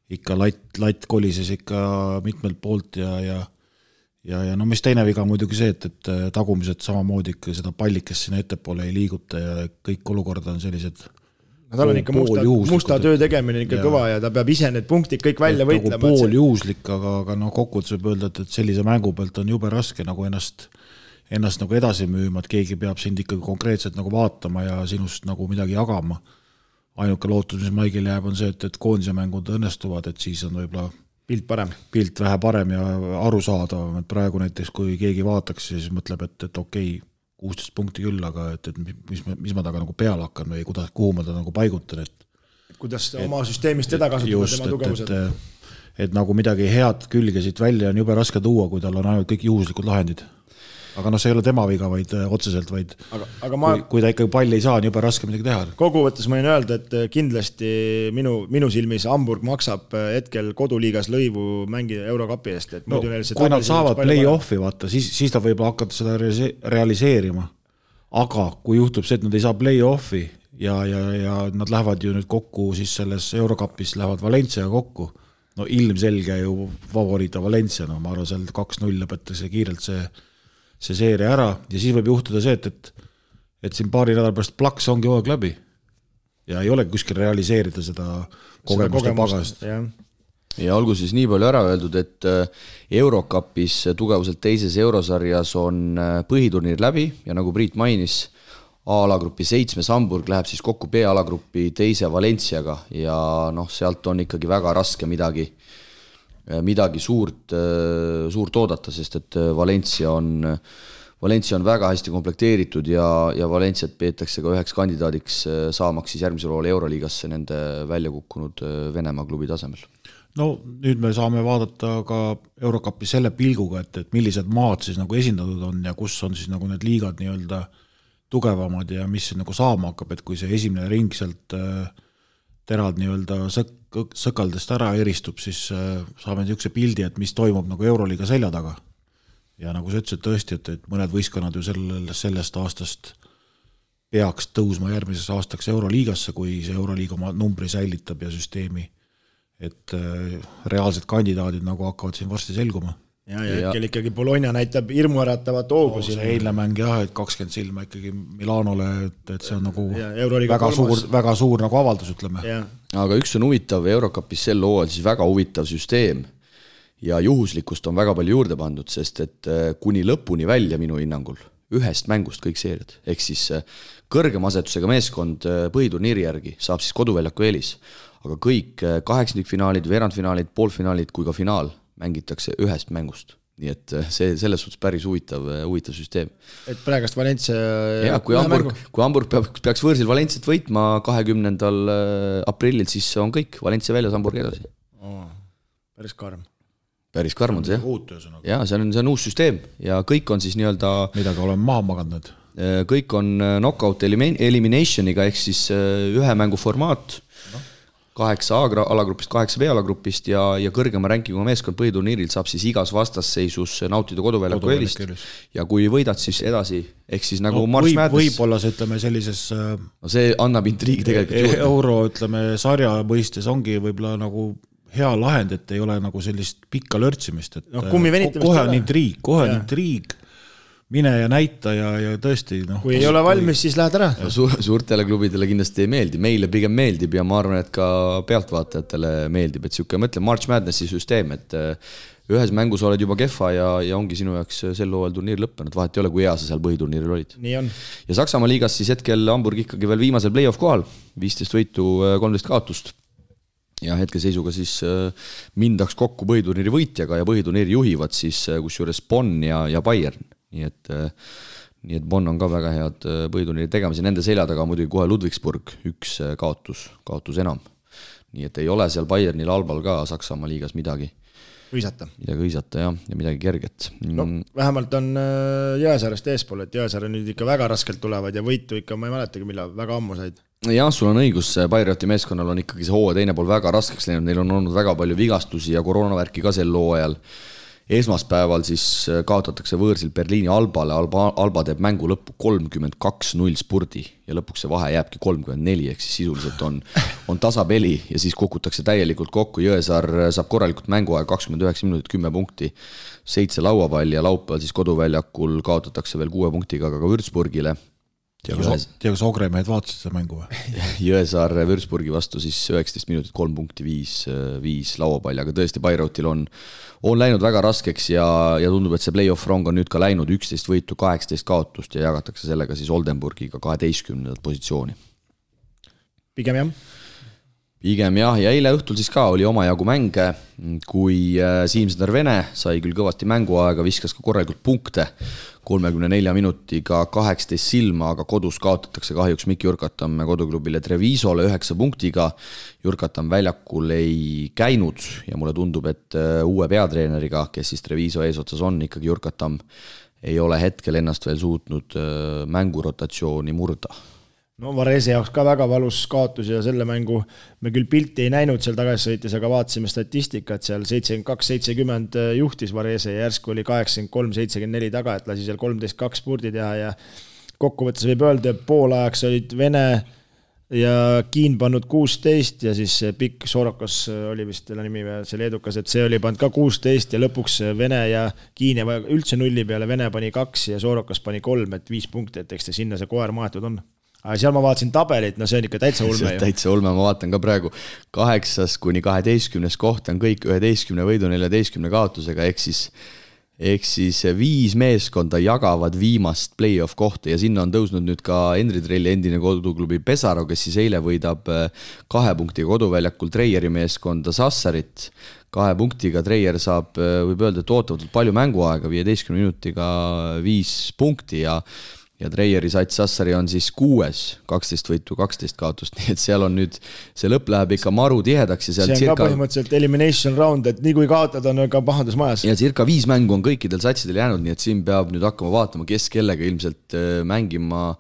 ikka latt kolises ikka mitmelt poolt ja no mis teine viga muidugi see, et tagumised samamoodi ikka seda pallikest sinna ettepoole ei liiguta ja kõik olukord on sellised tal on ikka musta töö tegemine ikka kõva ja ta peab ise need punktid kõik välja võitlema. Pooljuhuslik, aga kokkuvõttes võib öelda, et sellise mängu pealt on jube raske nagu ennast nagu edasi müüma, et keegi peab sind ikkagi konkreetselt nagu vaatama ja sinust nagu midagi jagama. Ainuke lootus, mis Maigil jääb, on see, et koondise mängud õnnestuvad, et siis on võib-olla pilt vähe parem ja arusaadavam, et praegu näiteks kui keegi vaataks, siis mõtleb, et okei, 16 punkti küll, aga et mis ma taga nagu peale hakkan või kuhu ma ta nagu paigutan, kuidas oma süsteemist teda kasutada tema tugevused. Et nagu midagi head külge siit välja on jube raske tuua, kui tal on ainult kõik juhuslikud lahendid. aga see ei ole tema viga, vaid otseselt, vaid aga kui ta ikkagi palli ei saa, on jube raske midagi teha. Kokkuvõttes ma võin öelda, et kindlasti minu silmis Hamburg maksab hetkel koduliigas lõivu mängida Eurokapi eest. Et kui nad saavad play-offi, vaata, siis ta võib hakata seda realiseerima. Aga kui juhtub see, et nad ei saa play-offi ja nad lähevad ju nüüd kokku siis selles Eurokapis, lähevad Valencia kokku, no ilmselge ju favoriita Valencia, no ma arvan, seal 2-0 lõpetatakse kiirelt see seeria ära ja siis võib juhtuda see, et siin paari nädal pärast plaks ongi hooaeg läbi ja ei ole kuskil realiseerida seda kogemuste pagast. Ja olgu siis nii palju ära öeldud, et Eurokapis tugevuselt teises eurosarjas on põhiturniir läbi ja nagu Priit mainis, A-alagrupi 7 Hamburg läheb siis kokku B-alagrupi teise Valenciaga ja sealt on ikkagi väga raske midagi suurt oodata, sest et Valencia on väga hästi komplekteeritud ja Valenciat peetakse ka üheks kandidaadiks saamaks siis järgmisel hooajal Euroliigasse nende välja kukkunud Venemaa klubi tasemel. No nüüd me saame vaadata ka Eurokapi selle pilguga, et millised maad siis nagu esindatud on ja kus on siis nagu need liigad nii-öelda tugevamad ja mis nagu saama hakkab, et kui see esimene ring sealt terad nii-öelda sõkaldest ära eristub, siis saame niisuguse pildi, et mis toimub nagu Euroliiga selja taga. Ja nagu sa ütlesid tõesti, et mõned võistkonnad ju sellest aastast peaks tõusma järgmises aastaks Euroliigasse, kui see Euroliiga oma numbri säilitab ja süsteemi, et reaalsed kandidaadid nagu hakkavad siin varsti selguma. Ja hetkel ikkagi Bologna näitab hirmuäratavat hoogu siin. See eilne mäng jah, et 20 silma ikkagi Milanole, et see on nagu väga suur nagu avaldus, ütleme. Ja. Aga üks on huvitav Eurokapis sel hooajal siis väga huvitav süsteem ja juhuslikkust on väga palju juurde pandud, sest et kuni lõpuni välja minu hinnangul ühest mängust kõik seeriad, ehk siis kõrgema asetusega meeskond põhiturniiri järgi saab siis koduväljaku eelis, aga kõik 8-finaalid, veerandfinaalid, poolfinaalid kui ka finaal mängitakse ühest mängust. Nii et see selles suhtes päris huvitav süsteem. Et praegast Valencia... Ja, kui Hamburg peaks võõrsil Valenciat võitma 20. aprillil, siis on kõik. Valencia väljas, Hamburg edasi. Päris karm. Päris karm on see, jah. Ja, see on uus süsteem ja kõik on siis nii-öelda... Midagi oleme maha maganud. Kõik on knockout eliminationiga, ehk siis ühe mängu formaat, 8 A-alagrupist, 8 B-alagrupist ja kõrgema rankingu meeskond põhiturniiril saab siis igas vastasseisus nautida koduväljaku eelist ja kui võidad siis edasi, ehk siis nagu March Madness. Võib-olla see, ütleme, sellises see annab intriigi tegelikult euro, ütleme, sarja mõistes ongi võib-olla nagu hea lahend, et ei ole nagu sellist pikka lörtsimist, et kohe on intriig, mine ja näita ja tõesti kui ei ole valmis, siis lähed ära. Suurtele klubidele kindlasti ei meeldi, meile pigem meeldib ja ma arvan, et ka pealtvaatajatele meeldib, et siuke, mõtle March Madnessi süsteem, et ühes mängus oled juba kehva ja ongi sinu jaoks sel hooajal turniir lõppenud, vahet ei ole, kui hea sa seal põhiturniiril olid. Nii on. Ja Saksamaa liigas siis hetkel Hamburg ikkagi veel viimasel play-off kohal, 15 võitu, 13 kaotust ja hetke seisuga siis mindaks kokku põhiturniiri võitjaga ja põhiturniiri juhivad siis kusjuures Bonn ja Bayern. Nii et Bonn on ka väga head põhiturniiri tegemise, nende selja taga muidugi kohe Ludwigsburg, üks kaotus enam. Nii et ei ole seal Bayernil Albal ka Saksamaa liigas midagi hõisata ja midagi kerget. No, vähemalt on Jõesaarest eespool, et Jõesaare nüüd ikka väga raskelt tulevad ja võitu ikka, ma ei mäletagi, millal väga ammu said. Jah, sul on õigus, Bayreuthi meeskonnal on ikkagi see hooaja teine pool väga raskeks läinud, neil on olnud väga palju vigastusi ja koroonavärki ka sel hooajal. Esmaspäeval siis kaotatakse võõrsil Berliini Albale, Alba teeb mängu lõppu 32-0 spurdi ja lõpuks see vahe jääbki 34, ehk siis sisuliselt on tasapeli ja siis kukutakse täielikult kokku, Jõesaar saab korralikult mänguaega 29 minutit, 10 punkti, 7 lauapalli ja laupäeval siis koduväljakul kaotatakse veel 6 punktiga ka Würzburgile. Kas Ogremehed vaatasid seda mängu või? Jõesaar Würzburgi vastu siis 19 minutit, 3 punkti, 5 lauapalli, aga tõesti Bayreuthil on läinud väga raskeks ja tundub, et see play-off rong on nüüd ka läinud 11 võitu, 18 kaotust ja jagatakse sellega siis Oldenburgiga 12. positsiooni. Pigem jah, ja eile õhtul siis ka oli omajagu mänge, kui Siim-Sõder Vene sai küll kõvasti mänguaega, viskas ka korralikult punkte, 34 minutiga 18 silma, aga kodus kaotatakse kahjuks Mikk Jurkatam koduklubile Trevisole 9 punktiga. Jurkatam väljakul ei käinud ja mulle tundub, et uue peatreeneriga, kes siis Treviso eesotsas on, ikkagi Jurkatam ei ole hetkel ennast veel suutnud mängurotatsiooni murda. No Varese jaoks ka väga valus kaotus ja selle mängu me küll pilti ei näinud seal tagasisõites, aga vaatasime statistikat, seal 72-70 juhtis Varese ja järsku oli 83-74 taga, et lasi seal 13-2 spurdi teha ja kokkuvõttes võib öelda, et poolajaks olid Vene ja Kiin pannud 16 ja siis pikk Sorokas oli vist selle nimi see leedukas, et see oli pannud ka 16 ja lõpuks Vene ja Kiin ei vaja üldse nulli peale, Vene pani 2 ja Sorokas pani 3, et 5 punkti, et eks sinna see koer maetud on. Aga seal ma vaatasin tabelit, no see on ikka täitsa ulme ju. Täitsa ulme, ma vaatan ka praegu 8-12 koht on kõik 11 võidu 14 kaotusega, ehk siis 5 meeskonda jagavad viimast play-off kohta ja sinna on tõusnud nüüd ka Henri Trelli endine koduklubi Pesaro, kes siis eile võidab 2 punktiga koduväljakul Treieri meeskonda Sassarit. 2 punktiga Treier saab, võib öelda, et ootavatult palju mänguaega, 15 minutiga 5 punkti ja Treieri sats Sassari on siis 6, 12 võitu, 12 kaotust, nii et seal on nüüd, see lõpp läheb ikka maru tihedaks ja seal see on ka põhimõtteliselt elimination round, et nii kui kaotad on ka pahandus majas. Ja circa 5 mängu on kõikidel satsidel jäänud, nii et siin peab nüüd hakkama vaatama, kes kellega ilmselt mängima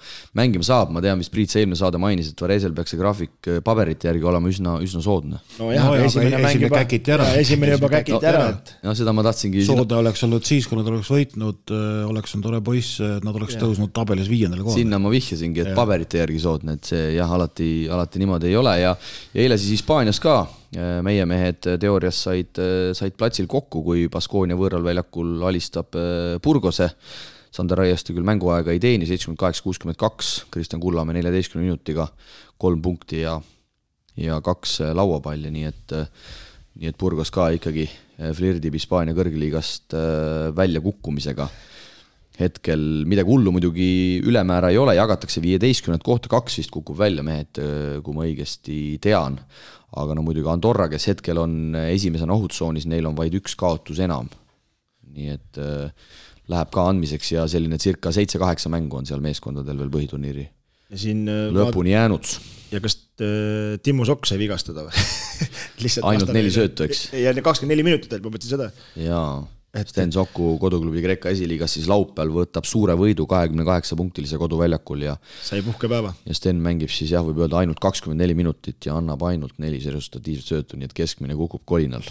saab. Ma tean, mis Priit Seilme saade mainis, et Varesel peaks see graafik paberite järgi olema üsna soodne. No jah, esimene juba käkiti ära. No seda ma tahtsingi. Soode oleks olnud siis, kui nad oleks võitnud, oleks on tore poiss, nad oleks tõusnud tabelis 5. kohal. Sinna ma vihjasingi, et paberite järgi soodne, et see jah, alati niimoodi ei ole ja eile siis Hispaanias ka meie mehed teoorias said platsil kokku, kui Baskonia võõral väljakul alistab Burgose. Sander Raieste küll mänguaega ei teeni, 78-62, Kristjan Kullamäe 14 minutiga 3 punkti ja 2 lauapalli, nii et Burgos ka ikkagi flirdib Hispaania kõrgliigast välja kukkumisega. Hetkel midagi hullu muidugi ülemäära ei ole, jagatakse 15 kohta, 2 vist kukub välja mehed, kui ma õigesti tean. Aga no muidugi Andorra, kes hetkel on esimesena ohutsoonis, neil on vaid 1 kaotus enam. Nii et läheb ka andmiseks ja selline circa 7-8 mängu on seal meeskondadel veel põhiturniiri lõpuni jäänud. Ja kas Timmu Sokk sai vigastada või? Ainult 4 söötu, eks? Ja 24 minutit, ma mõtlesin seda. Jaa. Sten Sokku koduklubi Kreeka esiliigas siis laupäeval võtab suure võidu 28-punktilise koduväljakul ja sai puhkepäeva. Ja Sten mängib siis jah, võib öelda ainult 24 minutit ja annab ainult 4 serustatiivset söötu, nii et keskmine kukub kolinal.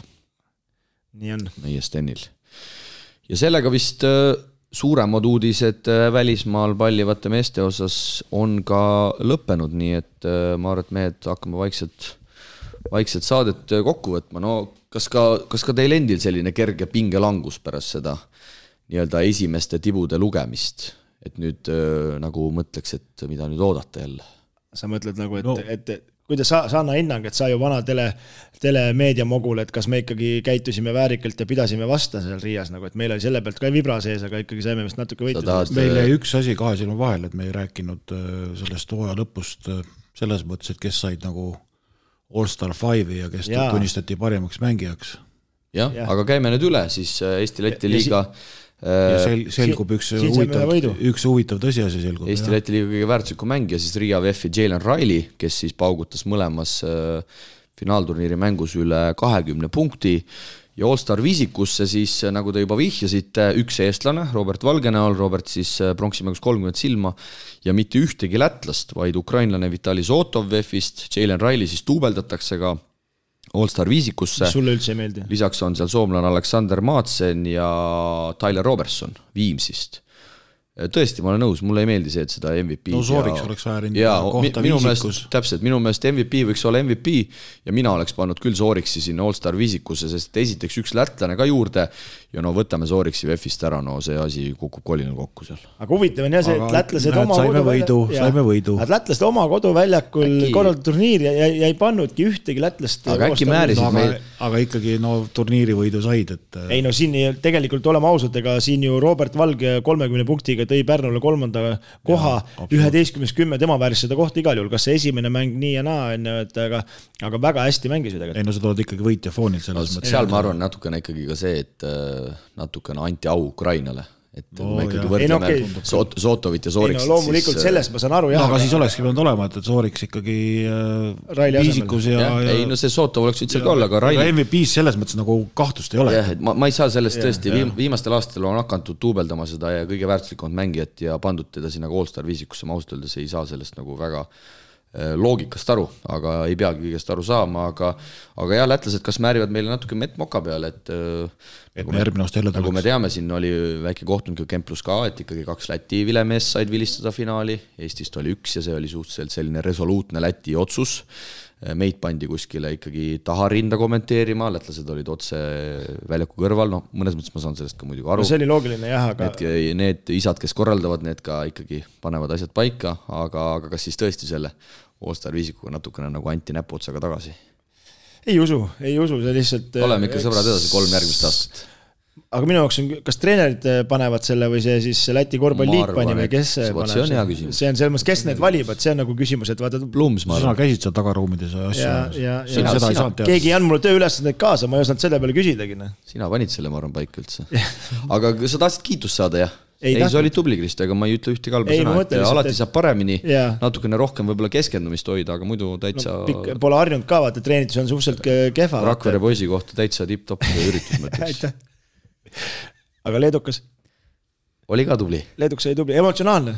Nii on. Meie Stenil. Ja sellega vist suuremad uudised välismaal pallivate meeste osas on ka lõppenud, nii et ma arvan, et mehed hakkame vaikselt saadet kokku võtma. No kas ka teil endil selline kerge pingelangus pärast seda nii-öelda esimeste tibude lugemist, et nüüd nagu mõtleks, et mida nüüd oodata jälle? Sa mõtled nagu, et kuidas sa anna hinnang, et sa ju vana telemeediamogul, et kas me ikkagi käitusime väärikalt ja pidasime vasta seal Riias, nagu, et meil oli selle pealt ka vibra sees, aga ikkagi saime vist natuke võitud. Meil jäi üks asi kahe silma vahel, et me ei rääkinud sellest hooaja lõpust selles mõttes, et kes said nagu All-Star 5 ja kes tunnistati parimaks mängijaks. Jah, aga käime nüüd üle, siis Eesti-Läti liiga ja selgub üks huvitav tõsiasi selgub. Eesti-Läti liiga kõige väärtusliku mängija, siis Riia VF-i Jalen Riley, kes siis paugutas mõlemas finaalturniiri mängus üle 20 punkti ja All-Star viisikusse siis, nagu te juba vihjasite, üks eestlane, Robert Valgenäol, Robert siis pronksimängus 30 silma ja mitte ühtegi lätlast, vaid ukrainlane Vitali Zotov VF-ist, Jalen Riley siis tuubeldatakse ka All-Star viisikusse. Sulle üldse ei meeldi? Lisaks on seal soomlane Alexander Madsen ja Tyler Robertson Viimsist. Tõesti, ma olen nõus, mulle ei meeldi see, et seda MVP no Sooriks oleks väärinud kohta viisikus. Täpselt, minu meelest MVP võiks olla MVP ja mina oleks pannud küll Sooriksi sinna All-Star viisikusse, sest esiteks üks lätlane ka juurde ja no võtame Sooriksi VF-ist ära, no see asi kukub kolinal kokku seal. Aga huvitav on jah see, et lätlased saime võidu. Lätlased oma koduväljakul korraldatud turniir ja ei pannudki ühtegi lätlast. Aga äkki määrisid meil. Aga ikkagi turniiri võidu said, et ei no siin tegelikult oleme ausad, ega siin ju Robert Valge 30 punktiga tõi Pärnule 3. koha, 11-10 tema vääris seda kohta igal juhul, kas see esimene mäng nii ja naa, aga väga hästi mängis ju tegelikult. Ei no sa tuled ikkagi võitja foonil selles mõttes. Seal ma arvan natukene ikkagi ka see, et natukene anti au Ukrainale, et me ikkagi võrdleme Sotovit ja Sooriksit. Loomulikult sellest ma saan aru. Aga siis olekski pidanud olema, et Sooriks ikkagi viisikus ja... Ei, no see Sotov oleks üldse olla, aga Raili... MVP-s selles mõttes nagu kahtlust ei ole. Jah, et ma ei saa sellest tõesti, viimastel aastatel on hakantud tuubeldama seda ja kõige väärtuslikumad mängijat ja pandud teda sinna All-Star viisikusse, ma ausalt öeldes ei saa sellest nagu väga loogikast aru, aga ei peagi kõigest aru saama, aga jah, lätlased kas määrivad meile natuke mett-moka peale, et nagu me teame, siin oli väike kohtunud Kemplus ka, et ikkagi 2 Läti vilemeest said vilistada finaali, Eestist oli 1 ja see oli suhteliselt selline resoluutne Läti otsus, meid pandi kuskile ikkagi taha rinda kommenteerima, lätlased olid otse väljaku kõrval, no mõnes mõttes ma saan sellest ka muidugi aru. No see oli loogiline jah, aga... Need isad, kes korraldavad, need ka ikkagi panevad asjad paika, aga kas siis tõesti selle All-Star viisikuga natukene nagu anti näpuotsaga tagasi? Ei usu, see lihtsalt... Oleme ikka sõbrad edasi 3 järgmist aastat. Aga minu jaoks on, kas treenerid panevad selle või see siis Läti korvpalliit pani või kes paneb? See on hea küsimus. See on selles mõttes, kes need valib, et see on nagu küsimus, et vaata... Plums, ma arvan. Sina käisid seal tagaruumides ja keegi ei andnud mulle tööülesandeid kaasa, ma ei osanud selle peale küsidagi. Sina panid selle, ma arvan, paika üldse. Aga sa tahtsid kiitust saada, jah? Ei, see oli tubli, Krist, aga ma ei ütle ühte kalba sõna, et alati saab paremini, natukene rohkem võib-olla keskendumist hoida, aga muidu täitsa... Pole harjunud ka, vaata, treenitus on suhteliselt kehva. Rakvere poisi kohta täitsa tipp-topp üritus mõtleks. Aga leedukas? Oli ka tubli. Leedukas oli tubli, emotsionaalne.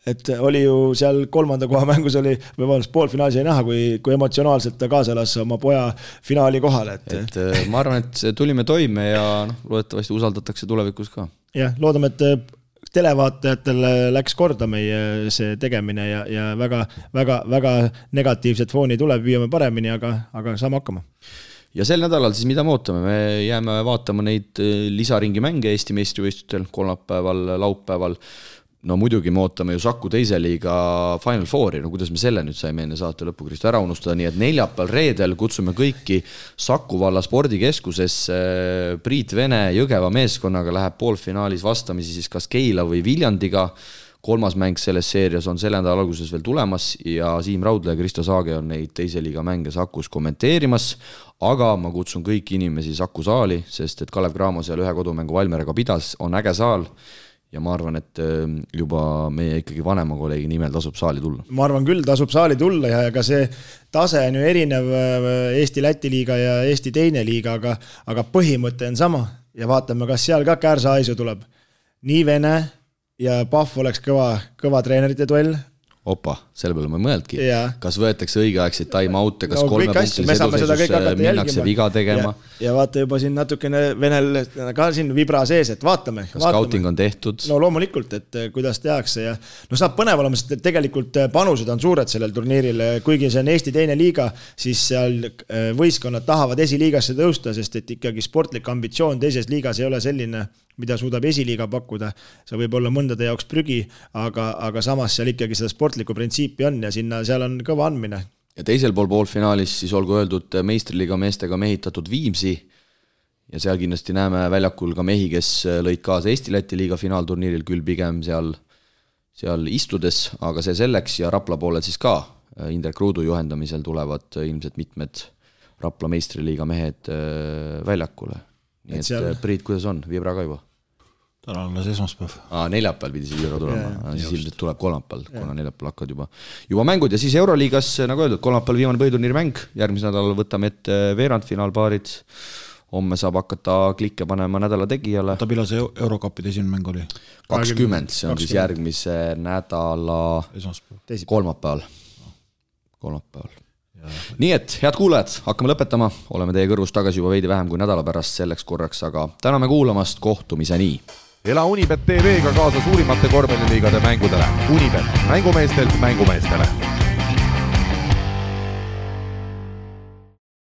Et oli ju seal 3. koha mängus oli, või vabandust, poolfinaalis ei näha, kui emotsionaalselt ta kaasa lasi oma poja finaali kohale. Et ma arvan, et tulime toime ja loodetavasti usaldatakse tulevikus ka. Jah, loodame, et televaatajatele läks korda meie see tegemine ja väga negatiivset fooni tuleb, viime paremini, aga saame hakkama. Ja sel nädalal siis mida me ootame? Me jääme vaatama neid lisaringi mänge Eesti meistrivõistlustel kolmapäeval, laupäeval. No muidugi me ootame ju Saku teise liiga Final Fouri, no kuidas me selle nüüd saime enne saate lõppu Kristo ära unustada, nii et neljapäeval reedel kutsume kõiki Saku valla spordikeskusesse. Priit Vene Jõgeva meeskonnaga läheb poolfinaalis vastamisi siis kas Keila või Viljandiga. 3. mäng selles seerias on selle nädala alguses veel tulemas ja Siim Raudla ja Kristo Saage on neid teise liiga mänge Sakus kommenteerimas, aga ma kutsun kõiki inimesi Saku saali, sest et Kalev Cramo seal ühe kodumängu Valmeraga pidas, on äge saal ja ma arvan, et juba meie ikkagi vanema kolleegi nimel tasub saali tulla. Ma arvan küll, tasub saali tulla ja ka see tase on ju erinev Eesti-Läti liiga ja Eesti teine liiga, aga põhimõte on sama ja vaatame, kas seal ka Kärsa-Aisu tuleb. Nii Vene ja Pahv oleks kõva treenerite duell. Opa, selle peale ma ei mõeldki. Kas võetakse õigeaegseid time-out'e, kas 3 punktilise edusesus minnakse viga tegema. Ja vaata juba siin natukene Venel ka siin vibra sees, et vaatame. Kas scouting on tehtud? No loomulikult, et kuidas tehakse ja no saab põnev olema, sest tegelikult panused on suured sellel turniiril, kuigi see on Eesti teine liiga, siis seal võistkonnad tahavad esiliigasse tõusta, sest et ikkagi sportlik ambitsioon teises liigas ei ole selline, mida suudab esiliiga pakkuda. See võib olla mõndade jaoks prügi, aga samas seal ikkagi seda sportlikku printsiipi on ja seal on kõva andmine. Ja teisel pool poolfinaalis siis olgu öeldud meistriliiga meestega mehitatud Viimsi ja seal kindlasti näeme väljakul ka mehi, kes lõid kaasa Eesti-Läti liiga finaalturniiril küll pigem seal istudes, aga see selleks ja Rapla poolel siis ka Indrek Ruudu juhendamisel tulevad ilmselt mitmed Rapla meistriliiga mehed väljakule. Nii et Priit, kuidas on? Vibra ka juba? Täna on esmaspäev. Neljapäeval pidi see Vibra tulema, siis ilmselt tuleb kolmapäeval, kuna neljapäeval hakkad juba mängud ja siis Euroliigas, nagu öeldud, kolmapäeval viimane põhiturniiri mäng, järgmise nädalal võtame ette veerandfinaalpaarid, homme saab hakata klikke panema nädala tegijale. Ta pila see Eurokapide esimene mäng oli? 20, see on siis järgmise nädala kolmapäeval. Nii et, head kuulajad, hakkame lõpetama, oleme teie kõrvus tagasi juba veidi vähem kui nädala pärast selleks korraks, aga täname kuulamast, kohtumiseni! Ela Unibet TV-ga kaasa suurimate korvpalliliigade mängudele. Unibet, mängumeestelt mängumeestele.